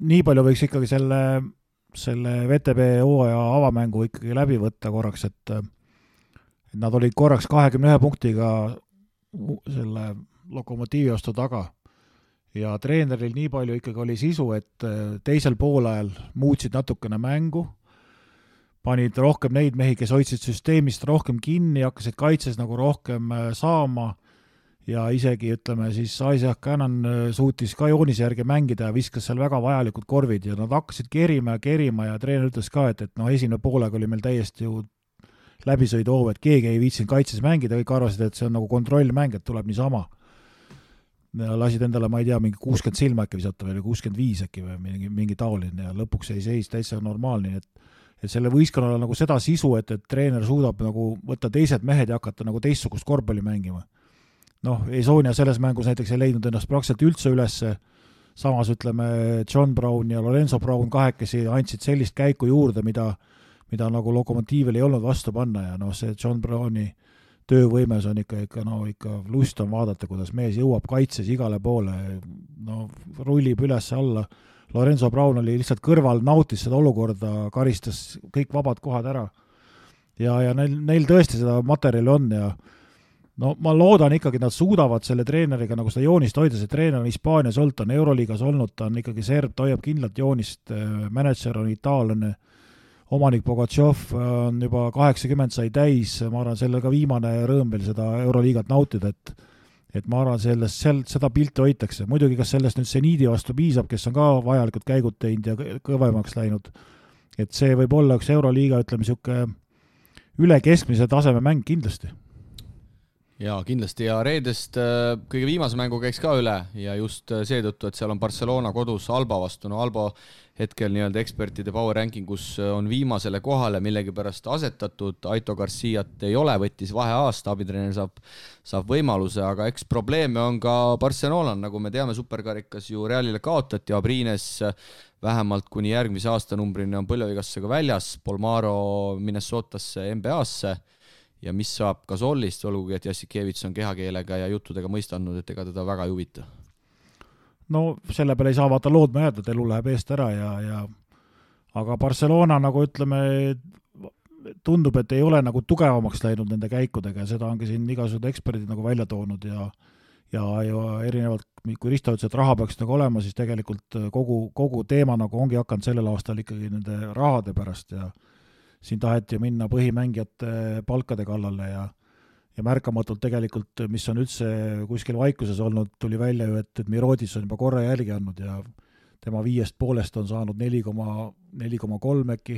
nii palju võiks ikkagi selle VTB hooaja avamängu ikkagi läbi võtta korraks, et nad olid korraks 21 punktiga selle Lokomotiivi vastu taga. Ja treeneril nii palju ikkagi oli sisu, et teisel poolajal muutsid natukene mängu, panid rohkem neid mehi, kes hoidsid süsteemist rohkem kinni, hakkasid kaitses nagu rohkem saama ja isegi, ütleme, siis Isaac Cannon suutis ka joonise järgi mängida ja viskas seal väga vajalikud korvid ja nad hakkasid kerima ja treener ütles ka, et no esimene poolega oli meil täiesti ju läbisõiduhoov, et keegi ei viitsinud kaitses mängida, kõik arvasid, et see on nagu kontrollmäng, et tuleb niisama. Lasid endale, ma ei tea, mingi 60 silma äkki visata või 65 äkki või mingi taoline ja lõpuks ei seis täitsa normaalne, et selle võistkonnal on nagu seda sisu, et treener suudab nagu võtta teised mehed ja hakata nagu teistsugust korvpalli mängima. Noh, Esonia selles mängus näiteks ei leidnud ennast praktiliselt üldse ülesse, samas ütleme John Brown ja Lorenzo Brown kahekesi andsid sellist käiku juurde, mida nagu Lokomotiivil ei olnud vastu panna ja noh, see John Browni töövõimes on ikka lust on vaadata, kuidas mees jõuab kaitses igale poole, no rullib üles alla. Lorenzo Brown oli lihtsalt kõrval, nautis seda olukorda, karistas kõik vabad kohad ära. Ja neil tõesti seda materjali on ja no ma loodan ikkagi, nad suudavad selle treeneriga nagu seda joonist hoida, see treener on Hispaanias olnud, ta on Euroliigas olnud, ta on ikkagi serb, ta hoiab kindlalt joonist, manager on itaallane, omanik Bogatšov on juba 80 sai täis, ma arvan, selle ka viimane rõõm veel seda Euroliigat nautida, et ma arvan, seda pilti hoitakse. Muidugi, kas sellest nüüd Zenidi vastu piisab, kes on ka vajalikud käigud teinud ja kõvemaks läinud, et see võib olla üks Euroliiga, ütleme, siuke üle keskmise taseme mäng kindlasti. Ja kindlasti ja reedest kõige viimase mängu käiks ka üle ja just seetõttu, et seal on Barcelona kodus Alba vastu. No Alba hetkel nii-öelda ekspertide power rankingus on viimasele kohale millegipärast asetatud, Aito Garciat ei ole, võttis vaheaasta, abitreener saab võimaluse, aga eks probleeme on ka Barcelona, nagu me teame, superkarikas ju Realile kaotati, Abrines vähemalt kuni järgmise aastanumbrini on põlvevigastusega väljas, Polmaro Minnesotasse NBA-sse ja mis saab Gasolist, olgugi et Jassikevits on kehakeelega ja juttudega mõistanud, et ega teda väga ei huvita. No selle peale ei saa vaata loodma jääda, et elu läheb eest ära aga Barcelona nagu ütleme, tundub, et ei ole nagu tugevamaks läinud nende käikudega ja seda ongi siin igasugused eksperdid nagu välja toonud ja erinevalt, kui Risto ütles, et raha peaks nagu olema, siis tegelikult kogu teema nagu ongi hakanud sellel aastal ikkagi nende rahade pärast ja siin taheti minna põhimängijate palkade kallale ja märkamatult tegelikult, mis on üldse kuskil vaikuses olnud, tuli välja ju, et Mirodis on juba korra jälgi andnud ja tema 5,5 on saanud 4,3 äkki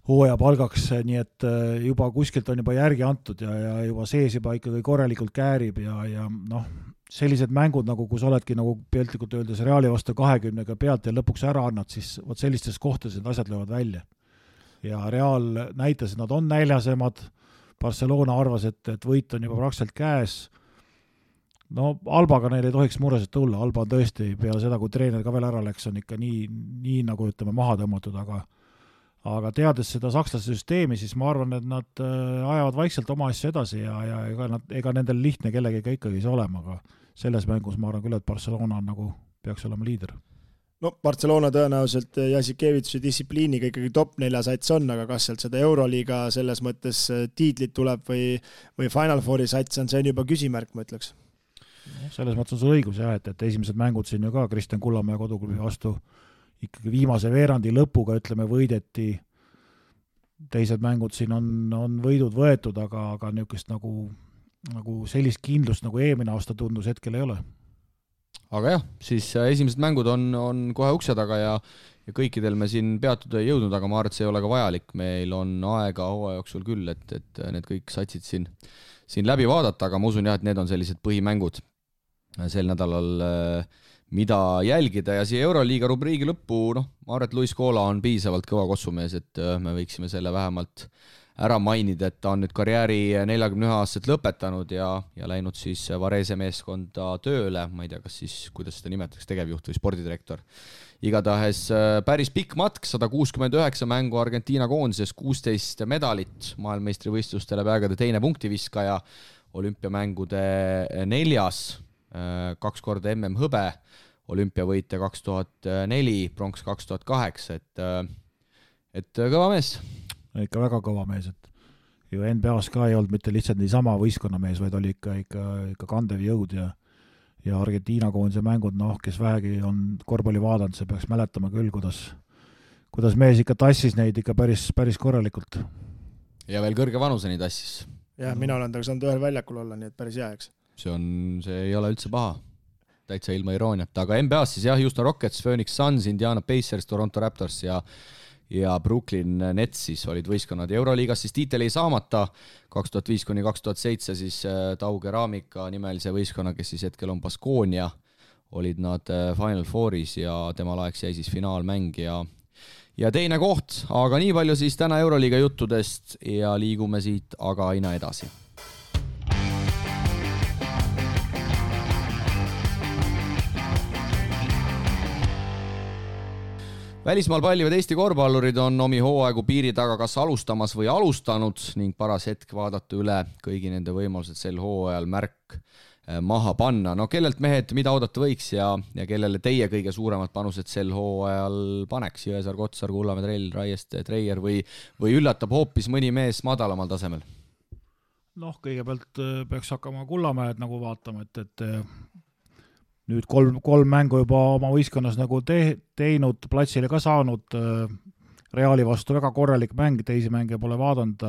hooaja palgaks, nii et juba kuskilt on juba järgi antud ja juba sees juba ikkagi korralikult käärib ja noh, sellised mängud, nagu kus oledki nagu piltlikult öeldes Reali vastu 20 pealt ja lõpuks ära annad, siis vot sellistes kohtades need asjad löövad välja. Ja Real näitas, et nad on näljasemad, Barcelona arvas, et võit on juba praktiliselt käes. No Albaga neil ei tohiks mureselt tulla, Alba on tõesti peale seda, kui treener ka veel ära läks, on ikka nii nagu ütleme maha tõmmatud, aga teades seda sakslaste süsteemi, siis ma arvan, et nad ajavad vaikselt oma asju edasi ja ega nendel lihtne kellegiga ikkagi see olema, aga selles mängus ma arvan küll, et Barcelona nagu peaks olema liider. No Barcelona tõenäoliselt Jassikevitsi distsipliiniga ikkagi top 4 sats on, aga kas sealt seda Euroliiga selles mõttes tiitlit tuleb või Final Fouri sats on, see on juba küsimärk, ma ütleks. Selles mõttes on see õigus jah, et esimesed mängud siin ju ka Kristjan Kullamäe koduklubi vastu ikkagi viimase veerandi lõpuga ütleme võideti, teised mängud siin on võidud võetud, aga niisugust nagu sellist kindlust nagu eelmine aasta tundus hetkel ei ole. Aga jah, siis esimesed mängud on kohe ukse taga ja kõikidel me siin peatuda ei jõudnud, aga ma arvan, et see ei ole ka vajalik. Meil on aega hooaja jooksul küll, et need kõik satsid siin läbi vaadata, aga ma usun jah, et need on sellised põhimängud sel nädalal, mida jälgida ja siia Euroliiga rubriigi lõppu, ma arvan, et Luis Koola on piisavalt kõva kossumees, et me võiksime selle vähemalt ära mainida, et ta on nüüd karjääri 41-aastaselt lõpetanud ja läinud siis Varese meeskonda tööle, ma ei tea, kas siis, kuidas seda nimetatakse, tegevjuht või spordidirektor. Igatahes päris pikk matk, 169 mängu Argentiina koondises, 16 medalit, maailmeistrivõistlustele peagade teine punktiviskaja, olümpiamängude 4, 2 korda MM hõbe, olümpiavõitja 2004, pronks 2008, et kõva mees. Ikka väga kõva mees, et ju NBA-s ka ei olnud mitte lihtsalt niisama võistkonnamees, vaid oli ikka kandev jõud ja Argentiina koondise mängud, kes vähegi on korvpalli vaadanud, see peaks mäletama küll, kuidas mees ikka tassis neid ikka päris korralikult. Ja veel kõrge vanuseni tassis. Ja mina olen saanud ühel väljakul olla, nii et päris hea, eks. See ei ole üldse paha, täitsa ilma irooniat, aga NBA-s siis jah, Houston Rockets, Phoenix Suns, Indiana Pacers, Toronto Raptors ja Brooklyn Nets siis olid võistkonnad. Euroliigas siis tiitel ei saamata 2005-2007 siis Tau Keramika nimelise võistkonna, kes siis hetkel on Baskonia, olid nad Final Fouris ja tema laeks jäi siis finaalmäng ja teine koht, aga nii palju siis täna Euroliiga juttudest ja liigume siit aga aina edasi. Välismaal pallivad Eesti korvpallurid on omi hooaegu piiri taga kas alustamas või alustanud ning paras hetk vaadata üle kõigi nende võimalused sel hooajal märk maha panna. No kellelt mehed, mida oodata võiks ja kellele teie kõige suuremad panused sel hooajal paneks? Jõesaar, Kotsar, Kullamäe, Trell, Raieste, Treier või üllatab hoopis mõni mees madalamal tasemel? Kõigepealt peaks hakkama Kullamäed nagu vaatama, et nüüd kolm mängu juba oma võistkonnas nagu teinud, platsile ka saanud, Reali vastu väga korralik mäng, teisi mänge pole vaadanud,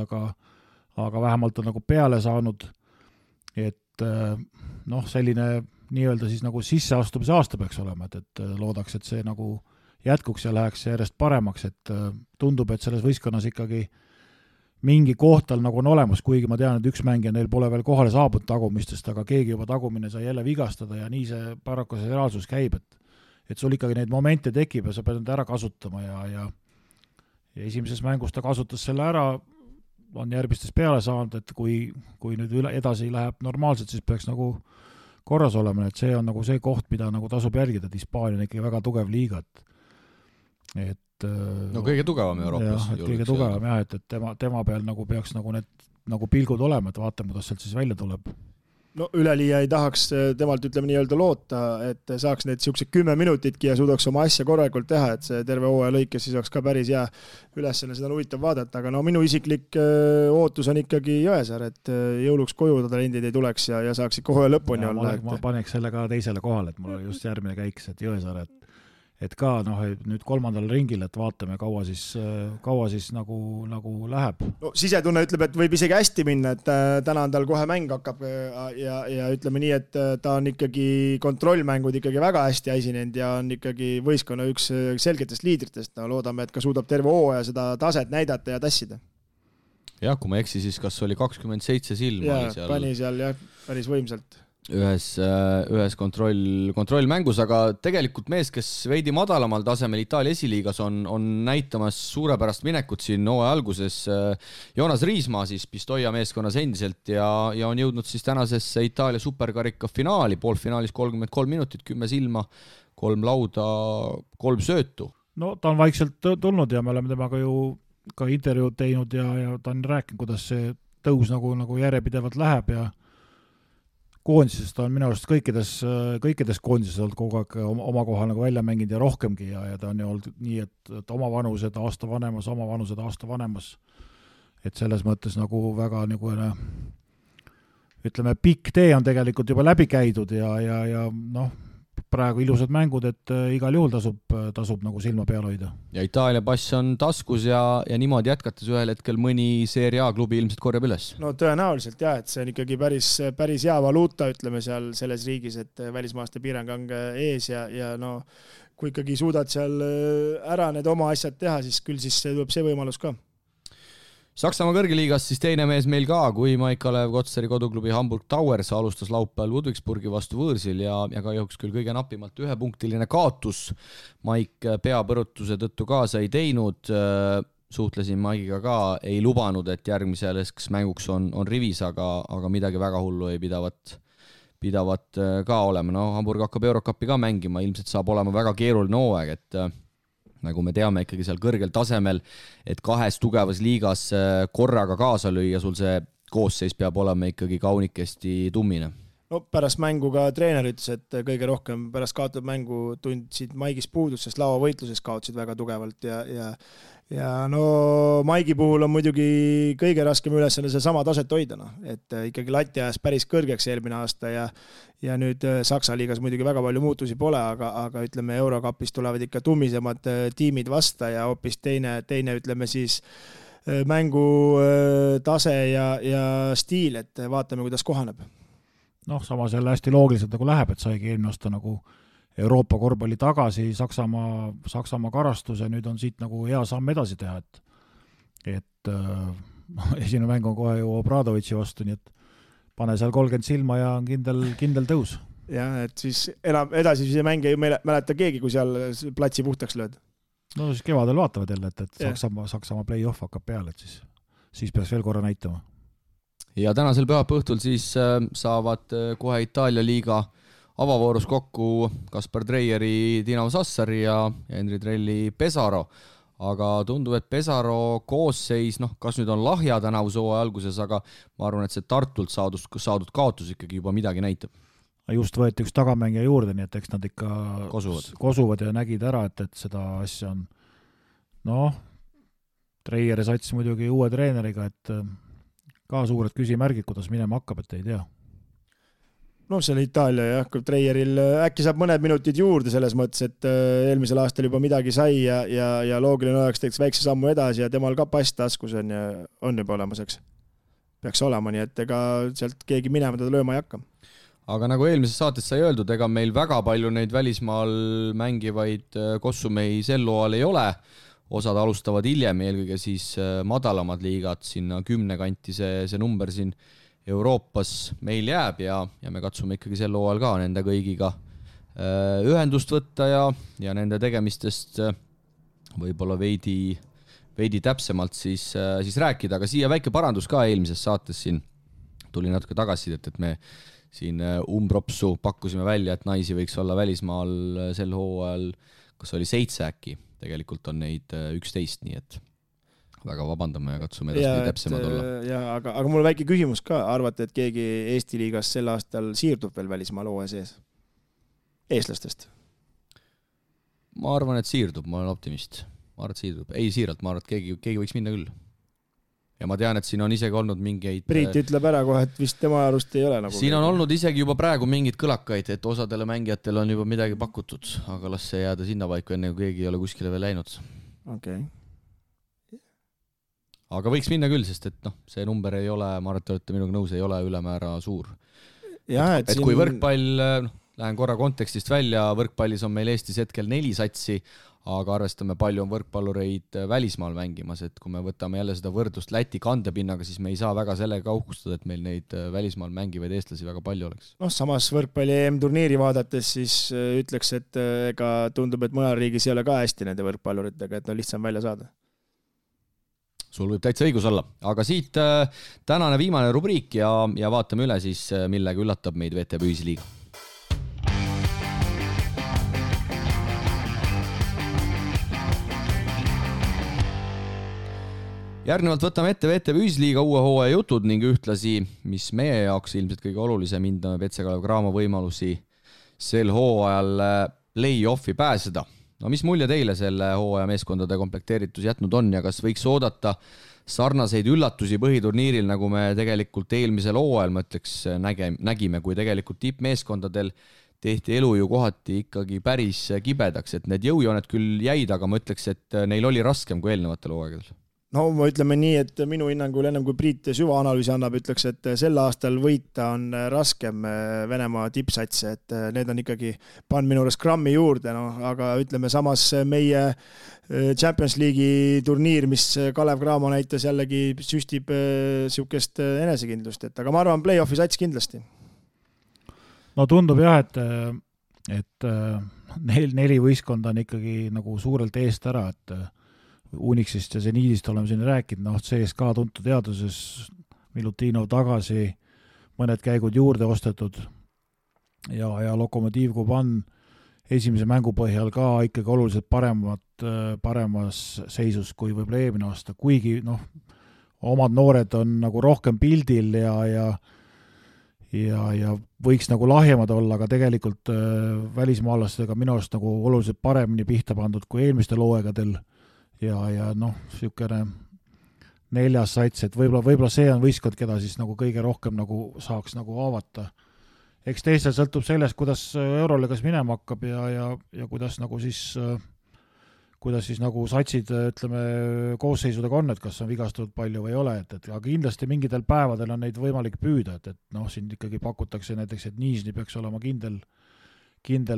aga vähemalt on nagu peale saanud, et selline nii-öelda siis nagu sisseastumise aasta peaks olema, et loodaks, et see nagu jätkuks ja läheks järjest paremaks, et tundub, et selles võistkonnas ikkagi mingi koht tal nagu on olemas, kuigi ma tean, et üks mängija neil pole veel kohale saabunud tagumistest, aga keegi juba tagumine sai jälle vigastada ja nii see paraku see reaalsus käib, et sul ikkagi neid momente tekib ja sa pead need ära kasutama ja esimeses mängus ta kasutas selle ära, on järgmistes peale saanud, et kui nüüd edasi läheb normaalselt, siis peaks nagu korras olema, et see on nagu see koht, mida nagu tasub jälgida, et Hispaania on ikkagi väga tugev liiga, et no kõige tugevam Euroopas. Kõige tugevam jah, et tema peal nagu peaks nagu need nagu pilgud olema, et vaatame, kuidas sealt siis välja tuleb. No üleliia ei tahaks temalt ütleme nii-öelda loota, et saaks need siuksed 10 minutitki ja suudaks oma asja korralikult teha, et see terve hooaja lõikes siis oleks ka päris hea ülesanne, seda on huvitav vaadata, aga no minu isiklik ootus on ikkagi Jõesaar, et jõuluks koju ta talendid ei tuleks ja saaks ikka hooaja lõpuni olla. Ma paneks selle ka teisele kohale, et mul oli just järgmine käiks, et Jõesaar, et ka nüüd 3. ringil, et vaatame, kaua siis nagu läheb. No sisetunne ütleb, et võib isegi hästi minna, et täna on tal kohe mäng hakkab ja ütleme nii, et ta on ikkagi kontrollmängud ikkagi väga hästi esinenud ja on ikkagi võistkonna üks selgetest liidritest. No, loodame, et ka suudab terve hooaja seda taset näidata ja tassida. Jah, kui ma eksi, siis kas oli 27 silma? Ja, pani seal jah, päris võimsalt. Ühes kontrollmängus, aga tegelikult mees, kes veidi madalamal tasemel Itaalia esiliigas on näitamas suurepärast minekut siin hooaja alguses. Joonas Riismaa siis Pistoia meeskonnas endiselt ja on jõudnud siis tänasesse Itaalia superkarika finaali, poolfinaalis 33 minutit, 10 silma, 3 lauda, 3 söötu. No ta on vaikselt tulnud ja me oleme temaga ju ka intervjuud teinud ja ta on rääkinud, kuidas see tõus nagu järjepidevalt läheb ja koondisest on minu arust kõikides koondisest olnud kogu aeg oma kohal nagu välja mänginud ja rohkemgi ja ta on ju olnud nii, et oma vanused aasta vanemas, et selles mõttes nagu väga nagu ütleme, pikk tee on tegelikult juba läbi käidud ja noh, praegu ilusad mängud, et igal juhul tasub nagu silma peal hoida. Ja Itaalia pass on taskus ja niimoodi jätkates ühel hetkel mõni Serie A klubi ilmselt korjab üles. No tõenäoliselt jah, et see on ikkagi päris hea valuuta, ütleme seal selles riigis, et välismaaste piirang on ees ja no kui ikkagi suudad seal ära need oma asjad teha, siis küll siis tuleb see võimalus ka. Saksamaa kõrgeliigas siis teine mees meil ka, kui Maik Kalev Kotsari koduklubi Hamburg Towers alustas laupäeval Ludwigsburgi vastu võõrsil ja ka jõuks küll kõige napimalt 1-punktiline kaotus. Maik peapõrutuse tõttu kaasa ei teinud, suhtlesin Maigiga ka, ei lubanud, et järgmiseks mänguks on rivis, aga midagi väga hullu ei pidavat ka olema. No, Hamburg hakkab Eurocupi ka mängima, ilmselt saab olema väga keeruline hooaeg, et nagu me teame ikkagi seal kõrgel tasemel, et 2 tugevas liigas korraga kaasa lüüa, sul see koosseis peab olema ikkagi kaunikesti tummine. No pärast mängu ka treener ütles, et kõige rohkem pärast kaotatud mängu tundsid Maigis puudust, sest lauavõitluses kaotsid väga tugevalt ja no Maigi puhul on muidugi kõige raskem ülesanne see sama taset hoida, et ikkagi lati ajas päris kõrgeks eelmine aasta ja nüüd Saksa liigas muidugi väga palju muutusi pole, aga ütleme Eurocupis tulevad ikka tummisemad tiimid vasta ja hoopis teine ütleme siis mängu tase ja stiil, et vaatame, kuidas kohaneb. Noh, samas jälle hästi loogiliselt nagu läheb, et saigi eelmine aasta nagu Euroopa korvpalli tagasi, Saksamaa karastuse, nüüd on siit nagu hea samm edasi teha, et esimene mäng on kohe ju Obradovitši vastu, nii et pane seal 30 silma ja on kindel tõus. Ja, et siis enam edasi see mäng ei mäleta keegi, kui seal platsi puhtaks lööd. No siis kevadel vaatavad jälle, et Saksamaa play-off hakkab peale, et siis peaks veel korra näitama. Ja tänasel pühapäeva õhtul siis saavad kohe Itaalia liiga avavoorus kokku Kaspar Treieri Dinamo Sassari ja Henri Trelli Pesaro, aga tundub, et Pesaro koosseis, kas nüüd on lahja tänavuse hooaja alguses, aga ma arvan, et see Tartult saadud kaotus ikkagi juba midagi näitab. Just võeti üks tagamängija juurde, nii et eks nad ikka kosuvad ja nägid ära, et seda asja on Treieri sats muidugi uue treeneriga, et ka suured küsimärgid, kuidas minema hakkab, et ei tea. No see on Itaalia jah, kui Treieril äkki saab mõned minutid juurde selles mõttes, et eelmisel aastal juba midagi sai ja loogiline oleks teeks väikse sammu edasi ja temal ka pass taskus on juba olemaseks. Peaks olema, nii et ega sealt keegi minema teda lööma ei hakka. Aga nagu eelmises saates sai öeldud, ega meil väga palju neid välismaal mängivaid kossumehi sel hooajal ei ole. osad alustavad hiljem, eelkõige siis madalamad liigad, sinna 10 kanti see number siin Euroopas meil jääb ja me katsume ikkagi sel hooajal ka nende kõigiga ühendust võtta ja nende tegemistest võib-olla veidi täpsemalt siis rääkida, aga siia väike parandus ka eelmises saates siin tuli natuke tagasisidet, et me siin umbropsu pakkusime välja, et naisi võiks olla välismaal sel hooajal, kas oli 7 äkki, tegelikult on neid 11, nii et väga vabandame ja katsume edasi täpsemad olla. Aga mul väike küsimus ka, arvate, et keegi Eesti liigas sel aastal siirdub veel välismaal hooaja sees? Eestlastest? Ma arvan, et siirdub, ma olen optimist. Ma arvan, et siirdub. Ei siiralt, ma arvan, et keegi võiks minna küll. Ja ma tean, et siin on isegi olnud mingeid... Priit ütleb ära kohe, et vist tema arust ei ole nagu... Siin on olnud isegi juba praegu mingid kõlakaid, et osadele mängijatele on juba midagi pakutud, aga las see jääda sinna paiku, enne kui keegi ei ole kuskile veel läinud. Okay. Aga võiks minna küll, sest et see number ei ole, ma arvan, et te olete minuga nõus, ei ole ülemäära suur. Ja, et kui võrkpall, lähen korra kontekstist välja, võrkpallis on meil Eestis hetkel 4 satsi, aga arvestame, palju on võrkpallureid välismaal mängimas, et kui me võtame jälle seda võrdlust Läti kandepinnaga, siis me ei saa väga sellega uhkustada, et meil neid välismaal mängivaid eestlasi väga palju oleks. Samas võrkpalli EM-turniiri vaadates siis ütleks, et ega tundub, et mõnel riigis ei ole ka hästi nende võrkpalluritega, et on lihtsam välja saada. Sul võib täitsa õigus olla, aga siit tänane viimane rubriik ja vaatame üle siis, millega üllatab meid VTB Ühisliiga. Järgnevalt võtame ette VTB Ühisliiga uue hooaja jutud ning ühtlasi, mis meie jaoks ilmselt kõige olulisem, hindame Petse Kalev Cramo võimalusi sel hooajal play-offi pääseda. Mis mulje teile selle hooaja meeskondade komplekteeritus jätnud on ja kas võiks oodata sarnaseid üllatusi põhiturniiril, nagu me tegelikult eelmisel hooajal, ma ütleks, nägime, kui tegelikult tippmeeskondadel tehti elu ju kohati ikkagi päris kibedaks, et need jõujooned küll jäid, aga ma ütleks, et neil oli raskem kui eelnevatel hooaegadel. No ma ütleme nii, et minu hinnangul ennem kui Priit süvaanalüüsi annab, ütleks, et sel aastal võita on raskem Venemaa tippsatse, et need on ikkagi pannud minu juures grammi juurde, aga ütleme samas meie Champions League'i turniir, mis Kalev Cramo näitas jällegi süstib siukest enesekindlust, aga ma arvan play-offi sats kindlasti. No tundub jah, et 4 võistkonda on ikkagi nagu suurelt eest ära, et Unixist ja Zeniidist oleme siin rääkinud, CSKA tuntud teaduses, Milutinov tagasi, mõned käigud juurde ostetud ja Lokomotiiv Kuban esimese mängu põhjal ka ikkagi oluliselt paremas seisus kui võib-olla eelmine aasta, kuigi omad noored on nagu rohkem pildil ja võiks nagu lahjemad olla, aga tegelikult välismaalastega minu arust nagu oluliselt paremini pihta pandud kui eelmistel hooaegadel. Ja siukene 4. sats, et võib-olla see on võistkond, keda siis nagu kõige rohkem nagu saaks nagu avata. Eks teistel sõltub sellest, kuidas Euroliigas minema hakkab ja kuidas siis nagu satsid, ütleme, koosseisudega on, et kas on vigastatud palju või ei ole, aga kindlasti mingitel päevadel on neid võimalik püüda, et siin ikkagi pakutakse näiteks, et Niisni peaks olema kindel 5.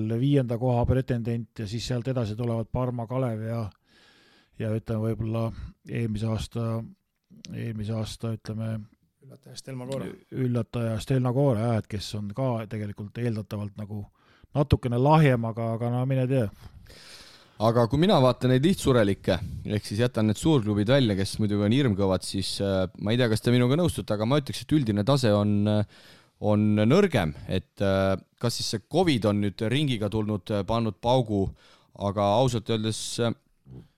koha pretendent ja siis sealt edasi tulevad Parma, Kalev ja ütleme võib-olla eelmise aasta ütleme üllataja Stelna Koore, et kes on ka tegelikult eeldatavalt nagu natukene lahjem, aga mine tea. Aga kui mina vaatan neid lihtsurelikke, ehk siis jätan need suurklubid välja, kes muidugi on hirmkõvad, siis ma ei tea, kas te minuga nõustute, aga ma ütleks, et üldine tase on nõrgem, et kas siis see COVID on nüüd ringiga tulnud, pannud paugu, aga ausalt öeldes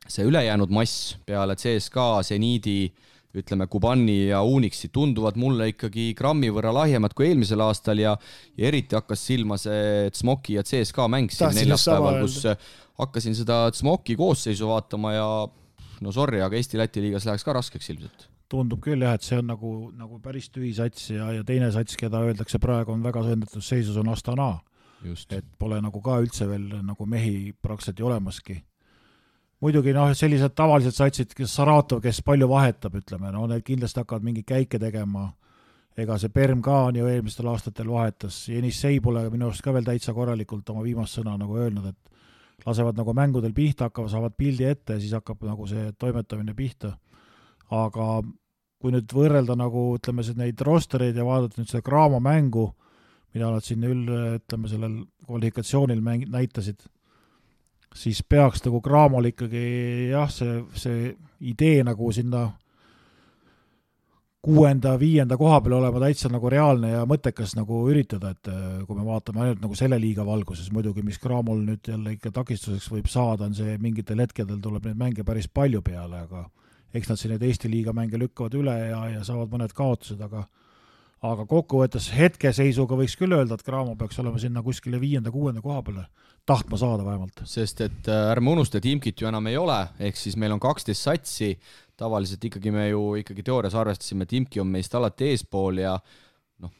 see ülejäänud mass peale CSKA, Zeniidi, ütleme Kubani ja Unixi tunduvad mulle ikkagi grammi võrra lahjemad kui eelmisel aastal ja eriti hakkas silma see Tsmoki ja CSKA mäng siin neljapäeval, kus hakkasin seda Tsmoki koosseisu vaatama ja sorry, aga Eesti-Läti liigas läheks ka raskeks ilmselt. Tundub küll jah, et see on nagu päris tühi sats ja teine sats, keda öeldakse praegu on väga sõndatud seisus, on Astana. Just. Et pole nagu ka üldse veel nagu mehi praktiliselt olemaski. Muidugi sellised tavalised satsid, kes Saratov, kes palju vahetab, ütleme, need kindlasti hakkavad mingi käike tegema. Ega see Perm ka on ju eelmistel aastatel vahetas. Jenis Sei pole minu arust ka veel täitsa korralikult oma viimast sõna nagu öelnud, et lasevad nagu mängudel pihta, saavad pildi ette ja siis hakkab nagu see toimetamine pihta. Aga kui nüüd võrrelda nagu, ütleme, neid rostereid ja vaadata nüüd seda Graamo mängu, mida nad siin ütleme, sellel kvalifikatsioonil näitasid, siis peaks nagu Graamol ikkagi jah, see idee nagu sinna 6.-5. koha peal olema täitsa nagu reaalne ja mõttekas nagu üritada, et kui me vaatame ainult nagu selle liiga valguses, muidugi mis Graamol nüüd jälle ikka takistuseks võib saada, on see mingitel hetkedel tuleb neid mänge päris palju peale, aga eks nad siin need Eesti liiga mänge lükkavad üle ja saavad mõned kaotused, aga kokkuvõttes hetkeseisuga võiks küll öelda, et Graamo peaks olema sinna kuskile 5.-6. koha peale tahtma saada vähemalt. Sest et ärme unusta, et Imkit ju enam ei ole, ehk siis meil on 12 satsi, tavaliselt ikkagi me ju teoorias arvestasime, et Imki on meist alati eespool ja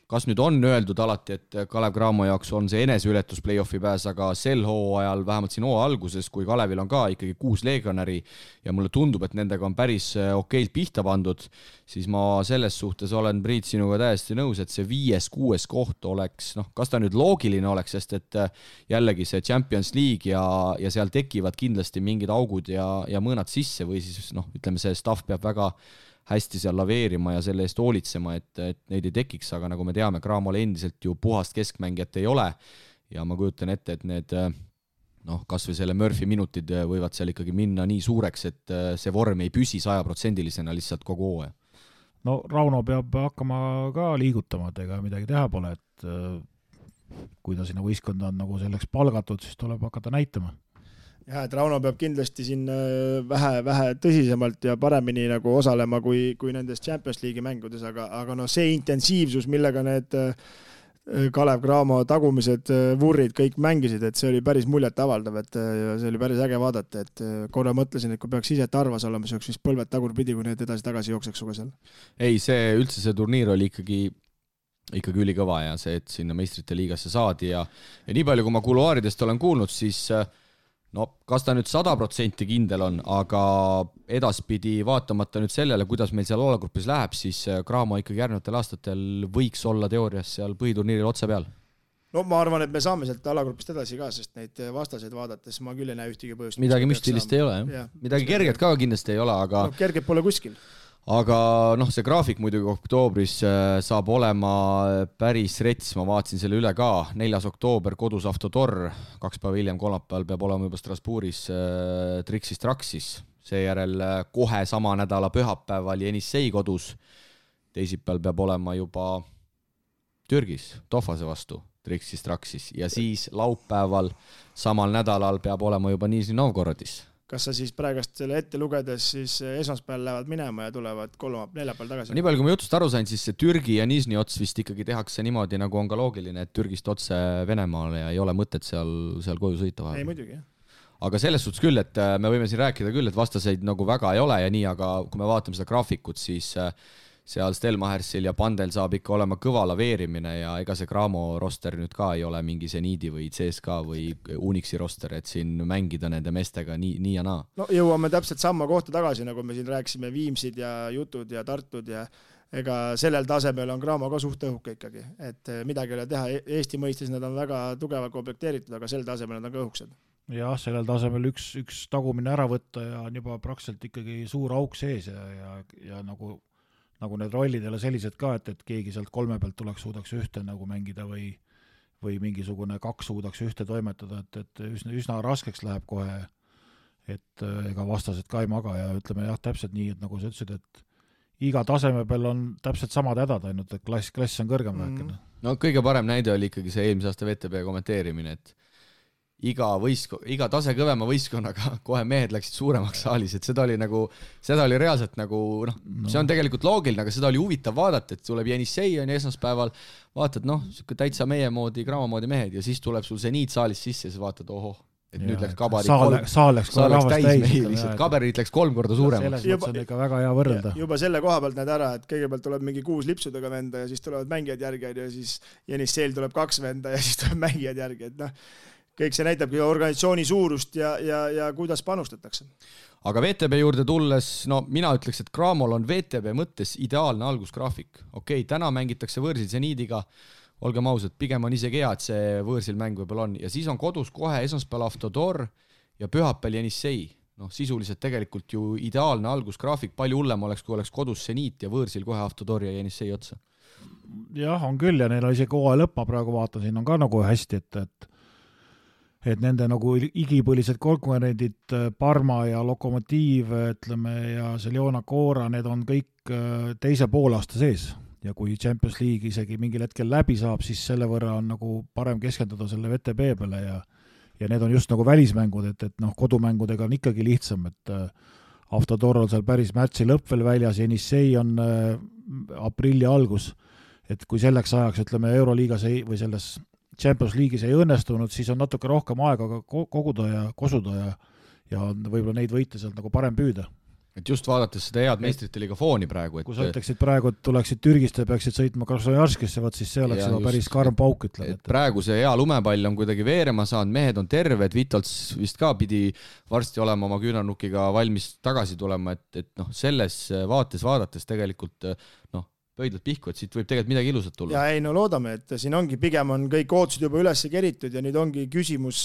kas nüüd on öeldud alati, et Kalev Cramo jaoks on see eneseületus play-offi pääs, aga sel hooajal, vähemalt siin hooaja alguses, kui Kalevil on ka ikkagi 6 legionäri ja mulle tundub, et nendega on päris okeilt pihta pandud, siis ma selles suhtes olen, Priit, sinuga täiesti nõus, et see 5.-6. koht oleks, kas ta nüüd loogiline oleks, sest et jällegi see Champions League ja seal tekivad kindlasti mingid augud ja mõõnad sisse või siis ütleme, see staff peab väga hästi seal laveerima ja selle eest hoolitsema, et neid ei tekiks, aga nagu me teame, Cramol endiselt ju puhast keskmängijat ei ole ja ma kujutan ette, et need kas või selle Murphy minutid võivad seal ikkagi minna nii suureks, et see vorm ei püsi 100%-lisena lihtsalt kogu hooaja. No Rauno peab hakkama ka liigutama, et ega midagi teha pole, et kui ta sinna võistkonda on nagu selleks palgatud, siis tuleb hakata näitama. Ja, et Rauno peab kindlasti siin vähe tõsisemalt ja paremini nagu osalema kui nendes Champions League'i mängudes, aga see intensiivsus, millega need Kalev Cramo tagumised vurrid kõik mängisid, et see oli päris muljet avaldav, et see oli päris äge vaadata, et korra mõtlesin, et kui peaks ise tarvas olema, siis oleks vist põlved tagurpidi, kui need edasi-tagasi jookseks suga seal. Ei, see turniir oli ikkagi ülikõva ja see, et sinna meistrite liigasse saadi ja nii palju, kui ma kuluaaridest olen kuulnud, siis kas ta nüüd 100% kindel on, aga edaspidi vaatamata nüüd sellele, kuidas meil seal alagrupis läheb, siis Cramo ikkagi järgnevatel aastatel võiks olla teoorias seal põhiturniiril otse peal. Ma arvan, et me saame sealt alagrupist edasi ka, sest neid vastaseid vaadates ma küll ei näe ühtegi põhjust. Midagi müstilist ei ole, jah. Midagi kerget ka kindlasti ei ole, aga kerget pole kuskil. Aga see graafik muidugi oktoobris saab olema päris rets, ma vaatasin selle üle ka, 4. oktoober kodus Avtotor, 2 päeva hiljem kolmapäeval peab olema juba Strasbourgis Trixis Traxis, seejärel kohe sama nädala pühapäeval Jenissei kodus, teisipäeval peab olema juba Türgis Tofase vastu Trixis Traxis ja siis laupäeval samal nädalal peab olema juba Nizhny Novgorodis. Kas sa siis praegast selle ette lugedes siis esmaspäeval lähevad minema ja tulevad neljapäeval tagasi? Nii palju, kui ma jutust aru sain, siis see Türgi ja Nizhny ots vist ikkagi tehakse niimoodi, nagu on ka loogiline, et Türgist otse Venemaale ja ei ole mõtet seal koju sõita vahel. Ei, muidugi, jah. Aga selles suhtes küll, et me võime siin rääkida küll, et vastaseid nagu väga ei ole ja nii, aga kui me vaatame seda graafikut, siis seal Stelmachersil ja Pandel saab ikka olema kõva laveerimine ja ega see Cramo roster nüüd ka ei ole mingi Zeniidi või CSKA või Unixi roster, et siin mängida nende meestega nii ja naa. Jõuame täpselt samma kohta tagasi, nagu me siin rääkisime Viimsid ja Jutud ja Tartud ja ega sellel tasemel on Cramo ka suht õhuke ikkagi, et midagi ei ole teha. Eesti mõistes nad on väga tugevalt komplekteeritud, aga sel tasemel nad on ka õhukesed. Jah, sellel tasemel üks tagumine ära võtta ja on juba praktiliselt ikkagi suur auk sees ja nagu need rollid ei ole sellised ka, et keegi sealt 3 pealt suudaks ühte nagu mängida või mingisugune 2 suudaks ühte toimetada, et üsna raskeks läheb kohe, et ega vastased ka ei maga ja ütleme jah, täpselt nii, et nagu sa ütlesid, et iga taseme peal on täpselt samad hädad, ainult et klass on kõrgem vähekene. No kõige parem näide oli ikkagi see eelmise aasta VTB kommenteerimine, et iga tase kõvema võistkonnaga kohe mehed läksid suuremaks saalis, et seda oli reaalselt nagu, see on tegelikult loogiline, aga seda oli huvitav vaadata, et tuleb Jenissei on esmaspäeval, vaatad, täitsa meie moodi, Cramo moodi mehed ja siis tuleb sul Zeniit saalis sisse ja siis vaatad, et nüüd läks kabarid saal läks täis, kaberid läks 3 korda suuremaks. Selles mõttes on ikka väga hea võrrelda. Juba selle koha pealt näed ära, et kõigepealt tuleb mingi 6 lipsudega venda ja siis tulevad mängijad järgi ja siis Jenisseil tuleb 2 venda ja siis tuleb mängijad järgi, et kõik see näitabki organisatsiooni suurust ja kuidas panustatakse. Aga VTB juurde tulles, mina ütleks, et Cramol on VTB mõttes ideaalne algusgraafik. Okei, täna mängitakse võõrsil Zeniidiga, olgem ausad, pigem on isegi hea, et see võõrsil mäng võib-olla on. Ja siis on kodus kohe esmaspäeval Avtodor ja pühapäeval Jenissei. Sisuliselt tegelikult ju ideaalne algusgraafik, palju hullem oleks, kui oleks kodus Seniit ja võõrsil kohe Avtodor ja Jenissei otsa. Jah, on küll ja neil on isegi hooaja lõppa praegu vaatan, siin on ka nagu hästi, et nende nagu igipõlised konkurendid Parma ja Lokomotiiv, ütleme, ja Seljona Koora, need on kõik teise poolaasta sees. Ja kui Champions League isegi mingil hetkel läbi saab, siis selle võrra on nagu parem keskenduda selle VTB peale ja need on just nagu välismängud, et kodumängudega on ikkagi lihtsam, et Avtodor on seal päris märtsi lõpp veel väljas, Jenissei on aprilli algus, et kui selleks ajaks, ütleme, Euroliigas või selles Champions League'is ei õnnestunud, siis on natuke rohkem aega koguda ja kosuda ja võib-olla neid võite sealt nagu parem püüda. Et just vaadates seda head meistrite liiga fooni praegu. Kui sa ütleksid praegu, et tuleksid Türgist ja peaksid sõitma Krasnojarskisse, siis see oleks juba päris karm pauk, ütleme. Praegu see hea lumepall on kuidagi veerema saanud, mehed on terved, Vitals vist ka pidi varsti olema oma küünarnukiga valmis tagasi tulema, et selles vaates vaadates tegelikult pöidlad pihku, et siit võib tegelikult midagi ilusat tulla. Ja ei, loodame, et siin ongi, pigem on kõik ootused juba üles keritud ja nüüd ongi küsimus,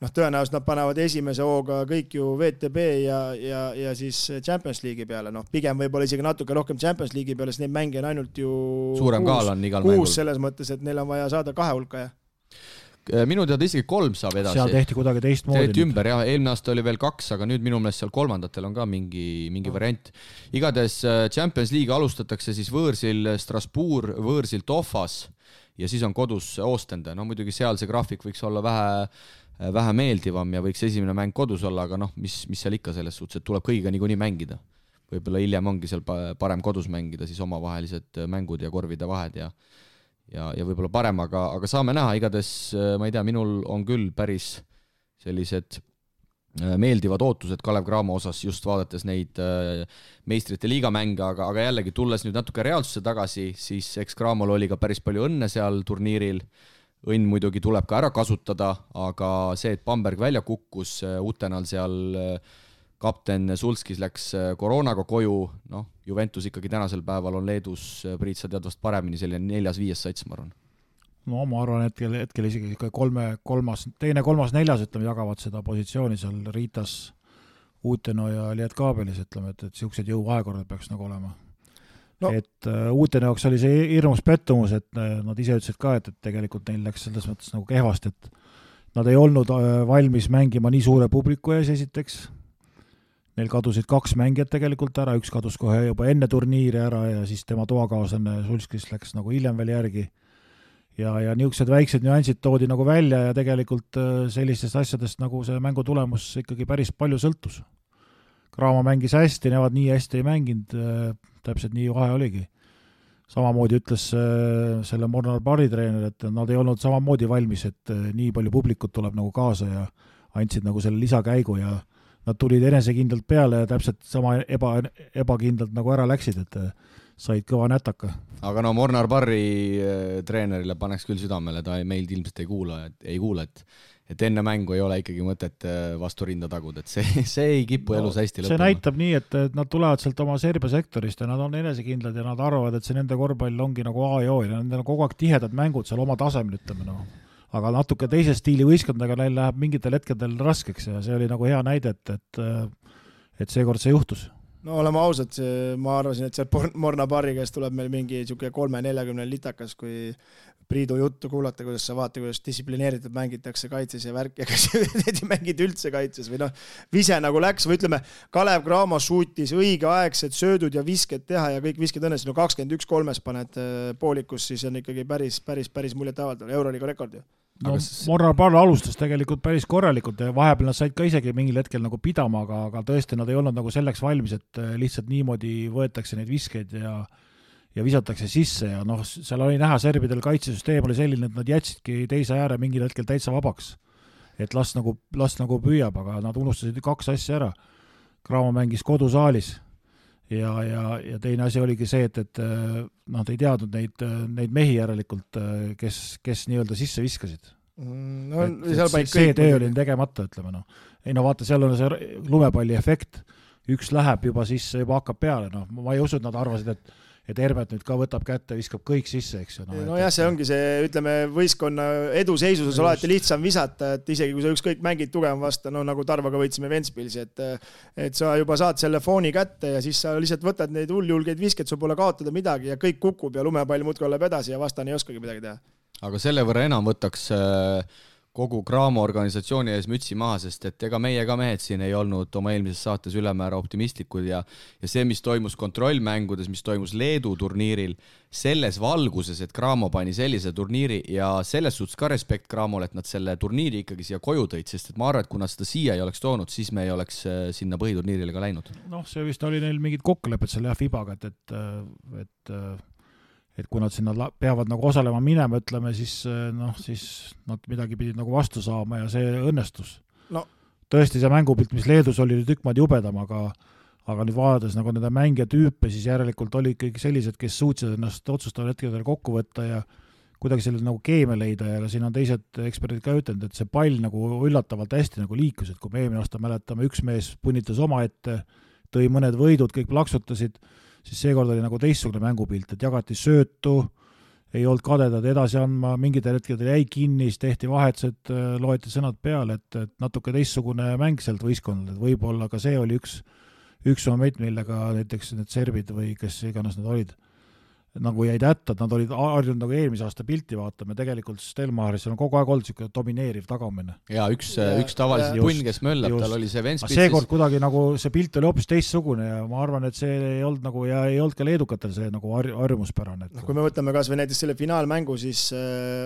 tõenäoliselt nad panevad esimese hooga kõik ju VTB ja siis Champions League'i peale, pigem võib-olla isegi natuke rohkem Champions League'i peale, sest neid mänge on ainult ju suurem kaal on igal mängul. Selles mõttes, et neil on vaja saada 2 hulka, Minu teada isegi 3 saab edasi. Seal tehti kuidagi teistmoodi. Tehti ümber, jah. Eelmine aasta oli veel 2, aga nüüd minu meelest seal kolmandatel on ka mingi variant. Igades Champions League alustatakse siis võõrsil Strasbourg, võõrsil Tofas ja siis on kodus Ostende. Muidugi seal see graafik võiks olla vähe meeldivam ja võiks esimene mäng kodus olla, aga mis seal ikka selles suhtes, et tuleb kõigiga niikuinii mängida. Võib-olla hiljem ongi seal parem kodus mängida, siis omavahelised mängud ja korvide vahed ja võib-olla parem, aga saame näha, igades, ma ei tea, minul on küll päris sellised meeldivad ootused Kalev Cramo osas just vaadates neid meistrite liigamänge, aga jällegi tulles nüüd natuke reaalsusse tagasi, siis eks Cramol oli ka päris palju õnne seal turniiril. Õnn muidugi tuleb ka ära kasutada, aga see, et Bamberg välja kukkus, Utenal seal kapten Sulskis läks koroonaga koju, Juventus ikkagi tänasel päeval on Leedus, Priit, sa tead vast paremini, selline 4-5 sats, ma arvan. Ma arvan, hetkel isegi teine, kolmas, neljas, ütleme, jagavad seda positsiooni seal Riitas, Uteno ja Lietkaabelis, ütleme, et siuksed jõuvahekorrad peaks nagu olema. Et Uteno jaoks oli see hirmus pettumus, et nad ise ütlesid ka, et tegelikult neil läks selles mõttes nagu kehvast, et nad ei olnud valmis mängima nii suure publiku ees esiteks. Neil kadusid 2 mängijat tegelikult ära, üks kadus kohe juba enne turniiri ära ja siis tema toakaaslane Sulskis läks nagu hiljem veel järgi. Ja niisugused väiksed nüansid toodi nagu välja ja tegelikult sellistest asjadest nagu see mängu tulemus ikkagi päris palju sõltus. Cramo mängis hästi, nemad nii hästi ei mänginud, täpselt nii vahe oligi. Samamoodi ütles selle Mornar Barri treener, et nad ei olnud samamoodi valmis, et nii palju publikut tuleb nagu kaasa ja andsid nagu selle lisakäigu ja nad tulid enesekindlalt peale ja täpselt sama ebakindlalt nagu ära läksid, et said kõva nätaka. Aga Mornar Barri treenerile paneks küll südamele, ta meilt ilmselt ei kuula, et enne mängu ei ole ikkagi mõtet vastu rinda tagud, et see ei kipu elus hästi lõppema. See näitab nii, et nad tulevad sealt oma Serbia sektorist ja nad on enesekindlad ja nad arvavad, et see nende korvpall ongi nagu A ja O ja nendel on kogu aeg tihedad mängud seal oma tasemel, ütleme aga natuke teise stiili võistkondadega neil läheb mingitel hetkedel raskeks ja see oli nagu hea näide, et seekord see juhtus. Oleme ausad, ma arvasin, et see Morna Barri käest tuleb meil mingi 3-40 litakas, kui Priidu juttu kuulata, kuidas sa vaata, kuidas distsiplineeritud mängitakse kaitses ja värk ja kas need mängid üldse kaitses või vise nagu läks või ütleme, Kalev Cramo suutis õigeaegsed söödud ja visked teha ja kõik visked õnnesid, 21-3 paned poolikus, siis on ikkagi päris muljet avaldav, Euroliiga rekord ju. Mornar Barr alustas tegelikult päris korralikult ja vahepeal nad said ka isegi mingil hetkel nagu pidama, aga tõesti nad ei olnud nagu selleks valmis, et lihtsalt niimoodi võetakse neid viskeid ja visatakse sisse ja seal oli näha serbidel kaitsesüsteem oli selline, et nad jätsidki teise ääre mingil hetkel täitsa vabaks. Et las nagu püüab, aga nad unustasid 2 asja ära. Cramo mängis kodusaalis ja teine asi oligi see, et nad ei teadnud neid mehi järelikult, kes nii-öelda sisse viskasid. See töö oli tegemata, ütleme. Ei vaata, seal on see lumepalli efekt. Üks läheb juba sisse, juba hakkab peale. Ma ei usu, et nad arvasid, et Hermet nüüd ka võtab kätte, viskab kõik sisse, eks ju. No jah, see ongi see, ütleme, võistkonna eduseisuses alati lihtsam visata, et isegi kui sa ükskõik mängid tugevam vastu, no nagu Tarvaga võitsime Ventspilsi, et sa juba saad selle fooni kätte ja siis sa lihtsalt võtad neid hulljulgeid viskeid, sul pole kaotada midagi ja kõik kukub ja lumepall muudkui läheb edasi ja vastane ei oskagi midagi teha. Aga selle võrra enam võtaks kogu Cramo organisatsiooni ees mütsi maha, sest et ega meie ka mehed siin ei olnud oma eelmises saates ülemäära optimistlikud ja see, mis toimus kontrollmängudes, mis toimus Leedu turniiril, selles valguses, et Cramo pani sellise turniiri ja selles suhtes ka respekt Cramole, et nad selle turniiri ikkagi siia koju tõid, sest et ma arvan, et kui nad seda siia ei oleks toonud, siis me ei oleks sinna põhiturniirile ka läinud. Noh, see vist oli neil mingid kokkulepped selle FIBaga, et kui nad sinna peavad nagu osalema minema, ütleme, siis nad midagi pidid nagu vastu saama ja see õnnestus. No. Tõesti see mängupilt, mis Leedus oli tükk maad jubedam, aga nüüd vaadates nagu nende mängija tüüpe, siis järelikult oli ikkagi sellised, kes suutsid ennast otsustaval hetkedel kokku võtta ja kuidagi selle nagu keemia leida ja siin on teised eksperdid ka ütlenud, et see pall nagu üllatavalt hästi nagu liikus, et kui me eelmine aasta mäletame, üks mees punnitas oma ette, tõi mõned võidud, kõik plaksutasid, siis seekord oli nagu teistsugune mängupilt, et jagati söötu, ei olnud kadedad edasi andma, mingitel hetkedel jäi kinni, siis tehti vahetused, loeti sõnad peale, et natuke teistsugune mäng sealt võistkonnal, et võib-olla ka see oli üks moment, millega näiteks need serbid või kes iganes need olid, nagu jäid hätta, et nad olid harjunud nagu eelmise aasta pilti vaatama, tegelikult Stelmaris on kogu aeg olnud selline domineeriv tagamine. Ja üks tavaliselt punn, kes möllab, tal oli see Ventspilsis. Seekord kuidagi nagu see pilt oli hoopis teistsugune ja ma arvan, et see ei olnud nagu, ja ei olnud ka leedukatel see nagu harjumuspärane. Kui me võtame kas või näiteks selle finaalmängu siis,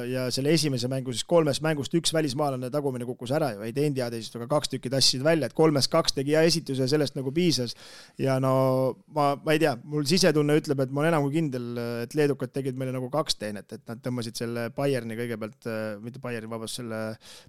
ja selle esimese mängu, siis 3 mängust 1 välismaalane tagumine kukkus ära ju, ei teinud head esitust, aga 2 tükki tassisid välja, et 3-2 tegi hea esituse ja sellest nagu piisas. Ja no ma ei tea, mul sisetunne ütleb, et ma olen enam kui kindel, et leedukad tegid meile nagu 2 teenet, et nad tõmbasid selle Bayerni kõigepealt, mitte Bayerni, vabast, selle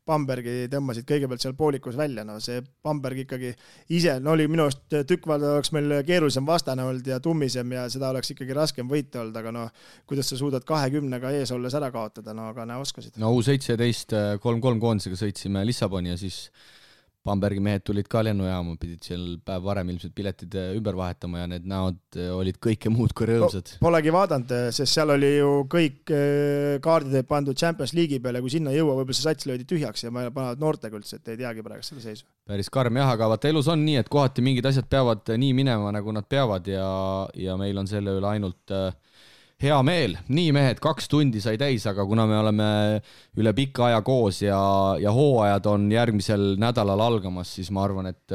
Bambergi tõmbasid kõigepealt seal poolikus välja, no see Bamberg ikkagi ise, no oli minu arust tükkvalda oleks meil keerulisem vastane olnud ja tummisem ja seda oleks ikkagi raskem võita olnud, aga no kuidas sa suudad 20-ga ees olles ära kaotada, no aga näe oskasid. No U17 3-3 koondisega sõitsime Lissaboni ja siis Bambergi mehed tulid ka lennujaama, pidid seal päev varem ilmselt piletid ümber vahetama ja need näod olid kõike muud kui rõõmsad. Polegi vaadanud, sest seal oli ju kõik kaardid pandud Champions League'i peale, kui sinna jõua, võib-olla see sats löödi tühjaks ja ma panevad noortega üldse, et ei teagi praegu selle seisu. Päris karm jah, aga vaata elus on nii, et kohati mingid asjad peavad nii minema, nagu nad peavad ja meil on selle üle ainult hea meel. Nii mehed, 2 tundi sai täis, aga kuna me oleme üle pika aja koos ja hooajad on järgmisel nädalal algamas, siis ma arvan, et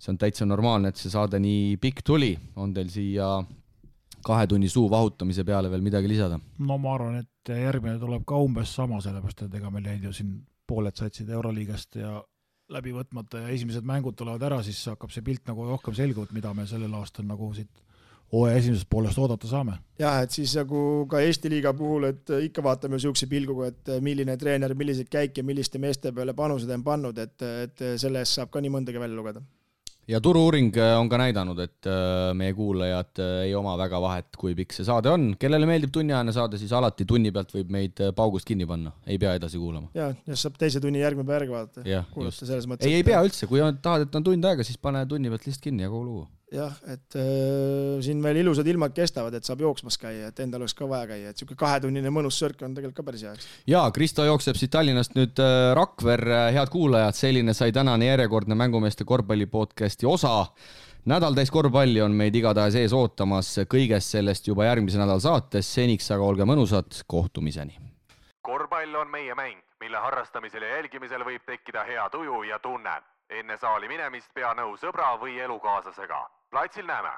see on täitsa normaalne, et see saade nii pikk tuli. On teil siia 2 tunni suu vahutamise peale veel midagi lisada? No ma arvan, et järgmine tuleb ka umbes sama, sellepärast, et ega meil jäid ju siin pooled satsid Euroliigast ja läbi võtmata ja esimesed mängud tulevad ära, siis hakkab see pilt nagu rohkem selgunud, mida me sellel aastal nagu siit esimesest poolest oodata saame. Jah, et siis nagu ka Eesti liiga puhul, et ikka vaatame siukse pilguga, et milline treener, milliseid käike, milliste meeste peale panused on pannud, et selle eest saab ka nii mõndagi välja lugeda. Ja turu-uuring on ka näidanud, et meie kuulajad ei oma väga vahet, kui pikk see saade on. Kellele meeldib tunniajane saade, siis alati tunni pealt võib meid paugust kinni panna. Ei pea edasi kuulama. Ja saab teise tunni järgmine päev vaadata. Ja, mõttes, ei pea üldse. Kui tahad, et on tund aega, siis pane tunni pealt lihtsalt kinni ja kogu lugu. Jah, et siin veel ilusad ilmad kestavad, et saab jooksmas käia, et endal oleks ka vaja käia, et siuke 2-tunnine mõnus sörk on tegelikult ka päris hea. Ja, Kristo jookseb siit Tallinnast nüüd Rakver, head kuulajad, selline sai tänane järjekordne Mängumeeste korvpallipodcasti osa. Nädal täis korvpalli on meid igatahes ees ootamas, kõigest sellest juba järgmise nädal saates, seniks aga olge mõnusad, kohtumiseni. Korvpall on meie mäng, mille harrastamisel ja jälgimisel võib tekkida hea tuju ja tunne. Enne saali minemist pea nõu sõbra või elukaaslasega. Platsil näeme!